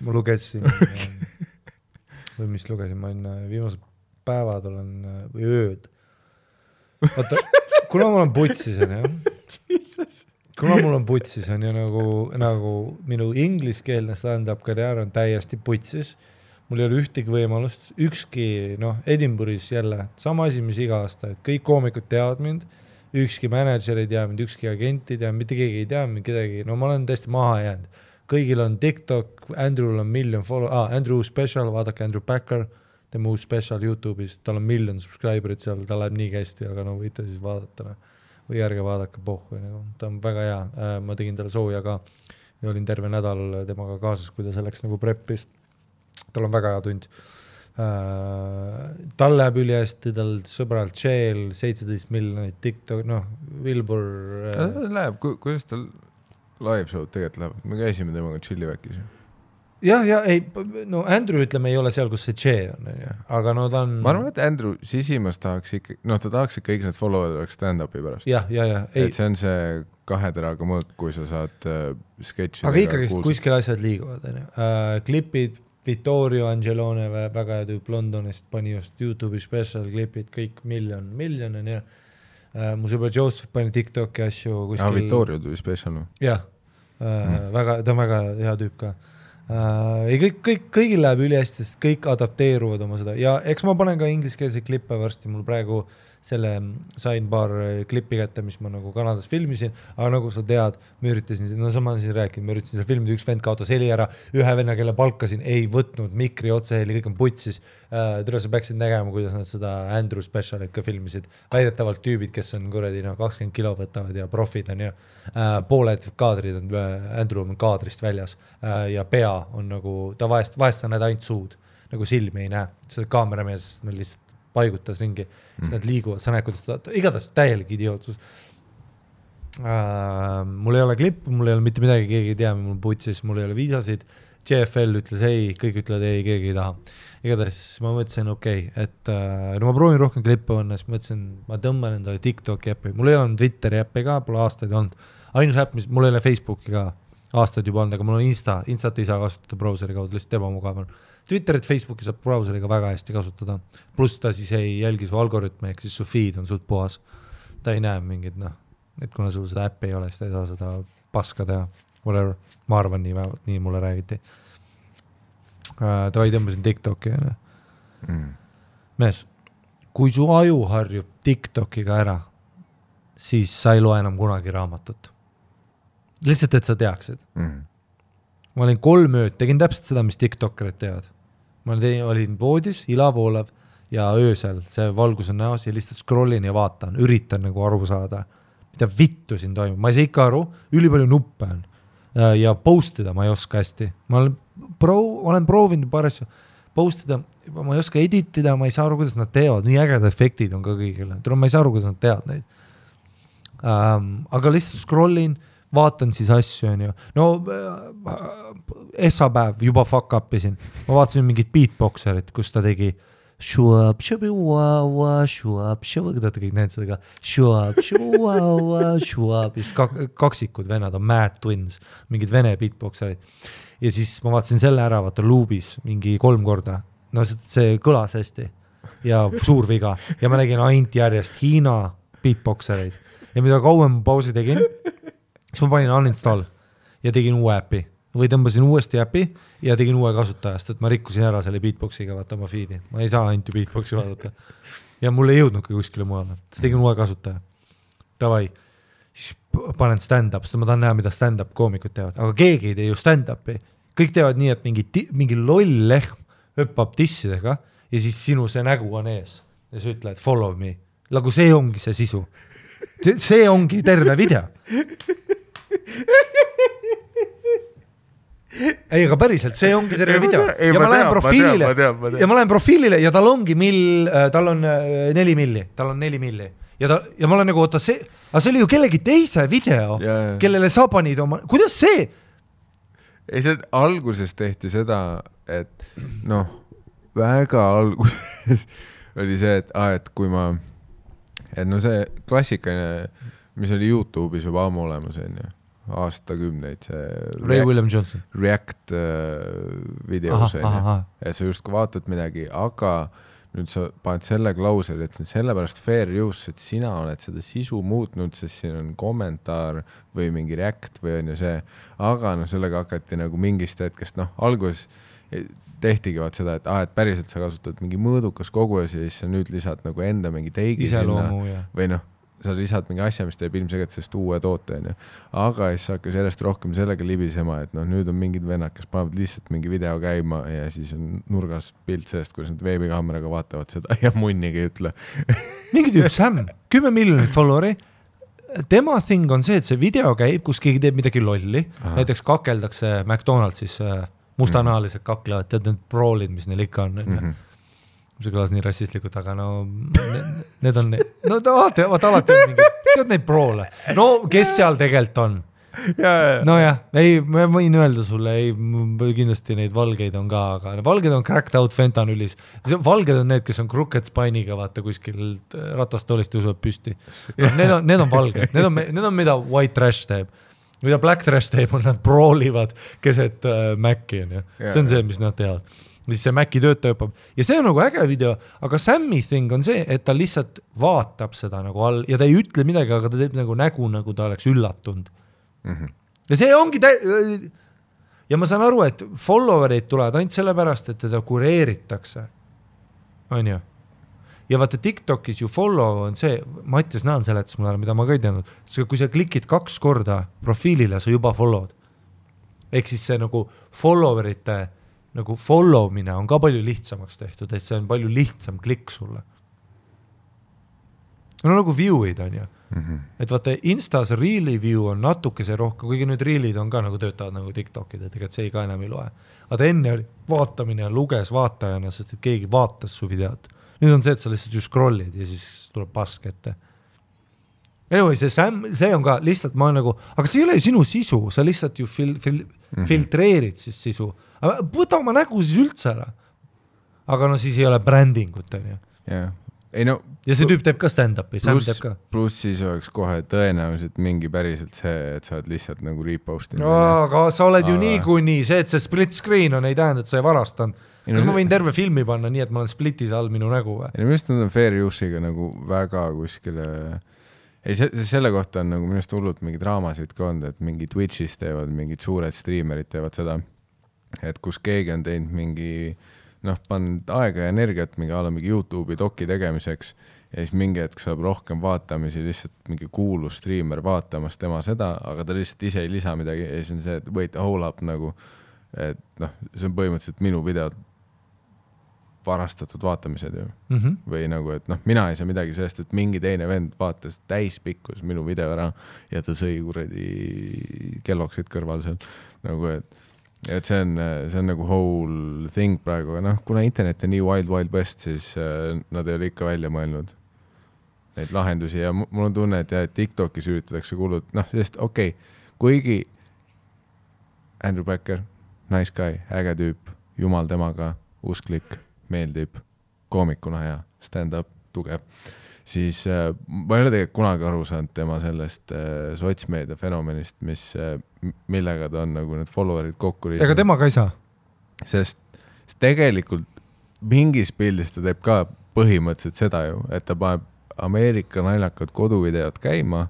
Ma lugesin, või mis lugesin, ma viimased päevad olen, või ööd. Vaata, kuna mul on putsis on ja nagu minu ingliskeelne stand-up karjäär on täiesti putsis, mul ei ole ühtegi võimalust, ükski, Edinburghis jälle, sama asi, mis iga aasta, et kõik koomikud teavad mind, ükski manager ei tea mind, ükski agent ei tea, mitte keegi ei tea mind, kedagi, ma olen täiesti maha jäänud. Kõigil on TikTok, Andrew'l on million Andrew Special, vaadake Andrew Packer, tema uus special YouTube'is, tal on million subscriberit seal, ta läheb nii kästi, aga võite siis vaadata. või ärge vaadake pohhu, nagu. Ta on väga hea, ma tegin talle sooja ka ja olin terve nädal temaga kaasas, kui ta selleks nagu preppis. Tal on väga hea tund. Tal läheb üli hästi, tal sõbralt Shell 17 miljonit TikTok, Wilbur läheb, kuidas tal live show tegelikult läheb? Me käisime temaga Chilliväkis. Ja, ei, Andrew ütleme ei ole seal, kus see Che on, aga ta on... Ma arvan, et Andrew sisimas tahaks ikka, ta tahaks, et kõik need follower'id oleks stand-upi pärast. Ja. Et see on see 2 teraga mõõk, kui sa saad sketšidega aga ikkagi kuskil asjad liiguvad, klipid, Vittorio Angelone, väga hea tüüp Londonist, pani just YouTube'i special klipid, kõik miljon on ja mu sõber Joseph pani TikToki asju kuskil... Vittorio tuli special. Jah, ta on väga hea tüüp ka. Kõigil läheb üli hästi, sest kõik adapteeruvad oma seda ja eks ma panen ka ingliskeelse klippe varsti, mul praegu sain paar klippi kätte, mis ma nagu Kanadas filmisin, aga nagu sa tead, ma üritasin seal filmida, üks vend kaotas heli ära, ühe venna, kelle palkasin, ei võtnud mikri otseheli, kõik on putsis. Tule sa peaksid nägema, kuidas nad seda Andrew specialit ka filmisid. Väidetavalt tüübid, kes on 20 kilo võtavad ja profid on ja pooled kaadrid on, Andrew on kaadrist väljas ja pea on nagu, ta vahest sa näed ainult suud, nagu silmi ei näe, seda kaameramees lihtsalt paigutas ringi, siis nad liiguvad, sa näed, kuidas igatahes täielik idiootsus. Mul ei ole klipp, mul ei ole mitte midagi, keegi ei tea, mul putsis, mul ei ole viisasid, JFL ütles ei, kõik ütlevad ei, keegi ei taha. Igatahes ma mõtlesin, et ma proovin rohkem klippe panna, siis mõtlesin, ma tõmban endale TikToki äppi, mul ei ole Twitteri äppi ka, pole aastaid olnud, ainus äpp, mul ei ole Facebooki ka aastaid juba olnud, aga mul on Instat ei saa kasutada browseri kaudu, lihtsalt ebamugav on. Twitterit, Facebooki saab browseriga väga hästi kasutada, pluss ta siis ei jälgi su algoritme, ehk siis su feed on suht puhas. Ta ei näe mingid, et kuna sul seda äppi ei ole, siis ta ei saa seda paska teha, whatever, ma arvan nii mulle räägiti. Ta ei tõmbasin TikToki. Mees, kui su aju harjub TikTokiga ära, siis sa ei loe enam kunagi raamatut. Lihtsalt, et sa teaksid. Ma olin 3 ööd, tegin täpselt seda, mis TikTokerid teevad. Ma olin voodis, ilavoolav ja öösel, see valgus on näos ja lihtsalt scrollin ja vaatan, üritan nagu aru saada, mida vittu siin toimub. Ma ei saa ikka aru, ülipalju nuppe on ja postida ma ei oska hästi. Ma olen proovinud paar asju postida, ma ei oska editida, ma ei saa aru, kuidas nad teevad, nii ägedad efektid on ka kõigile. Ma ei saa aru, kuidas nad teevad neid. Aga lihtsalt scrollin, vaatan siis asju, on ju. Essapäev juba fuck upisin. Ma vaatasin mingit beatboxerit, kus ta tegi shuab, shubi, waa, shuab, shuab, ta kõik näed seda ka. Shuab, shuab, siis kaksikud venad on Mad Twins, mingid vene beatboxerid. Ja siis ma vaatasin selle ära, vaata loopis mingi 3 korda. See kõlas hästi ja suur viga. Ja ma nägin ainult järjest Hiina beatboxereid. Ja mida kauem pausi tegin, siis ma panin uninstall ja tegin uue äpi või tõmbasin uuesti äpi ja tegin uue kasutajast, et ma rikkusin ära selle beatboxiga vaata oma feedi. Ma ei saa ainult beatboxi vaadata. Ja mul ei jõudnud ka kuskile mujale. Siis tegin uue kasutaja. Davai. Siis panen stand-up, sest ma tahan näha, mida stand-up koomikud teevad. Aga keegi ei tee ju stand-upi. Kõik teevad nii, et mingi loll lehm hüppab tissidega ja siis sinu see nägu on ees. Ja sa ütled, follow me. Nagu see ongi see sisu. See ongi terve video. Ei, aga päriselt, see ongi terve video. Ja ma lähen profiilile ja tal ongi tal on 4 milli. Tal on 4 milli. Ja ma olen nagu, aga see oli ju kellegi teise video, kellele sa panid oma... Kuidas see? Ei, see alguses tehti seda, et väga alguses oli see, et kui ma... see klassikaline, mis oli YouTube'is juba ammu olemas, aastakümneid, see Ray William Johnson React videos, et sa just vaatad midagi, aga nüüd sa paned selle klausel, et see on sellepärast fair use, et sina oled seda sisu muutnud, sest siin on kommentaar või mingi react või on ju see, aga sellega hakati nagu mingist hetkest, alguses tehtigi vaat seda, et päriselt sa kasutad mingi mõõdukas kogu ja siis sa nüüd lisad nagu enda mingi teigi iseloomu, sinna või sa lisad mingi asja, mis teeb ilmselt sellest uue toote, aga siis hakkas järjest rohkem sellega libisema, et nüüd on mingid vennad, kes panevad lihtsalt mingi video käima ja siis on nurgas pilt sellest, kuidas nad veebikaameraga vaatavad seda ja munnigi ei ütle. Mingi tüüp Sam, 10 miljonit followeri, tema thing on see, et see video käib, kus keegi teeb midagi lolli, näiteks kakeldakse McDonaldsis mustanaalised kaklevad, tead need proolid, mis neil ikka on, see kõlas nii rassistlikult, aga no need on, no alati on mingi, tead neid proole, no kes seal tegelikult on? No jah, ei, ma võin öelda sulle, ei, kindlasti neid valgeid on ka, aga valged on cracked out fentanülis. Valged on need, kes on crooked spine'iga, vaata kuskil ratastoolist tõusevad püsti. Need on valged, need on mida white trash teeb. Mida black trash teeb, on nad proolivad keset Maci. See on see, mis nad teevad. Siis see Maci töötaja õppab. Ja see on nagu äge video, aga Sammy thing on see, et ta lihtsalt vaatab seda nagu all ja ta ei ütle midagi, aga ta teeb nagu ta oleks üllatunud. Ja see ongi ja ma saan aru, et followerid tulevad ainult sellepärast, et teda kureeritakse. On ju? Ja vaata TikTokis ju follow on see, Mattias Naan seletas mulle, mida ma ka ei teadnud, kui sa klikid 2 korda profiilile, sa juba followed. Ehk siis see nagu followerite nagu followmine on ka palju lihtsamaks tehtud, et see on palju lihtsam klikk sulle. No nagu view'id on ju. Et vaata Instas Reeli view on natukese rohkem, kuigi nüüd Reelid on ka nagu töötavad nagu TikTokid, et tegelikult see ka enam ei loe. Aga enne oli vaatamine ja luges vaatajana, sest et keegi vaatas su videot. Nüüd on see, et sa lihtsalt ju scrollid ja siis tuleb pask ette. Anyway, see on ka lihtsalt ma nagu, aga see ei ole ju sinu sisu, sa lihtsalt ju filtreerid siis sisu. Aga võta oma nägu siis üldse ära. Aga no siis ei ole brändingut, on ju. Jah. Ei no, ja see tüüp teeb ka stand-upi, Sam teeb ka. Pluss siis oleks kohe tõenäoliselt mingi päriselt see, et sa oled lihtsalt nagu repostinud. Aga sa oled ju nii, see, et see split screen on, ei tähenda, et sa ei varastan. Kas ma võin terve filmi panna nii, et ma olen splitis all minu nägu või? Ja minust on fair use'iga nagu väga kuskile... Ei, selle kohta on nagu minust hullult mingi draamasid ka olnud, et mingi Twitchis teevad, mingid suured streamerid teevad seda, et kus keegi on teinud mingi... pannud aega ja energiat mingi YouTube'i doki tegemiseks ja siis mingi hetk saab rohkem vaatamisi lihtsalt mingi kuulus streamer vaatamas tema seda, aga ta lihtsalt ise ei lisa midagi ja siis on see, et wait, hold up nagu, et see on põhimõtteliselt minu video varastatud vaatamised ju. Või nagu, et mina ei saa midagi sellest, et mingi teine vend vaatas täispikkus minu video ära ja ta sõi kuradi kelloksid kõrval seal nagu, et see on nagu whole thing praegu, kuna internet on nii wild west, siis nad ei ole ikka välja mõelnud neid lahendusi ja mul on tunne, et TikTokis üritatakse kuulud, sest kuigi Andrew Becker, nice guy, äge tüüp, jumal temaga, usklik, meeldib, koomikuna hea, stand-up, tugev, siis ma ei ole tegelikult kunagi aru saanud tema sellest sotsmeedia fenomenist, millega ta on nagu need followerid kokku riisnud. Ega tema ka ei saa? Sest tegelikult mingis pildis ta teeb ka põhimõtteliselt seda ju, et ta paneb Ameerika naljakad koduvideod käima.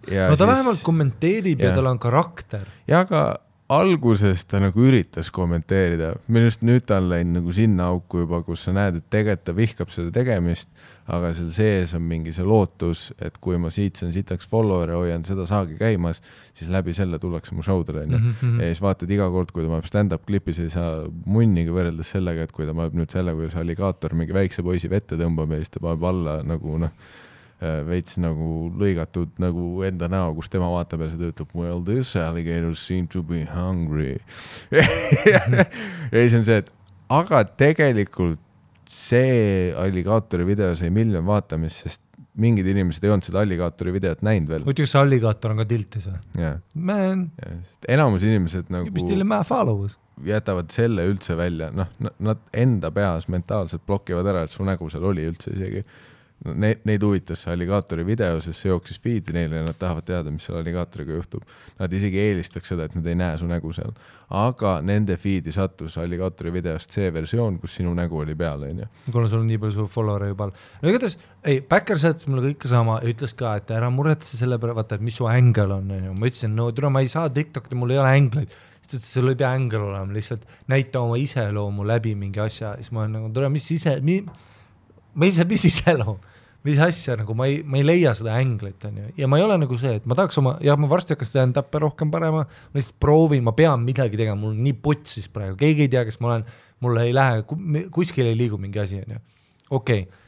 Ja no ta vähemalt kommenteerib ja tal on karakter. Ja aga alguses ta nagu üritas kommenteerida. Minust nüüd ta on läinud nagu sinna auku juba, kus sa näed, et tegelikult ta vihkab seda tegemist, aga seal sees on mingi see lootus, et kui ma siit saan sitaks follower ja hoian seda saagi käimas, siis läbi selle tullakse mu showdele. Ja siis vaatad iga kord, kui ta paneb stand-up klipis, ei saa munniga võrreldes sellega, et kui ta paneb nüüd selle, kuidas alligaator mingi väikse poisi vette tõmbab ja siis ta paneb alla nagu veits nagu lõigatud nagu enda näo, kus tema vaatab ja see töötab, well, this alligator seem to be hungry. Ja siis on see, et aga tegelikult see alligaatori video sai miljon vaatamist, sest mingid inimesed ei olnud seda alligaatori videot näinud veel. Muidugi see alligaator on ka tiltis või? Yeah. Man. Enamus inimesed nagu jätavad selle üldse välja. Nad enda peas mentaalselt blokivad ära, et su nägu seal oli üldse isegi. Neid huvitas see alligaatori video, sest see jooksis feed'i neile ja nad tahavad teada, mis seal alligaatoriga juhtub. Nad isegi eelistaks seda, et nad ei näe su nägu seal. Aga nende feed'i sattus alligaatori videost see versioon, kus sinu nägu oli peal. Kuna sul on nii palju su follower juba. No igatahes, Backer saatis mulle kõike sama ja ütles ka, et ära muretse selle peale, vaata, et mis su ängel on. Ma ütlesin, no tule, ma ei saa TikTok'i, mul ei ole ängleid. Sest sul ei pea ängel olema, lihtsalt näita oma iseloomu läbi mingi asja. Siis ma olen nagu, tule, mis iseloom? Mis asja, nagu ma ei leia seda änglit, ja ma ei ole nagu see, et ma tahaks ma varsti hakkas stand-up'e rohkem parema, ma lihtsalt proovin, ma pean midagi tegema, mul on nii putsis praegu, keegi ei tea, kes ma olen, mulle ei lähe, kuskil ei liigu mingi asi, ja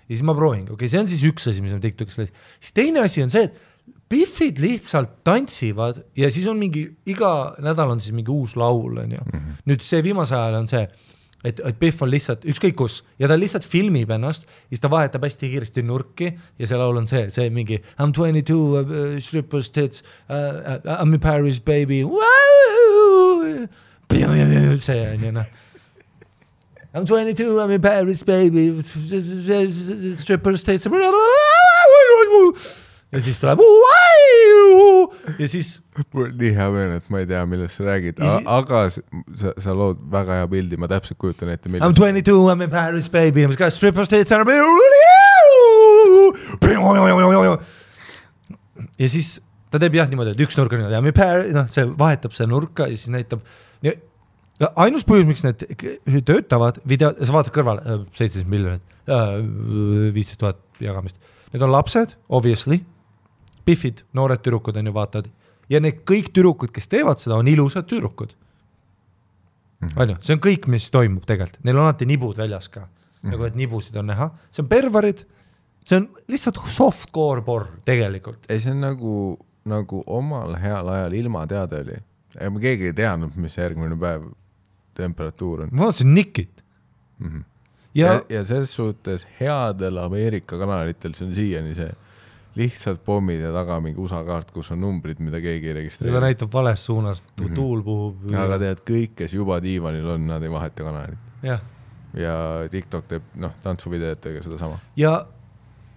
siis ma proovin, see on siis üks asi, mis on TikTokis läis. Siis teine asi on see, et Biffid lihtsalt tantsivad ja siis on mingi, iga nädal on siis mingi uus laul, on ju. Nüüd see viimase ajal on see, et Biff on lihtsalt ükskõik kus ja ta lihtsalt filmib ennast ja siis ta vahetab hästi kiiresti nurki ja see laul on see mingi I'm 22, strippers tits, I'm in Paris, baby, see on ju, noh. I'm 22, I'm in Paris, baby, strippers tits, ja siis tuleb ja siis mul nii hea meel, et ma ei tea, millest sa räägid, aga sa lood väga hea pildi, ma täpselt kujutan ette I'm 22, I'm in Paris, baby, I'm got strippers tits ja siis ta teeb jah niimoodi, et üks nurk on niimoodi, I'm in Paris, noh, see vahetab see nurka ja siis näitab ainus põhjus, miks need töötavad video, sa vaatad kõrval 17 miljonit, 15 000 jagamist, need on lapsed, obviously, Biffid, noored tüdrukud on ju vaatad ja need kõik tüdrukud, kes teevad seda, on ilusad tüdrukud. See on kõik, mis toimub tegelikult, neil on alati nibud väljas ka, nagu et nibusid on näha, see on pervarid, see on lihtsalt softcore porn tegelikult. Ei, see on nagu omal heal ajal ilma teada oli, ma keegi ei teadnud, mis järgmine päev temperatuur on. Ma vaatasin Nickit. Ja selles suhtes headel Ameerika kanalitel see on siiani see lihtsalt pommid ja taga mingi USA kaart, kus on numbrid, mida keegi ei registreeri. Ja ta näitab vales suunas, tuul puhub. Aga tead, kõik, kes juba diivanil on, nad ei vaheta kanalit. Ja TikTok teeb tantsuvideetega seda sama. Ja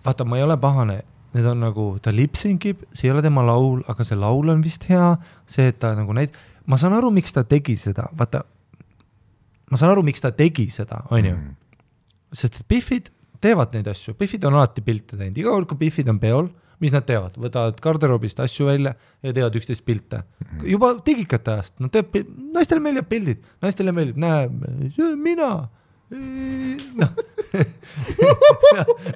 vaata, ma ei ole pahane, need on nagu, ta lipsinkib, see ei ole tema laul, aga see laul on vist hea, see, et ta nagu ma saan aru, miks ta tegi seda, vaata, on ju. Sest et Biffid teevad neid asju, Biffid on alati pilte teinud, iga kord, kui Biffid on peol, mis nad teevad, võtavad garderoobist asju välja ja teevad 11 pilte. Juba tegikate ajast, naistele meeldib pildid, naistele meeldib, mina,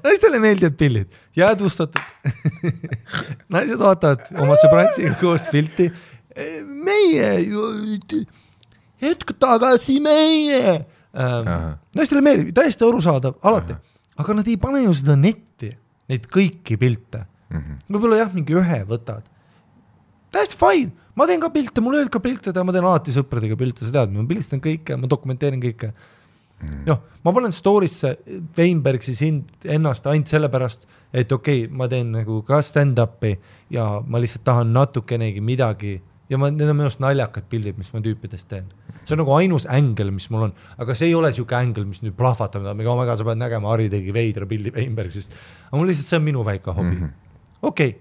naistele meeldivad pildid, jäädvustatud, naised vaatavad oma sõbrantsiga koos pilti, meie, hetk tagasi meie, naistele meeldib, täiesti arusaadav, alati. Aga nad ei pane ju seda netti, neid kõiki pilte. Võib-olla jah, mingi ühe võtad. Täiesti fine, ma teen ka pilte, mul ei ka pilte, ma teen alati sõpradega pilte, sa tead, ma pilistan kõike, ma dokumenteerin kõike. Ma panen story'sse Weinbergsi ennast ainult sellepärast, et okei, ma teen nagu ka stand-upi ja ma lihtsalt tahan natukenegi midagi ja need on minust naljakad pildid, mis ma tüüpidest teen. See on nagu ainus ängel, mis mul on, aga see ei ole siuke ängel, mis nüüd plahvatab, sa pead nägema, Harri tegi veidra pildi Weinbergsist, aga mul lihtsalt see on minu väike hobi. Okei,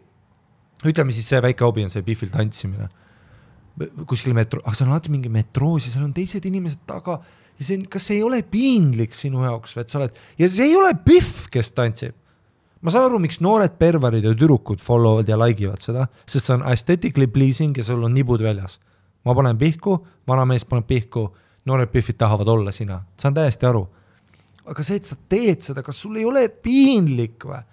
ütleme siis see väike hobi on see Biffil tantsimine. Kuskil aga see on alati mingi metroos ja seal on teised inimesed taga ja see, kas see ei ole piinlik sinu jaoks, et sa oled, ja see ei ole Biff, kes tantsib. Ma saan aru, miks noored pervarid ja türukud followvad ja like'ivad seda, sest see on aesthetically pleasing ja sul on nibud väljas. Ma panen pihku, vana mees paneb pihku, noored Biffid tahavad olla sina. Saan täiesti aru. Aga see, et sa teed seda, kas sul ei ole piinlik või?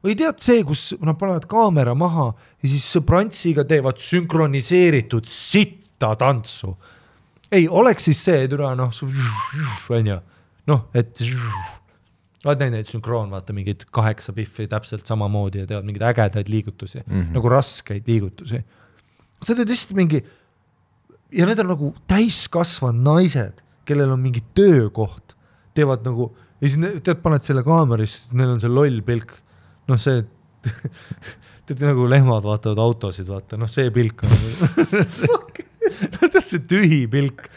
Või tead see, kus nad panevad kaamera maha ja siis sõbrantsiga teevad sünkroniseeritud sitta tantsu. Ei, oleks siis see, et oled näinud neid sünkroon, vaata mingid 8 Biffi täpselt samamoodi ja teevad mingeid ägedaid liigutusi, nagu raskeid liigutusi. Sa teed lihtsalt mingi, ja need on nagu täiskasvad naised, kellel on mingi töökoht, teevad nagu, ja siis tead, paned selle kaameris, neil on see loll pilk, see, tead nagu lehmad vaatavad autosid, vaata, see pilk on, tead see tühi pilk.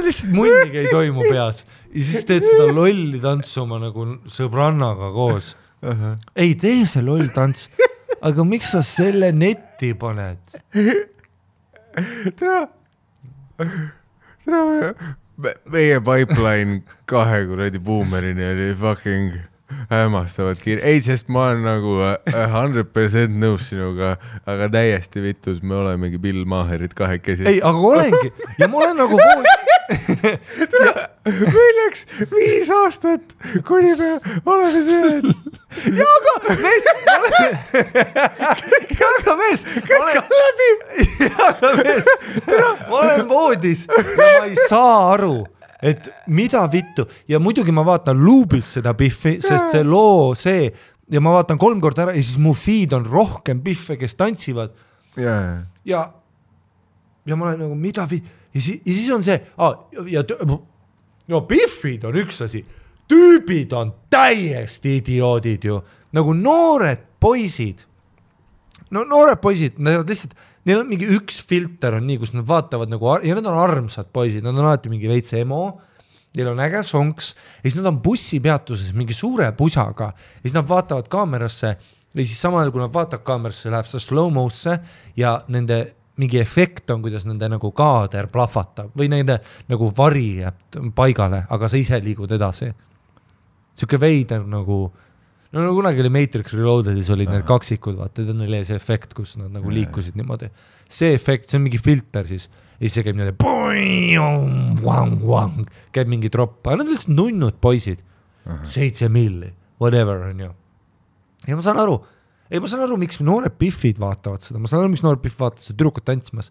Lihtsalt munnigi ei toimu peas ja siis teed seda lolli tantsu oma nagu sõbrannaga koos. Ei tee see loll tants, aga miks sa selle netti paned? Meie pipeline 2 kuradi boomerini oli fucking hämmastavad kiire. Ei, sest ma olen nagu 100% nõus sinuga, aga täiesti vitus, me olemegi Bill Maherid 2. Ei, aga olengi. Ja ma olen nagu meil läks 5 aastat, kuni me oleme see. Ja aga mees, ma olen voodis ja ma ei saa aru, et mida vittu ja muidugi ma vaatan luubilt seda Biffi, sest see loo ja ma vaatan 3 korda ära ja siis mu feed on rohkem Biffe, kes tantsivad ja ma olen nagu mida ja siis on see ja Biffid on üks asi, tüübid on täiesti idioodid ju, nagu noored poisid, nad lihtsalt neil on mingi üks filter on nii, kus nad vaatavad nagu, ja nad on armsad poisid, nad on alati mingi veits emo, neil on äge sonks, ja siis nad on bussipeatuses mingi suure pusaga, ja siis nad vaatavad kaamerasse, ja siis samal ajal, kui nad vaatavad kaamerasse, läheb see slow-mo'sse, ja nende mingi efekt on, kuidas nende nagu kaader plahvatab, või nende nagu vari jääb paigale, aga sa ise liigud edasi. Siuke veider nagu kunagi oli Matrix Reloadedis olid need kaksikud, vaata, neil oli see efekt, kus nad nagu liikusid niimoodi. See efekt, see on mingi filter siis, ja siis see käib niimoodi, käib mingi tropp, aga nad on lihtsalt nunnud poisid, 7 milli, whatever on ju. Ja ma saan aru, miks noored Biffid vaatavad seda, ma saan aru, miks noored Biff vaatavad seda tüdrukut tantsimas,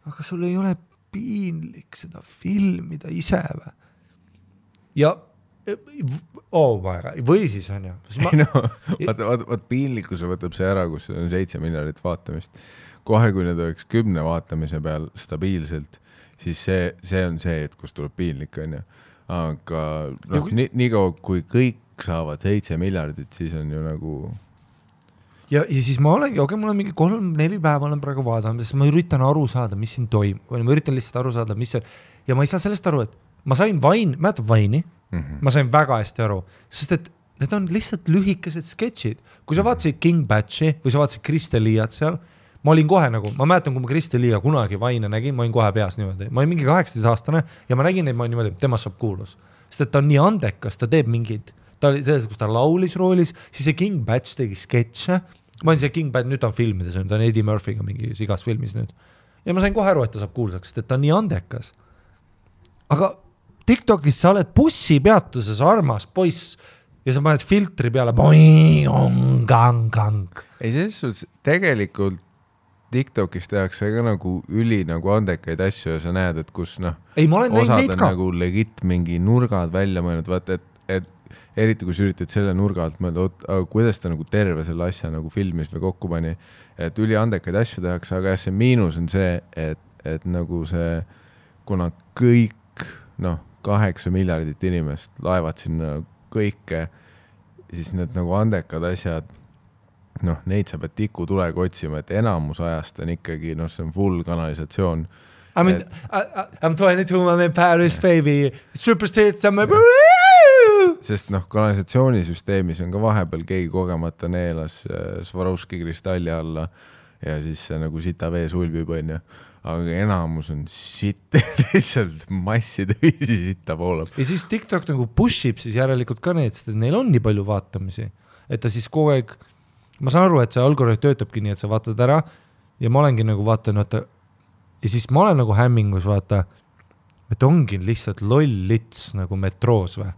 aga sul ei ole piinlik seda filmida ise või? Ja või siis on ju. Vaat piinlikkuse võtab see ära, kus on 7 miljardit vaatamist. Kohe, kui need oleks 10 vaatamise peal stabiilselt, siis see on see, et kus tuleb piinlik on ju. Aga nii kaua, kui kõik saavad 7 miljardit, siis on ju nagu... Ja siis ma olengi, mul on mingi 3-4 päeva olen praegu vaadanud, sest ma üritan aru saada, mis siin toimub. Ma üritan lihtsalt aru saada, mis see... Ja ma ei saa sellest aru, et ma sain mäletad Vaini, ma sain väga hästi aru, sest et need on lihtsalt lühikesed sketšid. Kui sa vaatasid King Batchi või sa vaatasid Kristel Liiat seal, ma olin kohe nagu, ma mäletan, kui ma Kristel Liia kunagi Vaine nägin, ma olin kohe peas niimoodi. Ma olin mingi 18-aastane ja ma nägin neid, ma olin niimoodi, temast saab kuulus. Sest et ta on nii andekas, ta teeb mingid, ta oli selles, kus ta laulis roolis, siis see King Batch tegi sketše. Ma olin see King Batch, nüüd ta on filmides, ta on Eddie Murphy'ga mingi igas filmis nüüd. Ja ma sain kohe aru, et ta saab kuulsaks, sest et ta on nii andekas. Aga TikTokis sa oled bussipeatuses armas poiss ja sa paned filtri peale ei, selles suhtes tegelikult TikTokis tehakse ka nagu nagu andekaid asju ja sa näed, et kus osad on nagu legit mingi nurgad välja mõelnud, vaata, et eriti kui sa üritad selle nurga alt mõelda, kuidas ta nagu terve selle asja nagu filmis või kokku pani, et üli andekaid asju tehakse, aga see miinus on see, et nagu see, kuna kõik 8 miljardit inimest laevad sinna kõike, siis need nagu andekad asjad, neid sa pead tikutulega otsima, et enamus ajast on ikkagi, see on full kanalisatsioon. I'm 22, I'm in Paris, baby, superstates, I'm sest kanalisatsioonisüsteemis on ka vahepeal keegi kogemata neelas Swarovski kristalli alla ja siis see nagu sita vee sulbib, on ju. Aga enamus on lihtsalt masside viisi sitta poolab. Ja siis TikTok nagu pushib siis järelikult ka need, sest neil on nii palju vaatamisi, et ta siis kogu aeg, ma saan aru, et see algoritm töötabki nii, et sa vaatad ära ja ma olengi nagu vaatan, ja siis ma olen nagu hämmingus, vaata, et ongi lihtsalt loll lits nagu metroos või.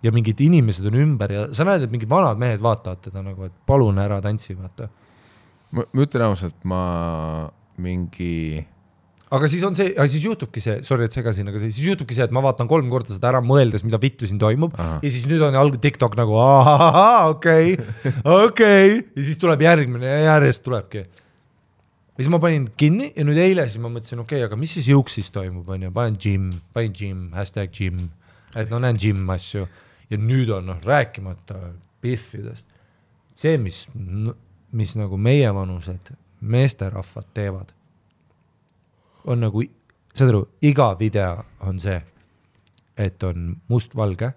Ja mingid inimesed on ümber ja sa näed, et mingid vanad mehed vaatavad teda nagu, et palun ära tantsi, vaata. Ma ütlen ausalt, ma mingi... Aga siis on see, siis juhtubki see, sorry, et segasin, aga siis juhtubki see, et ma vaatan 3 korda seda ära mõeldes, mida vittu siin toimub. Ja siis nüüd on TikTok nagu, okei. Ja siis tuleb järgmine ja järjest tulebki. Ja siis ma panin kinni ja nüüd eile siis ma mõtlesin, aga mis siis Juuksis toimub, on ju, panin gym, #gym, et näen gym asju. Ja nüüd on rääkimata Biffidest. See, mis nagu meie vanused meesterahvad teevad, on nagu, saad aru, iga video on see, et on mustvalge,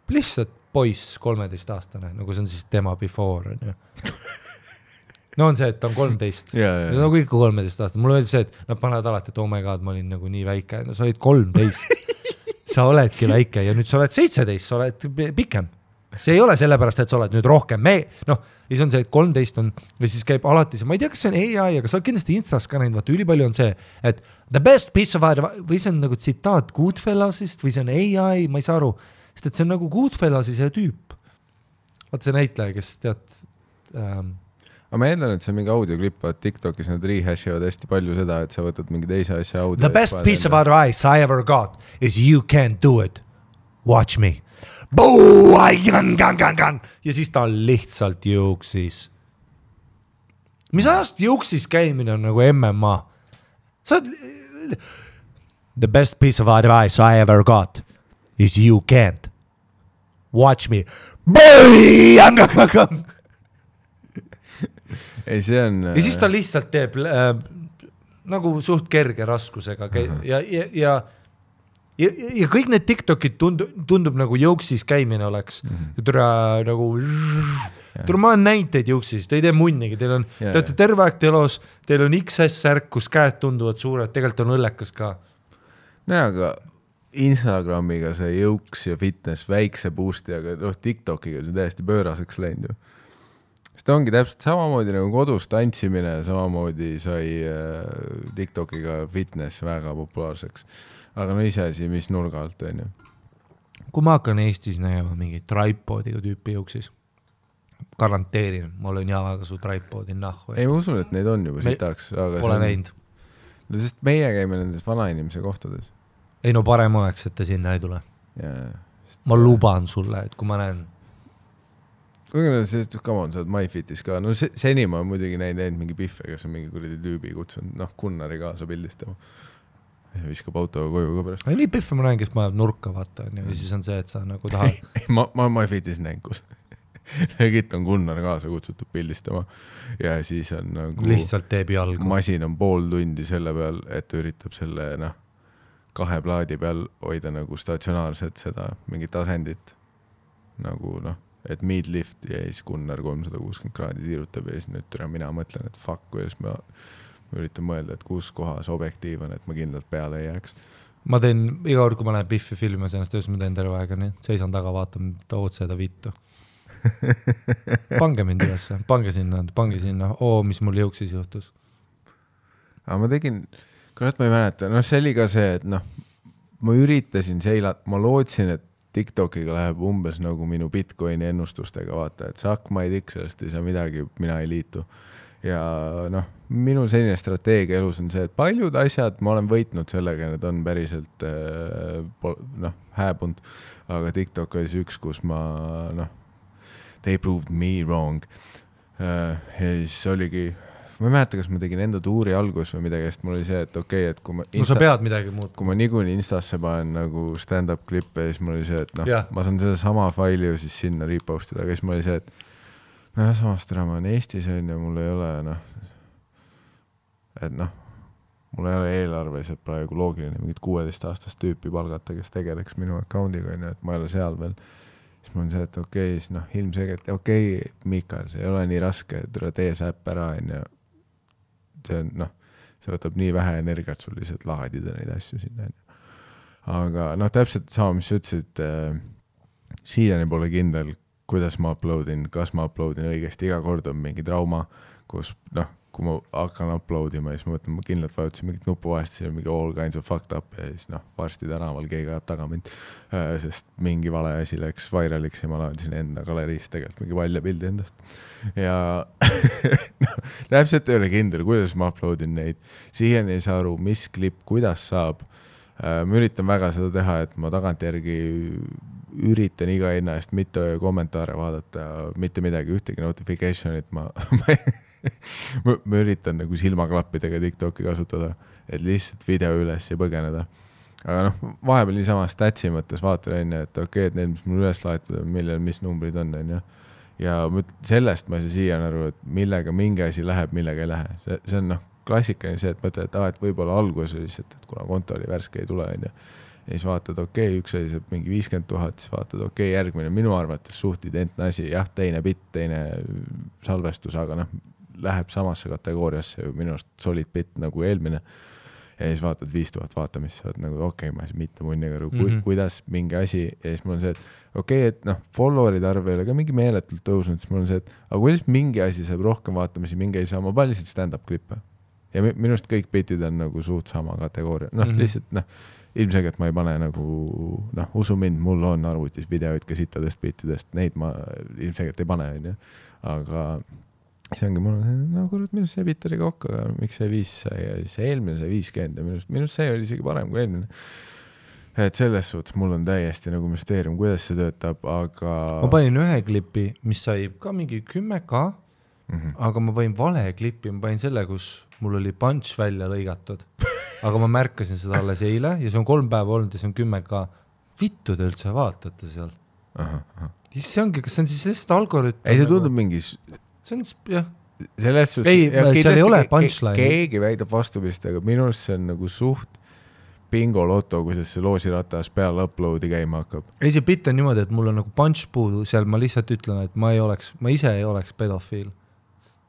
lihtsalt poiss 13-aastane, nagu see on siis tema before, on ju. No on see, et ta on 13. Nagu ikka 13-aastane. Mulle öeldi see, et nad panevad alati, et oh my god, ma olin nagu nii väike. No sa olid 13. Sa oledki väike ja nüüd sa oled 17, sa oled pikem. See ei ole sellepärast, et sa oled nüüd rohkem. Ja siis on see, et 13 on, või siis käib alati see, ma ei tea, kas see on AI, aga sa oled kindlasti Instas ka näinud, vaata, ülipalju on see, et the best piece of advice, või see on nagu tsitaat Goodfellasist, või see on AI, ma ei saa aru, sest et see on nagu Goodfellasi see tüüp. Vaata see näitleja, kes tead... aga ma eeldan, et see on mingi audioklipp, vaat TikTokis nad rehash-ivad hästi palju seda, et sa võtad mingi teise asja audio. The best piece of advice I ever got is you can't do it. Watch me. Ja siis ta lihtsalt jõuksis. Mis ajast jõuksis käimine on nagu MMA? The best piece of advice I ever got is you can't. Watch me. Ei, see on... Ja siis ta lihtsalt teeb nagu suht kerge raskusega ja kõik need TikTokid tundub nagu jõuksis käimine oleks. Nagu... ma olen näinud teid jõuksis, te ei tee munnigi, te olete terve aeg telos, teil on XS-särk, kus käed tunduvad suured, tegelikult on õllekas ka. No aga Instagramiga see jõuks ja fitness väikse boosti, aga TikTokiga see täiesti pööraseks läinud ju. Seda ongi täpselt samamoodi nagu kodus tantsimine, samamoodi sai TikTokiga fitness väga populaarseks. Aga no iseasi, mis nurga alt on ju. Kui ma hakkan Eestis nägema mingi tripodiga tüüpi jõuksis, garanteerin, ma olen jalaga su tripodi nahku. Ei, ma usun, et neid on juba sitaks. Pole näinud. No sest meie käime nendes vanainimese kohtades. Ei no parem oleks, et ta sinna ei tule. Ma luban sulle, et kui ma näen come on, sa oled MyFitis ka. No seni ma muidugi näinud mingi pihve, kes on mingi kuradi tüübi kutsunud, Gunnari kaasa pildistama. Ja viskab autoga koju ka pärast. Nii pihve ma näen, kes ma nurka vaata. Ja siis on see, et sa nagu tahad. Ma MyFitis näen, kus Egit on Gunnar kaasa kutsutud pildistama. Ja siis on nagu... Lihtsalt teeb jalgu. Masin on pool tundi selle peal, et üritab selle 2 plaadi peal hoida nagu statsionaarset seda mingit asendit. Nagu et midlift ja siis Gunnar 360 kraadi tiirutab ja siis nüüd mina mõtlen, et fuck, kuidas ma üritan mõelda, et kus kohas objektiiv on, et ma kindlalt peale ei jääks. Ma teen iga kord, kui ma lähen Biffi filmi ennast, töös ma teen terve aega nii, seisan taga, vaatan otseeda vittu. Pange mind üles, pange sinna, mis mul jõuksis juhtus. Aga ma tegin, kurat ma ei mäleta, see oli ka see, et ma üritasin ma lootsin, et TikTokiga läheb umbes nagu minu Bitcoini ennustustega, vaata, et saak ma ei tik sellest ei saa midagi, mina ei liitu. Ja minu selline strateegia elus on see, et paljud asjad ma olen võitnud sellega, need on päriselt hääbunud, aga TikTok oli see üks, kus ma they proved me wrong. Ja siis oligi, ma ei mäleta, kas ma tegin enda tuuri algus või midagi, sest mul oli see, et okei, et kui ma sa pead midagi muud. Kui ma niikuinii Instasse panen nagu stand-up klippe, siis mul oli see, et ma saan selle sama faili ju siis sinna repostida, aga siis mul oli see, et samast ära ma olen Eestis on ja mul ei ole mul ei ole eelarveliselt praegu loogiline mingit 16-aastast tüüpi palgata, kes tegeleks minu accountiga, et ma ei ole seal veel. Siis mul on see, et okei, siis ilmselgelt, Mikael, see ei ole nii raske, et tee see äpp ära ja see on, see võtab nii vähe energiat sul lihtsalt laadida neid asju sinna. Aga täpselt sama, mis sa ütlesid, siiani pole kindel, kuidas ma uploadin, kas ma uploadin õigesti, iga kord on mingi trauma, kus, kui ma hakkan uploadima, siis ma mõtlen, ma kindlalt vajutasin mingit nupu vahest, siis on mingi all kinds of fucked up ja siis varsti tänaval keegi ajab taga mind, sest mingi vale asi läks vairaliks ja ma laadisin enda galeriist tegelikult mingi valja pildi endast. Ja täpselt ei ole kindel, kuidas ma uploadin neid. Siiani ei saa aru, mis klipp, kuidas saab. Ma üritan väga seda teha, et ma tagantjärgi üritan iga hinna eest mitte kommentaare vaadata, mitte midagi, ühtegi notificationit ma üritan nagu silmaklappidega TikToki kasutada, et lihtsalt video üles ja põgeneda. Aga vahepeal niisama statsi mõttes vaatan, et okei, et need, mis mul üles laetud on, mis numbrid on. Ja sellest ma ei saa siiani aru, et millega mingi asi läheb, millega ei lähe. See on klassikaline see, et mõtled, et võib-olla algus lihtsalt, et kuna konto oli värske ei tule. Ja siis vaatad, üks asi saab mingi 50 000, siis vaatad, järgmine minu arvates suht identne asi, jah, teine bitt, teine salvestus, aga läheb samasse kategooriasse ju minu arust solid bitt nagu eelmine. Ja siis vaatad 5000 vaatamist, sa oled nagu ma ei saa mitte munniga aru, kuidas mingi asi, ja siis mul on see, et et followerid arv ei ole ka mingi meeletult tõusnud, siis mul on see, et aga kuidas mingi asi saab rohkem vaatamisi, mingi ei saa, ma panen lihtsalt stand-up klippe. Ja minust kõik bitid on nagu suht sama kategooria, lihtsalt ilmselgelt ma ei pane nagu, usu mind, mul on arvutis videoid ka sittadest bitidest, neid ma ilmselgelt ei pane, aga see ongi mul, no kurat, minust see bitt oli kokku, aga miks see 5 sai ja siis eelmine sai 50 ja minust see oli isegi parem kui eelmine. Et selles suhtes mul on täiesti nagu müsteerium, kuidas see töötab, aga... Ma panin ühe klipi, mis sai ka mingi 10K, aga ma panin vale klipi, ma panin selle, kus mul oli punch välja lõigatud. Aga ma märkasin seda alles eile ja see on 3 päeva olnud ja see on 10K. Vittu te üldse vaatate seal. See ongi, kas see on siis lihtsalt algoritm? Ei, see tundub mingi... See on, jah. Selles suhtes... Ei, seal ei ole punchline. Keegi väidab vastupist, aga minust see on nagu suht bingo loto, kui see loosiratas peale uploadi käima hakkab. Ei, see bitt on niimoodi, et mul on nagu punch puudu, seal ma lihtsalt ütlen, et ma ise ei oleks pedofiil.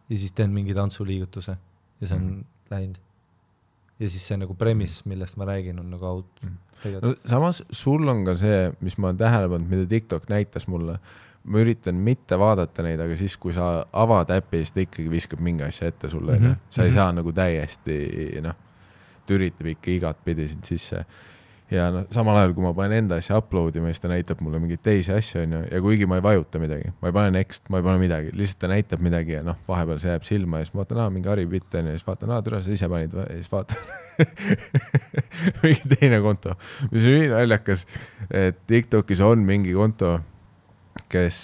Ja siis teen mingi tantsuliigutuse ja see on läinud. Ja siis see nagu premis, millest ma räägin, on nagu out. No, samas sul on ka see, mis ma olen tähele pannud, mida TikTok näitas mulle, ma üritan mitte vaadata neid, aga siis, kui sa avad äppi, siis ta ikkagi viskab mingi asja ette sulle. Sa ei saa nagu täiesti, ta üritab ikka igat pidi sind sisse. Ja samal ajal, kui ma panen enda asja uploadima, siis ta näitab mulle mingeid teisi asju, ja kuigi ma ei vajuta midagi, ma ei pane next, ma ei pane midagi, lihtsalt ta näitab midagi ja vahepeal see jääb silma ja siis ma vaatan, mingi Harri bitt on ja siis vaatan, türa, sa ise panid ja siis vaatan mingi teine konto, mis on nii naljakas, et TikTokis on mingi konto, kes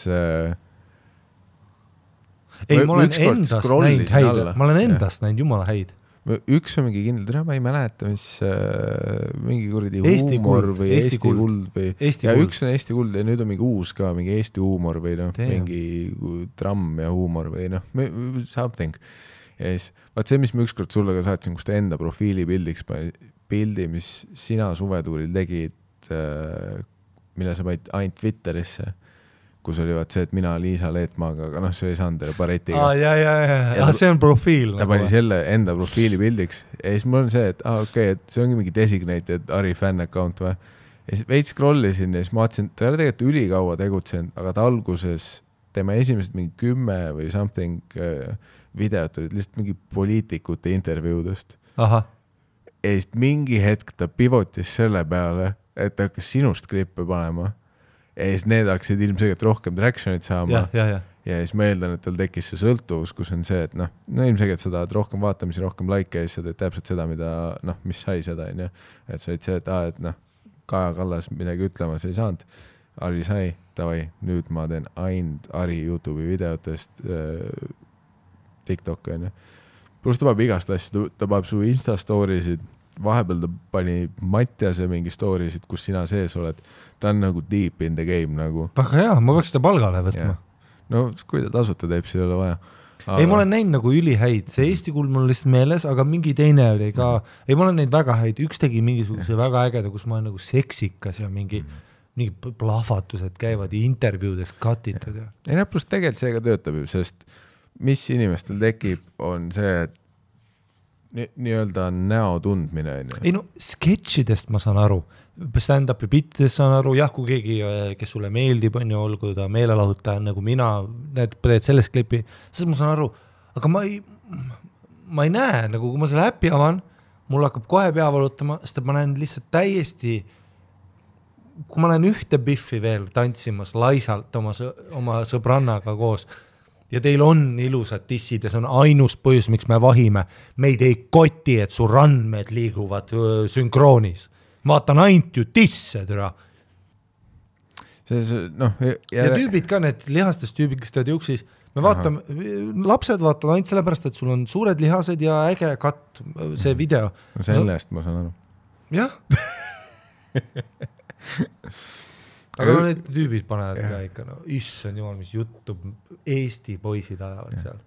ei, ma olen endast näinud häid, ma olen endast näinud jumala häid. Üks on mingi kindel, ma ei mäleta, mis mingi kuradi huumor või Eesti kuld või ja üks on Eesti kuld ja nüüd on mingi uus ka, mingi Eesti huumor või mingi tramm ja huumor või something. Ja siis, vaat see, mis ma ükskord sulle ka saatsin, kus ta enda profiili pildi, mis sina suvetuuril tegid, mille sa panid ainult Twitterisse, kus oli vaat see, et mina Liisa Leetmaaga, aga see ei saanud baretiga. Ja see on profiil. Ta pani selle enda profiili pildiks ja siis mul on see, et okei, et see ongi mingi designated Harri fan account või. Ja siis veits scrollisin ja siis ma vaatasin, ta oli tegelikult ülikaua tegutsenud, aga ta alguses tema esimesed mingi 10 või something videot olid lihtsalt mingi poliitikute intervjuudest. Ja siis mingi hetk ta pivotis selle peale, et ta hakkas sinust klippe panema. Ja siis need hakkasid ilmselgelt rohkem tractionit saama ja siis ma eeldan, et tal tekkis see sõltuvus, kus on see, et ilmselgelt sa tahad rohkem vaatamisi, rohkem like ja siis sa teed täpselt seda, mida, mis sai seda, et sa olid see, et Kaja Kallas midagi ütlemas ei saanud, Harri sai, tavai, nüüd ma teen ainult Harri YouTube'i videotest TikTok, pluss ta paneb igast asja, ta paneb su Insta story'sid, vahepeal ta pani Mattiase mingi story'sid, kus sina sees oled. Ta on nagu deep in the game nagu. Väga hea, ma peaks seda palgale võtma. No kui ta tasuta teeb, siis ei ole vaja. Aga... Ei, ma olen näinud nagu ülihäid. See Eesti kuld mul lihtsalt meeles, aga mingi teine oli ka. Ei, ma olen näinud väga häid. Üks tegi mingisuguse väga ägeda, kus ma olen nagu seksikas ja mingi plahvatused käivad intervjuudest katitud. Ei, pluss tegelikult see ka töötab ju, sest mis inimestel tekib, on see, et nii-öelda näo tundmine. Ei sketšidest ma saan aru, stand-upi bittidest saan aru, jah, kui keegi, kes sulle meeldib, on ju, olgu ta meelelahutaja, nagu mina, need teed sellest klipi, siis ma saan aru, aga ma ei näe, nagu kui ma selle äppi avan, mul hakkab kohe pea valutama, sest ma näen lihtsalt täiesti, kui ma näen ühte biffi veel tantsimas laisalt oma sõbrannaga koos, ja teil on ilusad dissid ja see on ainus põhjus, miks me vahime. Meid ei koti, et su randmed liiguvad sünkroonis. Vaatan ainult ju disse, türa. Ja tüübid ka, need lihastest tüübid, kes tead juksis, me vaatame, lapsed vaatavad ainult sellepärast, et sul on suured lihased ja äge katt, see video. No sellest ma saan aru. Jah. Aga need tüübid panevad ka ikka, issand jumal, mis juttu Eesti poisid ajavad seal.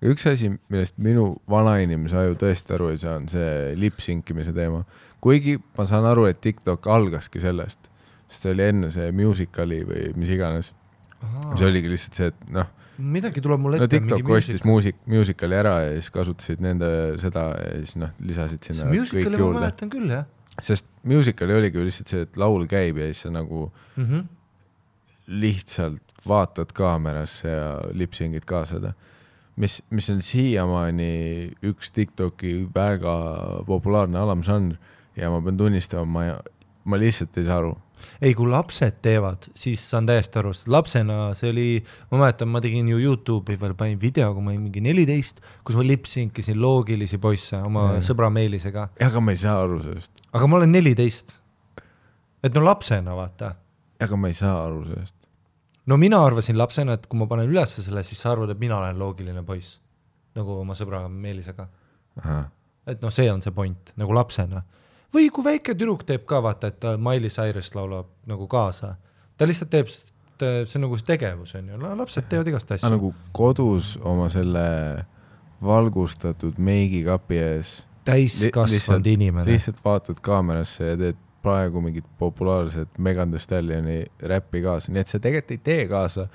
Üks asi, millest minu vanainimise aju tõesti aru ei saa, on see lip-sinkimise teema. Kuigi ma saan aru, et TikTok algaski sellest, sest see oli enne see musicali või mis iganes. See oligi lihtsalt see, et midagi tuleb mul ette. TikTok ostis musicali ära ja siis kasutasid nende seda ja siis lisasid sinna kõik juurde. See musicali ma mäletan küll, jah. Sest musicali oligi lihtsalt see, et laul käib ja siis sa nagu lihtsalt vaatad kaamerasse ja lipsingid ka seda. Mis on siiamaani üks TikToki väga populaarne alamžanr ja ma pean tunnistama, ma lihtsalt ei saa aru. ei, kui lapsed teevad, siis saan täiesti aru, sest lapsena see oli, ma mäletan, ma tegin ju YouTube'i veel, panin video, kui ma olin mingi 14, kus ma lipsinkisin loogilisi poisse oma sõbra Meelisega. Aga ma ei saa aru sellest. Aga ma olen 14. Et no lapsena, vaata. Aga ma ei saa aru sellest. No mina arvasin lapsena, et kui ma panen üles selle, siis sa arvad, et mina olen loogiline poiss. Nagu oma sõbra Meelisega. Aha. Et no see on see point, nagu lapsena. Või kui väike tüdruk teeb ka, vaata, et Miley Cyrus laulab nagu kaasa. Ta lihtsalt teeb, see nagu tegevus on ju. Lapsed teevad igast asja. Nagu kodus oma selle valgustatud meigikapi ees. Täiskasvanud inimene. Lihtsalt vaatad kaamerasse ja teed praegu mingit populaarset Megan Thee Stallioni räppi kaasa. Nii et see tegelikult ei tee kaasa.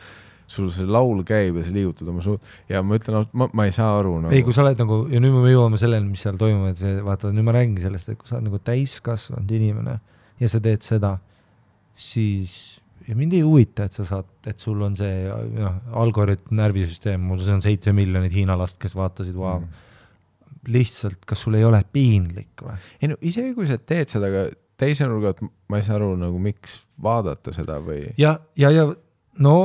Sul see laul käib ja sa liigutad oma suud. Ja ma ütlen, ma ei saa aru. Nagu. Ei, kui sa oled nagu, ja nüüd me jõuame selleni, mis seal toimub, et see, vaata, nüüd ma räägin sellest, et kui sa oled nagu täiskasvanud inimene ja sa teed seda, siis ja mind ei huvita, et sa saad, et sul on see algoritm, närvisüsteem, mul see on 7 miljonit Hiina last, kes vaatasid, lihtsalt, kas sul ei ole piinlik või? Ei no, isegi kui sa teed seda, aga teise nurgat ma ei saa aru, nagu miks vaadata seda või? Ja no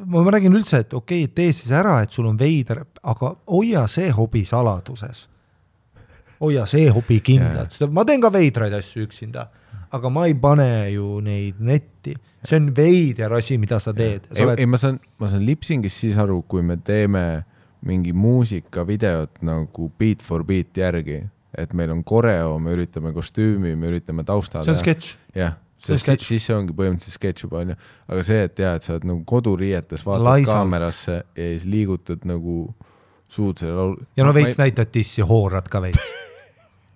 ma räägin üldse, et okei, tee siis ära, et sul on veider, aga hoia see hobi saladuses. Hoia see hobi kindlalt. Ma teen ka veidraid asju üksinda, aga ma ei pane ju neid netti. See on veider asi, mida sa teed. Ei, ma saan lipsingis siis aru, kui me teeme mingi muusikavideot nagu beat for beat järgi, et meil on koreo, me üritame kostüümi, me üritame taustada. See on sketš. Jah. Siis see ongi põhimõtteliselt sketš juba, on ju. Aga see, et et sa oled nagu koduriietes, vaatad kaamerasse ja siis liigutad nagu suud selle laul. Ja no veits näitad tissi, hoorad ka veits.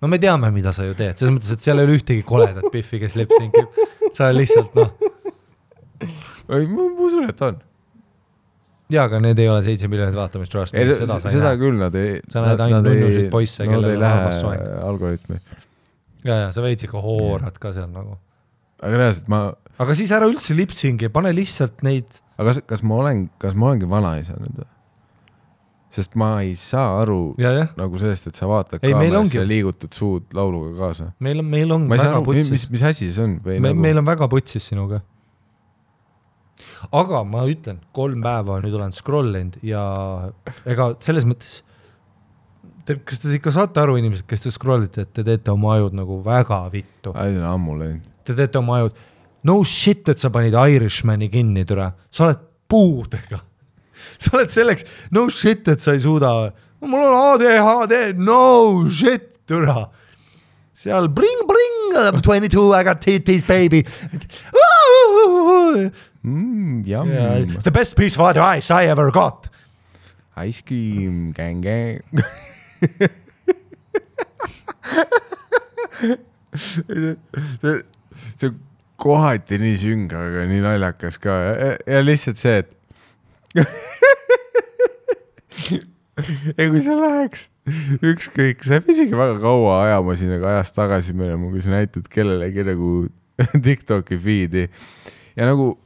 No me teame, mida sa ju teed. Selles mõttes, et seal ei ole ühtegi koledat Biffi, kes lipsinkib. Sa lihtsalt, Ma usun, et on. Jaa, aga need ei ole 7 miljonit vaatamist rast. Seda küll nad ei... Sa näed ainult nunnusid poisse, kellel on armas soeng. Algoritmi. Ja, sa veits ikka hoorad ka seal nagu. Aga reaalselt Aga siis ära üldse lipsingi, pane lihtsalt neid... Aga kas ma olengi vanaisa nüüd? Sest ma ei saa aru nagu sellest, et sa vaatad kaamerasse ja liigutad suud lauluga kaasa. Meil on väga putsis. Mis asi see on? Meil on väga putsis sinuga. Aga ma ütlen, 3 päeva nüüd olen scrollinud ja ega selles mõttes... Kas te ikka saate aru inimesed, kes te scrollite, et te teete oma ajud nagu väga vittu? Aiden ammu läinud. Te teete oma ajud. No shit, et sa panid Irishmani kinni, türa. Sa oled puudega. Sa oled selleks, no shit, et sa ei suuda. Mul on ADHD, no shit, türa. Seal bring, 22, I got titties, baby. Yum. The best piece of advice I ever got. Ice cream, gang. See kohati nii sünga, aga nii naljakas ka ja lihtsalt see, et kui sa läheks ükskõik, sa ei isegi väga kaua ajama siin, aga ajast tagasi minema, kui sa näitad kellelegi nagu TikToki feedi ja nagu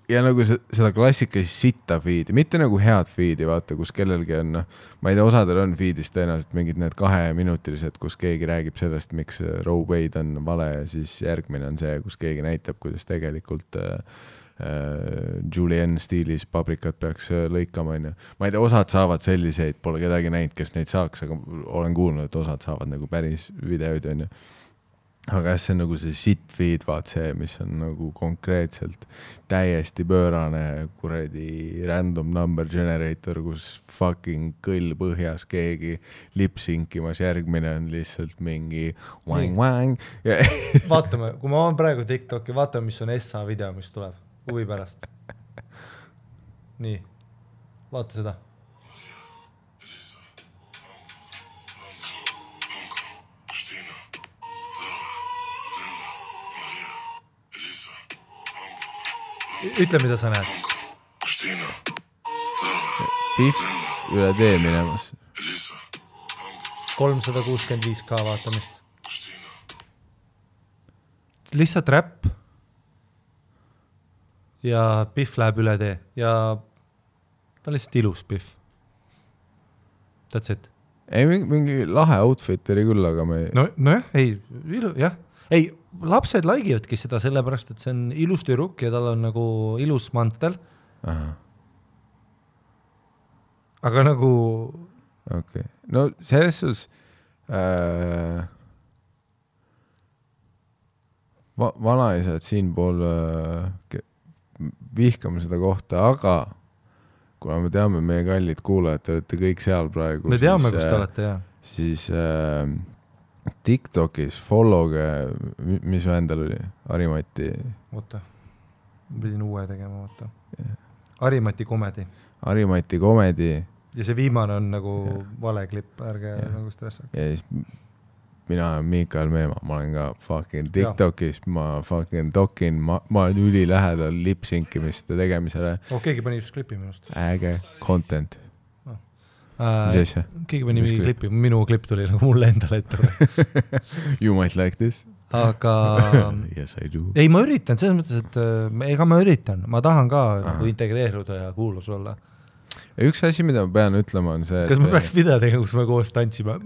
seda klassikalist sitta feedi, mitte nagu head feedi, vaata, kus kellelgi on, ma ei tea, osadel on feedis tõenäoliselt mingid need 2-minutilised, kus keegi räägib sellest, miks Roe Wade on vale ja siis järgmine on see, kus keegi näitab, kuidas tegelikult Julienne stiilis paprikat peaks lõikama, on ju. Ma ei tea, osad saavad selliseid, pole kedagi näinud, kes neid saaks, aga olen kuulnud, et osad saavad nagu päris videoid, on ju. Aga see on nagu see shit feed, vaat see, mis on nagu konkreetselt täiesti pöörane kuradi random number generator, kus fucking kõll põhjas keegi lipsinkimas, järgmine on lihtsalt mingi wang. Vaatame, kui ma olen praegu TikToki, vaatame, mis on SA video, mis tuleb huvi pärast. Nii, vaata seda. Ütle, mida sa näed. Biff üle tee minemas. 365k vaatamist. Lihtsalt räpp. Ja Biff läheb üle tee. Ja ta on lihtsalt ilus Biff. That's it. Ei, mingi lahe outfit oli küll, aga me... No jah, ei, jah. Ei, lapsed laigivadki seda sellepärast, et see on ilus tüdruk ja tal on nagu ilus mantel. Aga nagu okay. No selles sus vanaisad siinpool vihkame seda kohta, aga kuna me teame meie kallid kuulajad, te olete kõik seal praegu. Me teame, kus te olete, jah. Siis TikTokis followge, mis endal oli? Harimati. Oota, pidin uue tegema, oota. Harimati komedi. Harimati komedi. Ja see viimane on nagu vale klipp, ärge nagu stressa. Ja siis mina olen Mikael Meemaa, ma olen ka fucking TikTokis, ma fucking tokin, ma olen üli lähedal lip-synkimiste tegemisele. Keegi pani just klipi minust. Äge content. Mis asja? Keegi pani mingi klipi, minu klipp tuli nagu mulle endale ette. You might like this. Aga yes, I do. Ei, ma üritan, selles mõttes, et ega ma üritan, ma tahan ka nagu integreeruda ja kuulus olla. Ja üks asi, mida ma pean ütlema, on see, kas me peaks video tegema, kus me koos tantsime?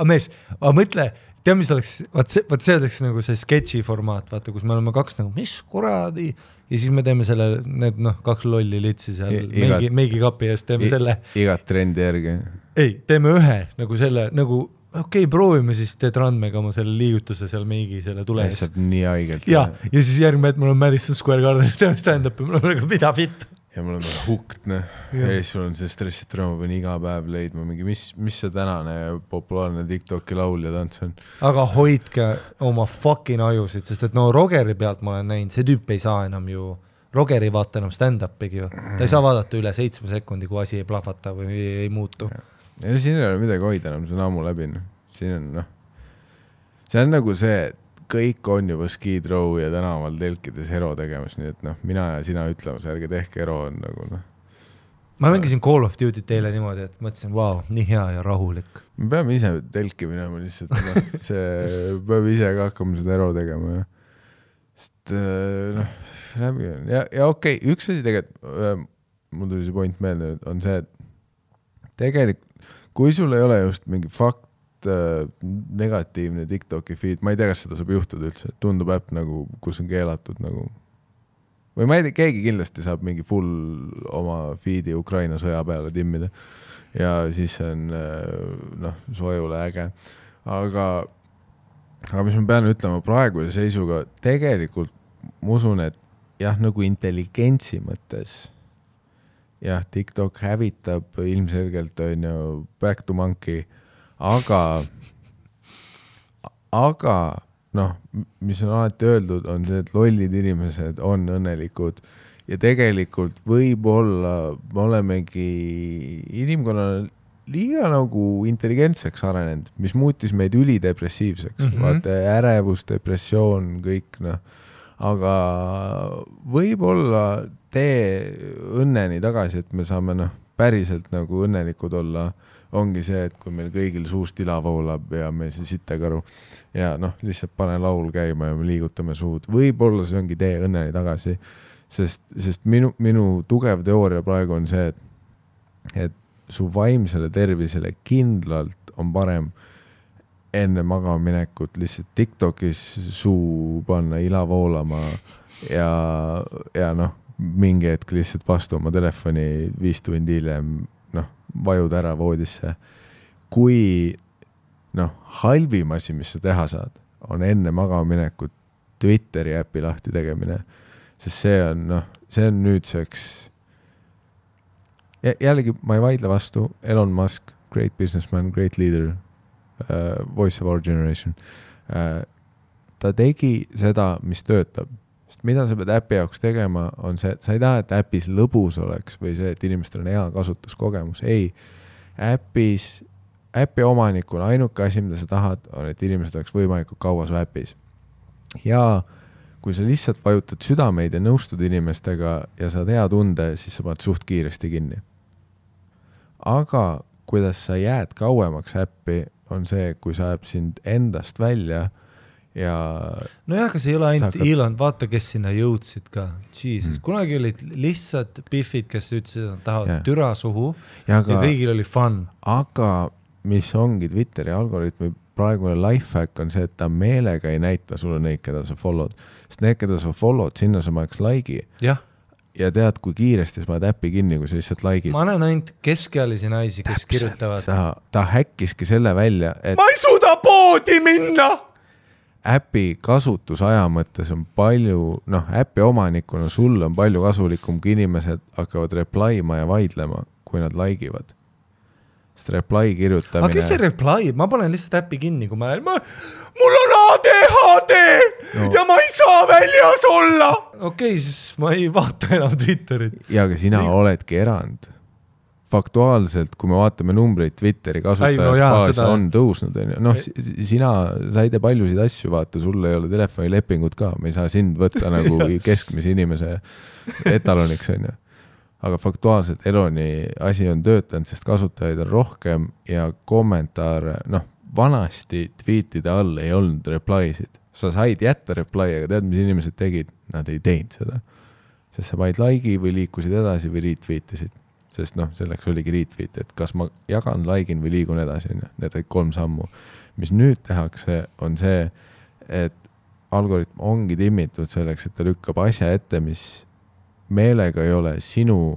Mees, mõtle, tea, mis oleks, vaat see oleks nagu see sketši formaat, vaata, kus me oleme kaks nagu, mis kuradi, ja siis me teeme selle, need kaks lolli litsi seal meigi kapi eest, teeme selle. Igat trendi järgi. Ei, teeme ühe, nagu selle, nagu okei, proovime siis teed randmega oma selle liigutuse seal meigi selle tule ees. Saab nii haigelt. Ja siis järgmine, et mul on Madison Square Garden, teeme stand-upi, mul on nagu mida fit. Ja mul on hukt, ja siis sul on see stressit rõõma, pean iga päev leidma mingi, mis see tänane populaarne TikToki laul ja tants on. Aga hoidke oma fucking ajusid, sest et Rogeri pealt ma olen näinud, see tüüp ei saa enam ju, Rogeri vaata enam stand-upigi ju. Ta ei saa vaadata üle 7 sekundi, kui asi ei plahvata või ei muutu. Ja siin ei ole midagi hoida enam, see on ammu läbi. Siin on, see on nagu see, kõik on juba skid row ja tänaval telkides hero tegemas, nii et mina ja sina ütlemas, ärge tehke hero on nagu Ma mängisin Call of Duty teile niimoodi, et mõtlesin, wow, nii hea ja rahulik. Me peame ise telki minema lihtsalt, see peame ise ka hakkama seda hero tegema. Sest läbi on. Ja okei, üks asi tegelikult, mul tuli see point meelde, on see, et tegelikult, kui sul ei ole just mingi fakt, negatiivne TikToki feed, ma ei tea, kas seda saab juhtuda üldse, tundub äpp nagu, kus on keelatud nagu, või ma ei tea, keegi kindlasti saab mingi full oma feedi Ukraina sõja peale timmida ja siis on sojule äge, aga mis ma pean ütlema praeguse seisuga, tegelikult ma usun, et jah, nagu intelligentsi mõttes jah, TikTok hävitab ilmselgelt on ju back to monkey, aga mis on alati öeldud, on see, et lollid inimesed on õnnelikud ja tegelikult võib-olla me olemegi inimkonnal liiga nagu intelligentseks arenenud, mis muutis meid ülidepressiivseks, vaata ärevus, depressioon, kõik aga võib-olla tee õnneni tagasi, et me saame päriselt nagu õnnelikud olla, ongi see, et kui meil kõigil suust ila voolab ja me see sittekaru ja lihtsalt pane laul käima ja me liigutame suud. Võib-olla see ongi tee õnneni tagasi, sest minu tugev teooria praegu on see, et su vaimsele tervisele kindlalt on parem enne magamaminekut lihtsalt TikTokis suu panna ila voolama ja mingi hetk lihtsalt vastu oma telefoni 5 tundi hiljem vajud ära voodisse. Kui halvim asi, mis sa teha saad, on enne magamaminekut Twitteri äppi lahti tegemine, sest see on nüüdseks jällegi ma ei vaidle vastu, Elon Musk, great businessman, great leader, voice of our generation, ta tegi seda, mis töötab. Sest mida sa pead äpi jaoks tegema, on see, et sa ei taha, et äpis lõbus oleks või see, et inimestel on hea kasutuskogemus. Ei, äpi omanikuna ainuke asi, mida sa tahad, on, et inimesed oleks võimalikult kaua su äpis. Ja kui sa lihtsalt vajutad südameid ja nõustud inimestega ja saad hea tunde, siis sa paned suht kiiresti kinni. Aga kuidas sa jääd kauemaks äppi, on see, kui sa äpp sind endast välja ja nojah, kas ei ole ainult Elon, vaata, kes sinna jõudsid ka. Jesus, kunagi olid lihtsalt biffid, kes ütlesid, et tahavad türa suhu ja kõigil oli fun. Aga mis ongi Twitteri algoritmi praegune lifehack on see, et ta meelega ei näita sulle neid, keda sa follow'd. Sest need, keda sa follow'd, sinna sa paneks like'i. jah. Ja tead, kui kiiresti sa paned äppi kinni, kui sa lihtsalt like'id. Ma näen ainult keskealisi naisi, kes kirjutavad. Ta häkkiski selle välja, et ma ei suuda poodi minna! äpi kasutusaja mõttes on palju, äpi omanikuna sul on palju kasulikum, kui inimesed hakkavad reply'ma ja vaidlema, kui nad like'ivad. Sest reply kirjutamine... Aga kes see reply? Ma panen lihtsalt äppi kinni, kui mul on ADHD ja ma ei saa väljas olla! Okei, siis ma ei vaata enam Twitterit. Ja aga sina oledki erand. Faktuaalselt, kui me vaatame numbreid Twitteri kasutajaspaas on tõusnud. Sa ei tee paljusid asju, vaata, sul ei ole telefonilepingut ka, me ei saa sind võtta nagu keskmise inimese etaloniks, on ju. Aga faktuaalselt Eloni asi on töötanud, sest kasutajaid on rohkem ja kommentaare, vanasti tweetide all ei olnud reply'sid. Sa said jätta reply, aga tead, mis inimesed tegid? Nad ei teinud seda. Sest sa vaid like'i või liikusid edasi või retweetisid. Sest selleks oligi retweet, et kas ma jagan, like'in või liigun edasi. Need olid 3 sammu. Mis nüüd tehakse, on see, et algoritm ongi timmitud selleks, et ta lükkab asja ette, mis meelega ei ole sinu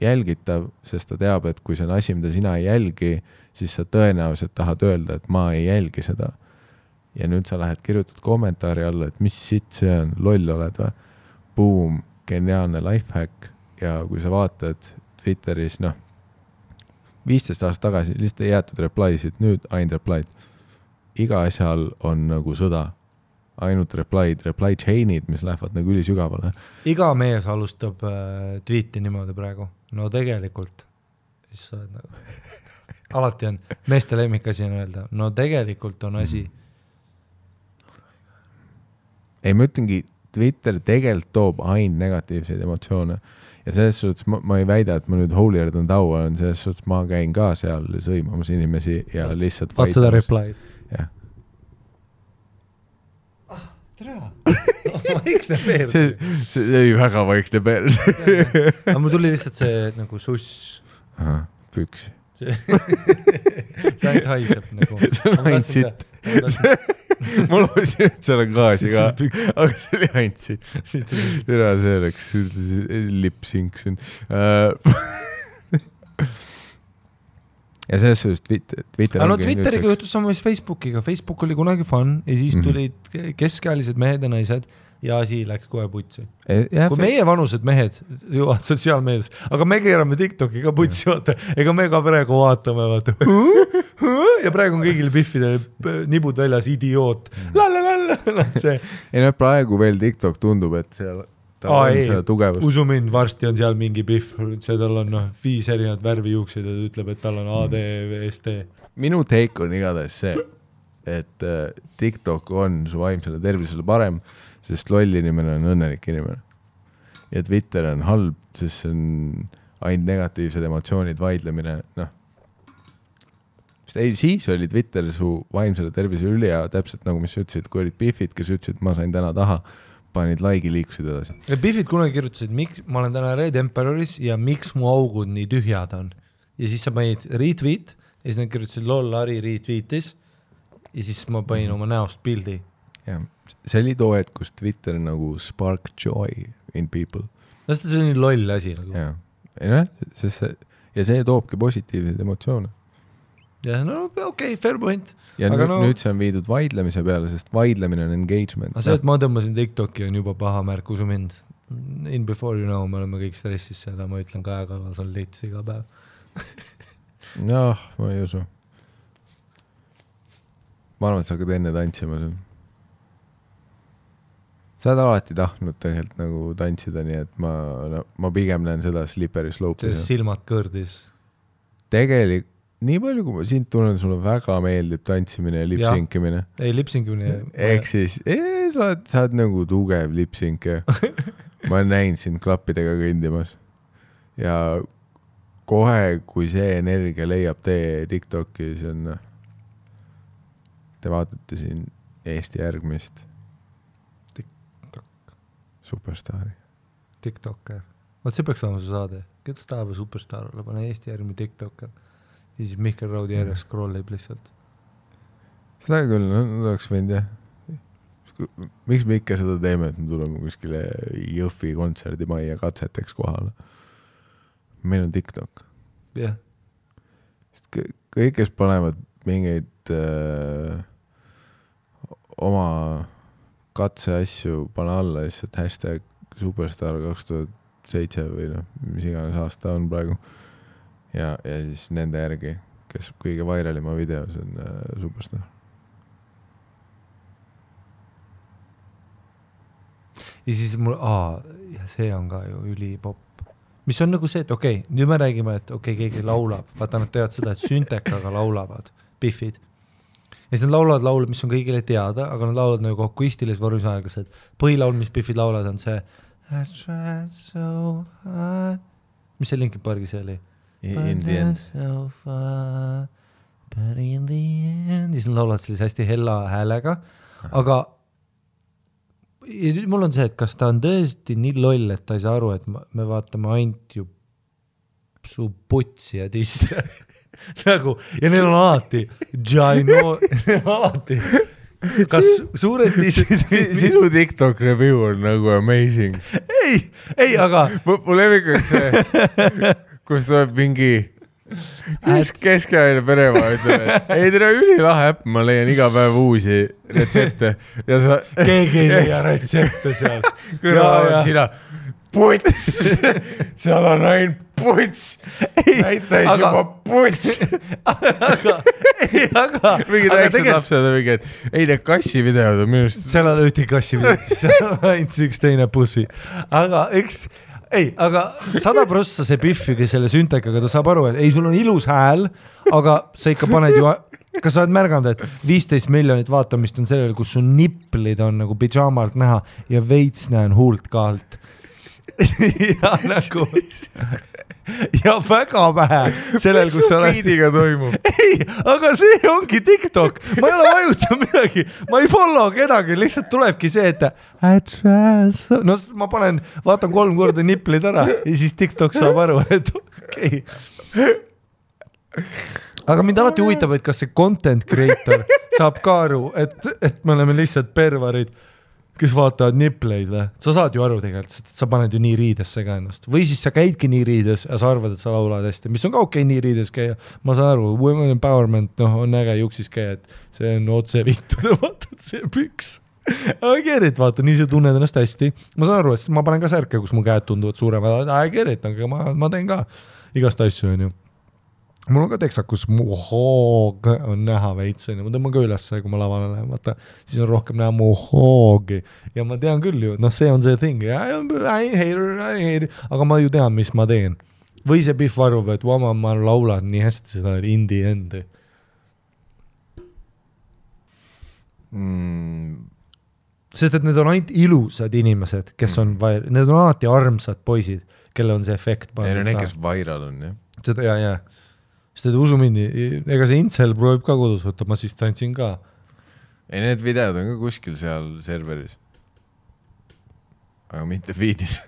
jälgitav, sest ta teab, et kui see on asi, mida sina ei jälgi, siis sa tõenäoliselt tahad öelda, et ma ei jälgi seda. Ja nüüd sa lähed kirjutad kommentaari alla, et mis sitt see on, loll oled või? Boom, geniaalne lifehack. Ja kui sa vaatad Twitteris, 15 aastat tagasi lihtsalt ei jäetud reply'sid, nüüd ainult reply'd. Iga asjal on nagu sõda. Ainult reply chain'id, mis lähevad nagu ülisügavale. Iga mees alustab tweeti niimoodi praegu. No tegelikult. Siis sa oled nagu... Alati on. Meeste lemmikasi on öelda. No tegelikult on asi. Ei, ma ütlengi, Twitter tegelikult toob ainult negatiivseid emotsioone. Ja selles suhtes ma ei väida, et ma nüüd holier than thou olen, selles suhtes ma käin ka seal sõimamas inimesi ja lihtsalt vaat seda reply'd. Jah. Vaikne peers. See oli väga vaikne peers. Aga mul tuli lihtsalt see nagu suss. Aha, püks. See ainult haiseb nagu. See on ainult sitt. Ma loosin, et seal on gaasi ka, aga see oli ainult sitt. Tere, see oleks lip-sync siin. Ja selles suhtes Twitter ongi... Twitteriga juhtus sama mis Facebookiga. Facebook oli kunagi fun ja siis tulid keskealised mehed ja naised ja asi läks kohe putsi. Kui meie vanused mehed jõuavad sotsiaalmeedias, aga me keerame TikToki ka putsi, vaata. Ega me ka praegu vaatame, vaata. Ja praegu on kõigil biffide nibud väljas, idioot. Ei, praegu veel TikTok tundub, et seal on seda tugevust. Usu mind, varsti on seal mingi biff, tal on 5 erinevad värvijuuksid ja ta ütleb, et tal on ADVST. Minu take on igatahes see, et TikTok on su vaimsele tervisele parem, sest loll inimene on õnnelik inimene. Ja Twitter on halb, sest see on ainult negatiivsed emotsioonid, vaidlemine, Siis oli Twitter su vaimsele tervisele üli ja täpselt nagu mis ütlesid, kui olid biffid, kes ütlesid, ma sain täna taha, panid like'i, liikusid edasi. Ja biffid kunagi kirjutasid, ma olen täna Red Emperoris ja miks mu augud nii tühjad on. Ja siis sa panid retweet ja siis nad kirjutasid lol, Ari retweetis ja siis ma panin oma näost pildi. Ja, see oli too, et kus Twitter nagu spark joy in people. No see on nii loll asi nagu. Ja, ja see toobki positiivseid emotsioone. Ja no okei, fair point. Ja aga nüüd see on viidud vaidlemise peale, sest vaidlemine on engagement. Aga see, et ma tõmbasin TikToki on juba paha märk, usu mind. In before you know, me oleme kõik stressis seda, ma ütlen Kaja Kallas on lits iga päev. Ma ei usu. Ma arvan, et sa hakkad enne tantsima seal. Sa oled alati tahtnud tegelikult nagu tantsida, nii et ma pigem näen seda slippery slope'i. See silmad kõrdis. Tegelikult nii palju, kui ma sind tunnen, sulle väga meeldib tantsimine ja lipsinkimine. Ei, lipsinkimine. Ehk siis, sa oled nagu tugev lipsinke. Ma näin sind klappidega kõndimas. Ja kohe, kui see energia leiab tee TikToki, siis on... Te vaatate siin Eesti järgmist Superstaari. TikToker. Vaat see peaks olema su saade. Kes tahab superstaar olla? Pane Eesti järgmi TikToker. ja siis Mihkel Raudi järjest scrollib lihtsalt. Seda küll, no oleks võinud jah. Miks me ikka seda teeme, et me tuleme kuskile Jõhvi kontserdimajja katseteks kohale? Meil on TikTok. Jah. Sest kõik, kes panevad mingeid oma katseasju, pane alla lihtsalt hashtag Superstar 2007 või mis iganes aasta on praegu. Ja siis nende järgi, kes kõige vairalima videos on Superstar. Ja siis mul, ja see on ka ju ülipopp. Mis on nagu see, et okei, nüüd me räägime, et keegi laulab. Vaata, nad teavad seda, et süntekaga laulavad, Biffid. Ja siis nad laulavad laule, mis on kõigile teada, aga nad laulavad nagu akustilis vormis aeglaselt. Põhilaul, mis Biffid laulavad, on see I tried so hard. Mis see Linkin Parki see oli? In the end. So far, but in the end. Ja siis nad laulavad sellise hästi hella häälega, aga mul on see, et kas ta on tõesti nii loll, et ta ei saa aru, et me vaatame ainult ju su putsi ja tisse. Nagu, ja neil on alati alati. Kas suured tissid? Sinu TikTok review on nagu amazing. Ei, aga mul levikuks see, kus tuleb mingi Keskajaline peremaa ütleb, et ei tere ülilahe äpp, ma leian iga päev uusi retsepte. Ja sa... Keegi ei leia retsepte seal. Kõrval on sina, puts, seal on ainult puts, näitais juba puts. Aga mingid väiksed lapsed on mingi, et ei need kassi videod on minust. Seal on ühti kassi videod, seal on ainult üks teine pussi. Aga eks... Ei, aga 100% see Biffi, kes selle süntekaga, ta saab aru, et ei, sul on ilus hääl, aga sa ikka paned ju, kas sa oled märganud, et 15 miljonit vaatamist on sellel, kus su niplid on nagu pidžaamalt näha ja veits näen huult ka alt. Ja nagu ja väga vähe sellel, kus sa oled. Feediga toimub? Ei, aga see ongi TikTok. Ma ei ole vajuta midagi. Ma ei follow kedagi, lihtsalt tulebki see, et no ma vaatan 3 korda niplid ära ja siis TikTok saab aru, et okei. Aga mind alati huvitab, et kas see content creator saab ka aru, et me oleme lihtsalt pervarid, kes vaatavad nipleid või? Sa saad ju aru tegelikult, sa paned ju nii riidesse ka ennast. Või siis sa käidki nii riides ja sa arvad, et sa laulad hästi. Mis on ka okei nii riides käia. Ma saan aru, women empowerment on äge juksis käia, et see on otse vittuda, vaatad see püks. I get it, vaata, nii sa tunned ennast hästi. Ma saan aru, et ma panen ka särke, kus mu käed tunduvad suuremad. I get it, aga ma teen ka igast asju, on ju. Mul on ka teksakus mu hoog on näha veits, ma tõmban ka üles, kui ma lavale lähen, vaata, siis on rohkem näha mu hoogi ja ma tean küll ju, see on see thing, I hate it, aga ma ju tean, mis ma teen. Või see Biff arvab, et ma laulan nii hästi seda indie endi. Sest et need on ainult ilusad inimesed, kes on need on alati armsad poisid, kelle on see efekt. Ei, no need, kes viral on, jah. Seda, ja. Sest et usu mindi, ega see Incel proovib ka kodus võtta, ma siis tantsin ka. Ei, need videod on ka kuskil seal serveris. Aga mitte feedis.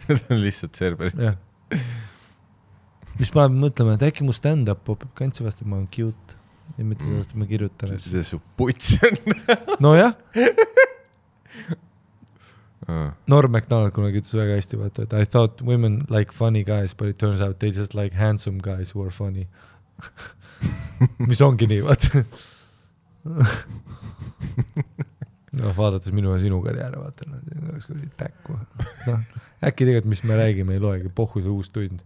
Need on lihtsalt serveris. Ja. Mis paneb mõtlema, et äkki mu stand-up popib kantsi vast, et ma olen cute. Ja mitte sellest, et ma kirjutan. See su puts on. No jah. Norm MacDonald kunagi ütles väga hästi, vaata, et I thought women like funny guys, but it turns out they just like handsome guys who are funny. Mis ongi nii, vaata. No, vaadates minu ja sinu karjääre, vaata, oleks kui täkku. No, äkki tegelikult, mis me räägime, ei loegi, pohhu see uus tund.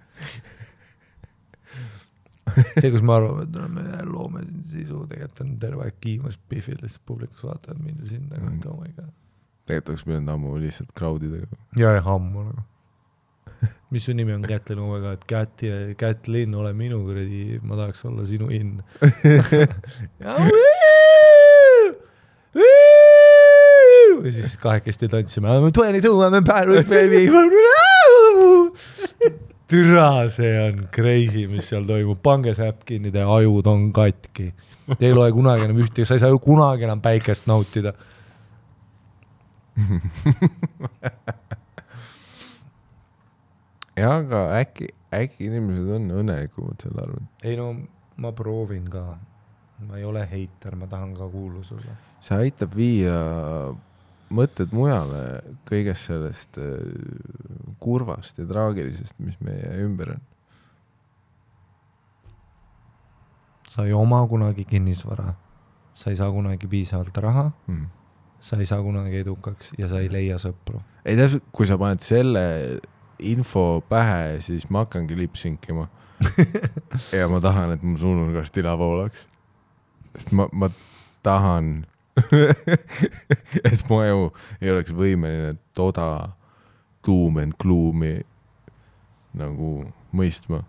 See, kus ma arvan, et me loome sisu, tegelikult on terve aeg kiimas Biffil, lihtsalt publikus vaatavad mind ja sinna, et oh my god. Tegelikult oleks pidanud ammu lihtsalt crowdidega. Ja ammu nagu. Mis su nimi on Kätlin omega, et Kätlin, ole minu kuradi, ma tahaks olla sinu inn. Ja siis kahekesti tantsime. I'm 22, I'm embarrassed, baby. Türa, see on crazy, mis seal toimub. Pange see äpp kinni, te ajud on katki. Te ei loe kunagi enam ühti, sa ei saa ju kunagi enam päikest nautida. ja aga äkki inimesed on õnnelikumad selle arvel. ei no ma proovin ka, ma ei ole heiter, ma tahan ka kuulus olla. See aitab viia mõtted mujale kõigest sellest kurvast ja traagilisest, mis meie ümber on. Sa ei oma kunagi kinnisvara, sa ei saa kunagi piisavalt raha, sa ei saa kunagi edukaks ja sa ei leia sõpru. Ei täpselt, kui sa paned selle info pähe, siis ma hakkangi lipsinkima ja ma tahan, et mu suunurgast tila voolaks. Sest ma tahan et mu aju ei oleks võimeline toda doom and gloomi nagu mõistma.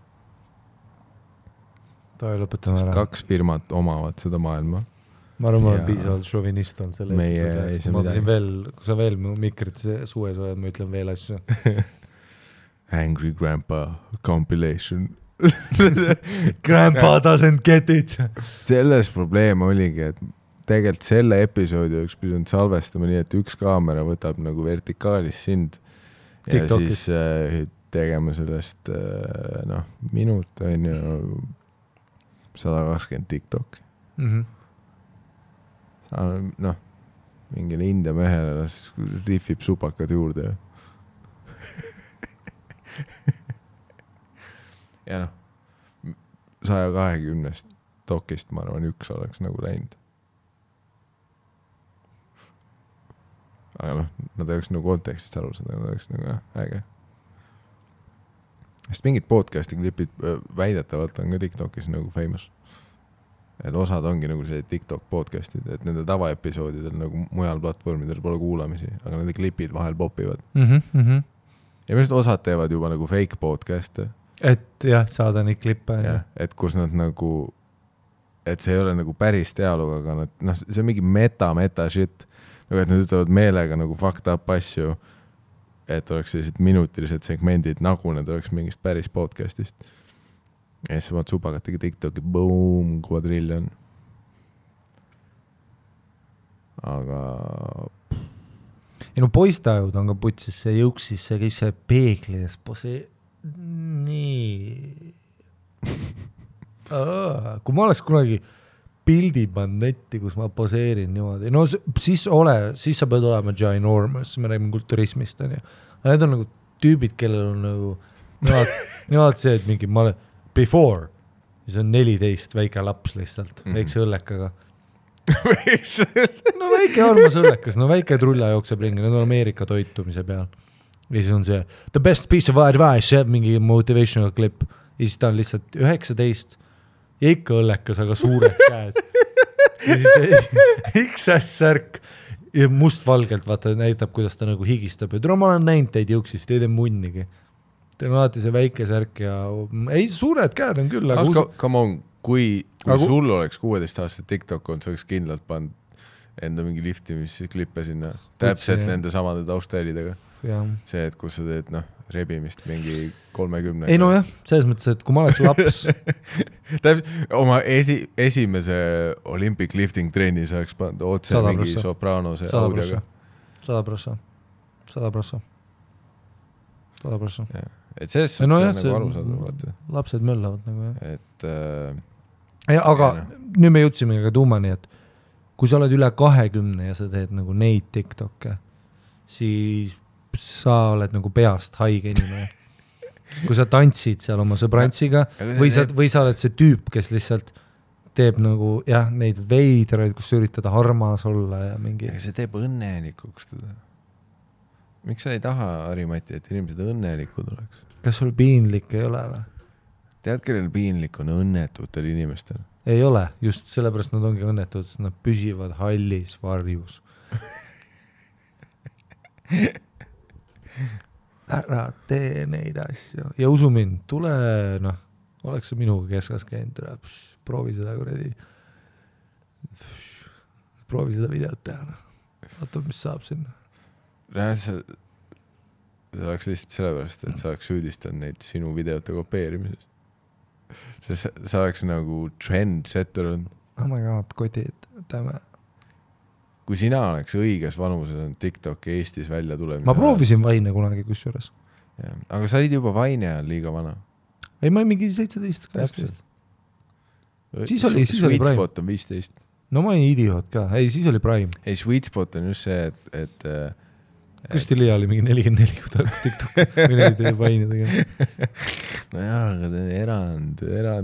Sest 2 firmat omavad seda maailma. Ma arvan, ma olen piisavalt šovinist on selle episoodi. Ma mõtlesin veel, kui sa veel mu mikrit sues oled, ma ütlen veel asju. Angry Grandpa compilation. Grandpa doesn't get it. Selles probleem oligi, et tegelikult selle episoodi oleks pidanud salvestama nii, et üks kaamera võtab nagu vertikaalis sind ja TikTokis. Siis tegema sellest minut on ju 120 TikTok. Mingile India mehele rifib supakad juurde. Ja 120 dokist ma arvan, üks oleks nagu läinud. Aga nad oleks nagu kontekstist aru saada, nad oleks nagu äge. Sest mingid podcasti klipid väidetavalt on ka TikTokis nagu famous. Et osad ongi nagu see TikTok podcastid, et nende tavaepisoodidel nagu mujal platvormidel pole kuulamisi, aga nende klipid vahel popivad. Ja minu osad teevad juba nagu fake podcast'e. Et jah, saada neid klippe. Et kus nad nagu, et see ei ole nagu päris dialoog, aga see on mingi meta shit. Nagu et nad ütlevad meelega nagu fucked up asju, et oleks sellised minutilised segmendid, nagu need oleks mingist päris podcastist. Ja siis vaat supakatega TikToki, boom, kvadriljon. Aga... Ja poistajud on ka putsis, see jõuksis, see kõik see peeglis, see nii... Kui ma oleks kunagi pildi pannud netti, kus ma poseerin niimoodi, no siis sa pead olema ginormous, me räägime kulturismist, on ju. Aga need on nagu tüübid, kellel on nagu, nemad see, et mingi, ma olen before, siis on 14 väike laps lihtsalt, väikse õllekaga. No väike armas õllekas, no väike trulla jookseb ringi, need on Ameerika toitumise peal. Ja siis on see, the best piece of advice, mingi motivational clip. Ja siis ta on lihtsalt 19 ja ikka õllekas, aga suured käed. Ja siis XS-särk ja mustvalgelt vaata näitab, kuidas ta nagu higistab. Ja ma olen näinud teid jõuksist, teid ei munnigi. Teil on alati see väike särk ja ei, suured käed on küll. Come on, kui sul oleks 16 aastat TikTok on, sa oleks kindlalt pannud enda mingi liftimisslippe sinna. Täpselt nende samade taustälidega. See, et kus sa teed rebimist mingi 30. Ei no jah, selles mõttes, et kui ma oleks laps... oma esimese Olympic lifting trenni sa oleks pannud otse mingi sopranose audioga. 100%. Et selles on nagu arusaadav. Lapsed möllavad nagu jah. Et... aga nüüd me jõudsime ka tuumani, et kui sa oled üle 20 ja sa teed nagu neid TikTokke, siis sa oled nagu peast haige inimene. Kui sa tantsid seal oma sõbrantsiga või sa oled see tüüp, kes lihtsalt teeb nagu neid veidraid, kus sa üritada armas olla ja mingi... Aga see teeb õnnelikuks teda. Miks sa ei taha, Harimati, et inimesed õnnelikud oleks? Kas sul piinlik ei ole või? Tead, kellel piinlik on õnnetutel inimestel? Ei ole, just sellepärast nad ongi õnnetud, sest nad püsivad hallis varjus. Ära tee neid asju. Ja usu mind, tule, oleks see minuga keskas käinud, proovi seda kuradi. Proovi seda videot teha. Vaata, mis saab sinna. See oleks lihtsalt sellepärast, et sa oleks süüdistanud neid sinu videote kopeerimises. Sa oleks nagu trendsetter on. Oh my god, kodid, täme. Kui sina oleks õiges vanuses on TikTok Eestis välja tulemise. Ma proovisin Vaine kunagi kusjuures. aga sa olid juba Vaine ajal liiga vana. Ei, ma olin mingi 17-18. Siis oli Sweet Prime. Spot on 15. No ma olin idioot ka. Ei, siis oli Prime. Ei, Sweet Spot on just see, et Kristi Liia oli mingi 44, kui ta hakkas TikTok mineid Vaine tegema. no jah, aga erand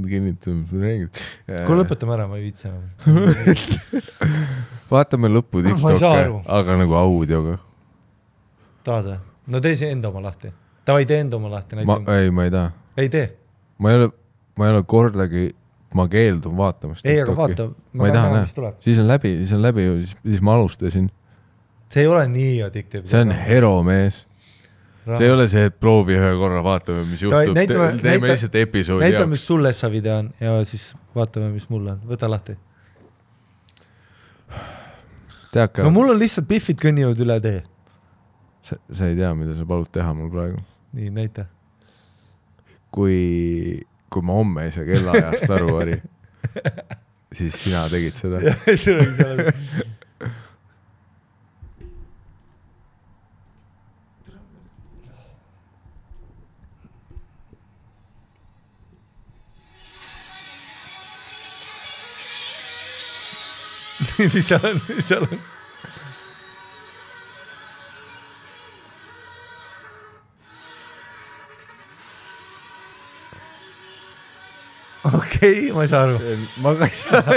kinnitab. Kui lõpetame ära, ma ei viitsi enam. Vaatame lõppu TikTok'e, aga nagu audioga. Tahad? No tee see enda oma lahti. Tavai tee enda oma lahti. Ei, ma ei taha. Ei tee. Ma ei ole kordagi, ma keeldun vaatamast ei, TikTok'i. Aga vaata. Ma ei taha näha. Siis on läbi, siis ma alustasin. See ei ole nii addiktiivne. See on hero, mees. See ei ole see, et proovi ühe korra, vaatame, mis juhtub. Teeme lihtsalt episoodi. Näita, mis sulle sa video on ja siis vaatame, mis mul on. Võta lahti. No mul on lihtsalt biffid kõnnivad üle tee. Sa ei tea, mida sa palud teha mul praegu. Nii, näita. Kui ma homme ei saa kellaajast aru, Ari, siis sina tegid seda. Mis seal on? Okei, ma ei saa aru. Ma ka ei saa.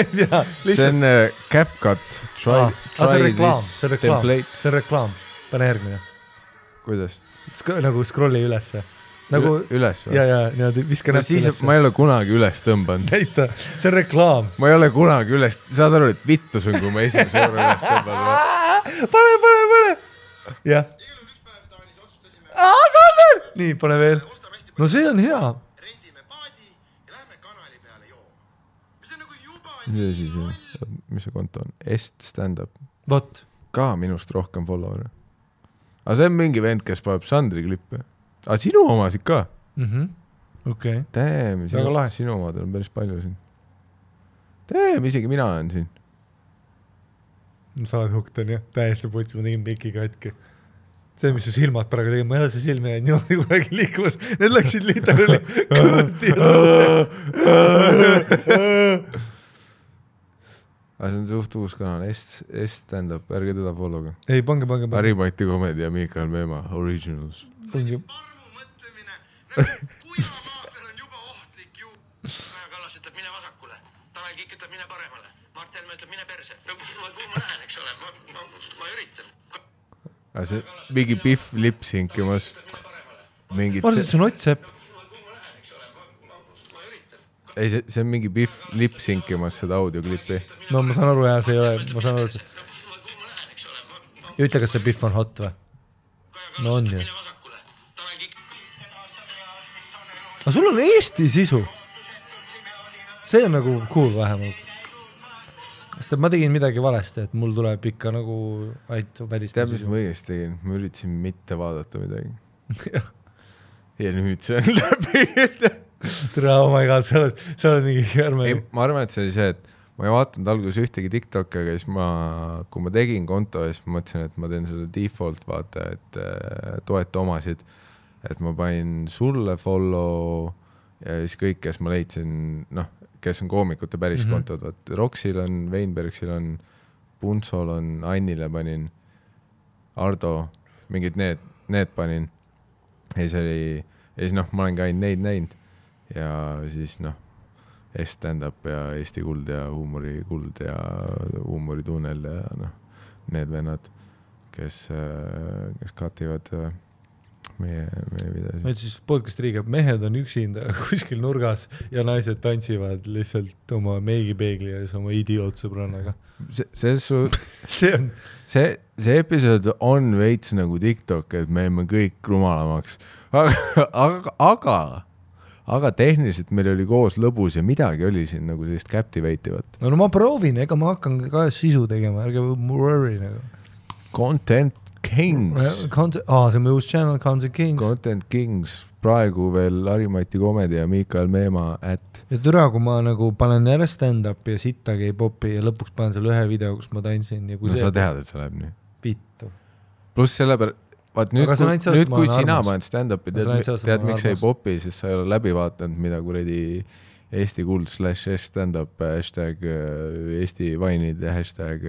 See on CapCut. See on reklaam. Pane järgmine. Kuidas? Nagu scrolli ülesse. Üles või? Ja, viska näpp ülesse. Ma ei ole kunagi üles tõmbanud. Näita, see on reklaam. Ma ei ole kunagi üles, saad aru, et vittus on, kui ma esimese korra üles tõmbanud. Pane. Jah. Sander! Nii, pane veel. No see on hea. Mis see konto on? Stand-up. Vot. Ka minust rohkem follower. Aga see on mingi vend, kes paneb Sandri klippe. Aga sinu omasid ka? Okei. Damn, sinu omadel on päris palju siin. Damn, isegi mina olen siin. Sa oled hukten, jah. Täiesti putsi, ma tegin Miki katki. See, mis su silmad praegu tegin, ma ei ole see silmi näinud niimoodi kuragi liikumas. Need läksid literally kõõti ja suhtes. Aga see on suht uus kanal, stand-up, ärge teda follow'ga. Ei, pange. Harimati Comedy ja Miikael Meemaa, Originals. Pange. Kuivamaa peal on juba ohtlik ju. Kaja Kallas ütleb, mine vasakule. Tanel Kiik ütleb, mine paremale. Mart Helme ütleb, mine perse. No kuhu ma lähen, eks ole? Ma üritan. Aga see mingi Biff lipsinkimas. Ma arvan, see on Ott-Sepp. Ei, see on mingi Biff lipsinkimas seda audioklipi. No ma saan aru, jah, see ei ole. Ma saan aru, et ütle, kas see Biff on hot või? No on ju. Aga sul on Eesti sisu. See on nagu cool vähemalt. Sest ma tegin midagi valesti, et mul tuleb ikka nagu välismaa. Tead, mis ma õigesti tegin? Ma üritasin mitte vaadata midagi. Ja nüüd see on läbi. Tere, oh my god, sa oled mingi järme. Ma arvan, et see oli see, et ma ei vaatanud alguses ühtegi TikTok'i, aga siis kui ma tegin konto, siis ma mõtlesin, et ma teen selle default vaata, et toeta omasid. Et ma panin sulle follow ja siis kõik, kes ma leidsin, kes on koomikute päris kontod, vaat Roxil on, Weinbergsil on, Punsol on, Annile panin, Ardo, mingid need panin. Ja siis ma olengi ainult neid näinud ja siis stand-up ja Eesti Kuld ja Huumori Kuld ja Huumori Tunnel ja need vennad, kes kativad meie videosid. Meil siis podcast riigab, mehed on üksinda kuskil nurgas ja naised tantsivad lihtsalt oma meigipeegli ja oma idiootsõbrannaga. See episood on veits nagu TikTok, et me oleme kõik rumalamaks. Aga tehniliselt meil oli koos lõbus ja midagi oli siin nagu sellist captivativat. No ma proovin, ega ma hakkan ka sisu tegema, ärge worry nagu. Content Kings. See on uus channel, Content Kings. Content Kings, praegu veel Harimati Comedy ja Miikael Meemaa @ ja türa, kui ma nagu panen jälle stand-up ja sittagi ei popi ja lõpuks panen selle ühe video, kus ma tantsin ja kui sa tead, et see läheb nii. Vittu. Pluss selle peale, vaat nüüd kui sina paned stand-upi, tead miks ei popi, siis sa ei ole läbi vaatanud, mida kuradi Eesti Kuld / stand-up hashtag Eesti Vainid ja hashtag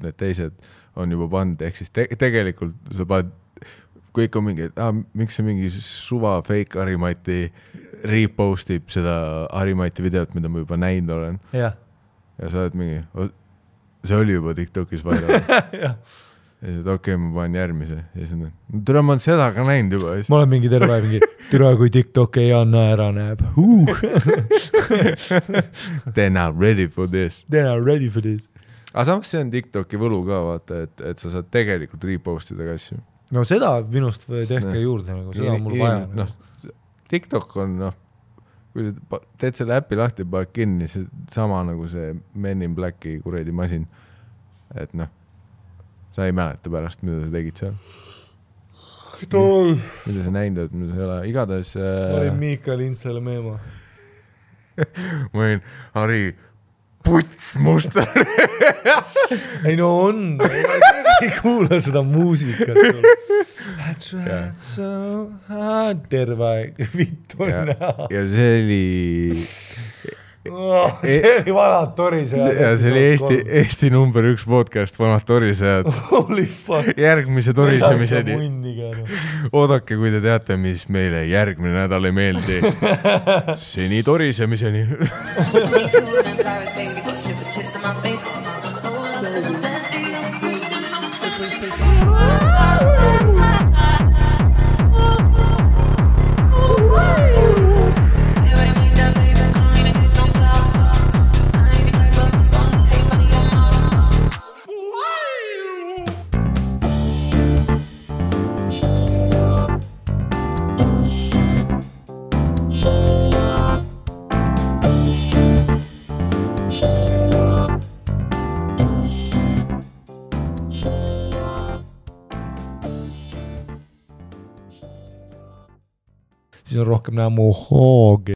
need teised on juba pand, ehk siis tegelikult sa paned, kui ikka mingi, miks see mingi suva fake Harimati repostib seda Harimati videot, mida ma juba näinud olen. Ja sa oled mingi, see oli juba TikTokis vaidal. Ja siis okei, ma panen järgmise. Ja siis türa, ma olen seda ka näinud juba. Ma olen mingi terve mingi, türa kui TikTok ei anna ära näeb. They're not ready for this. They're not ready for this. Aga samas see on TikToki võlu ka, vaata, et sa saad tegelikult repostida ka asju. No seda minust tehke juurde, seda on mul vaja. TikTok on, kui sa teed selle äppi lahti, paned kinni, see sama nagu see Men in Blacki kuredi masin. Et sa ei mäleta pärast, mida sa tegid seal. Mida sa näinud, mida sa ei ole. Igatahes... Ma olin Miika Lintsele meema. Ma olin Harri puts musta. Ei no on, ei kuula seda muusikat. I tried so hard, terve aeg, vittu näha. Ja see oli... see oli Vanad torisejad. Ja see oli Eesti number 1 podcast Vanad torisejad. Holy fuck. Järgmise torisemiseni. Oodake, kui te teate, mis meile järgmine nädal ei meeldi. Seni torisemiseni. Siis on rohkem näha mu hoogi.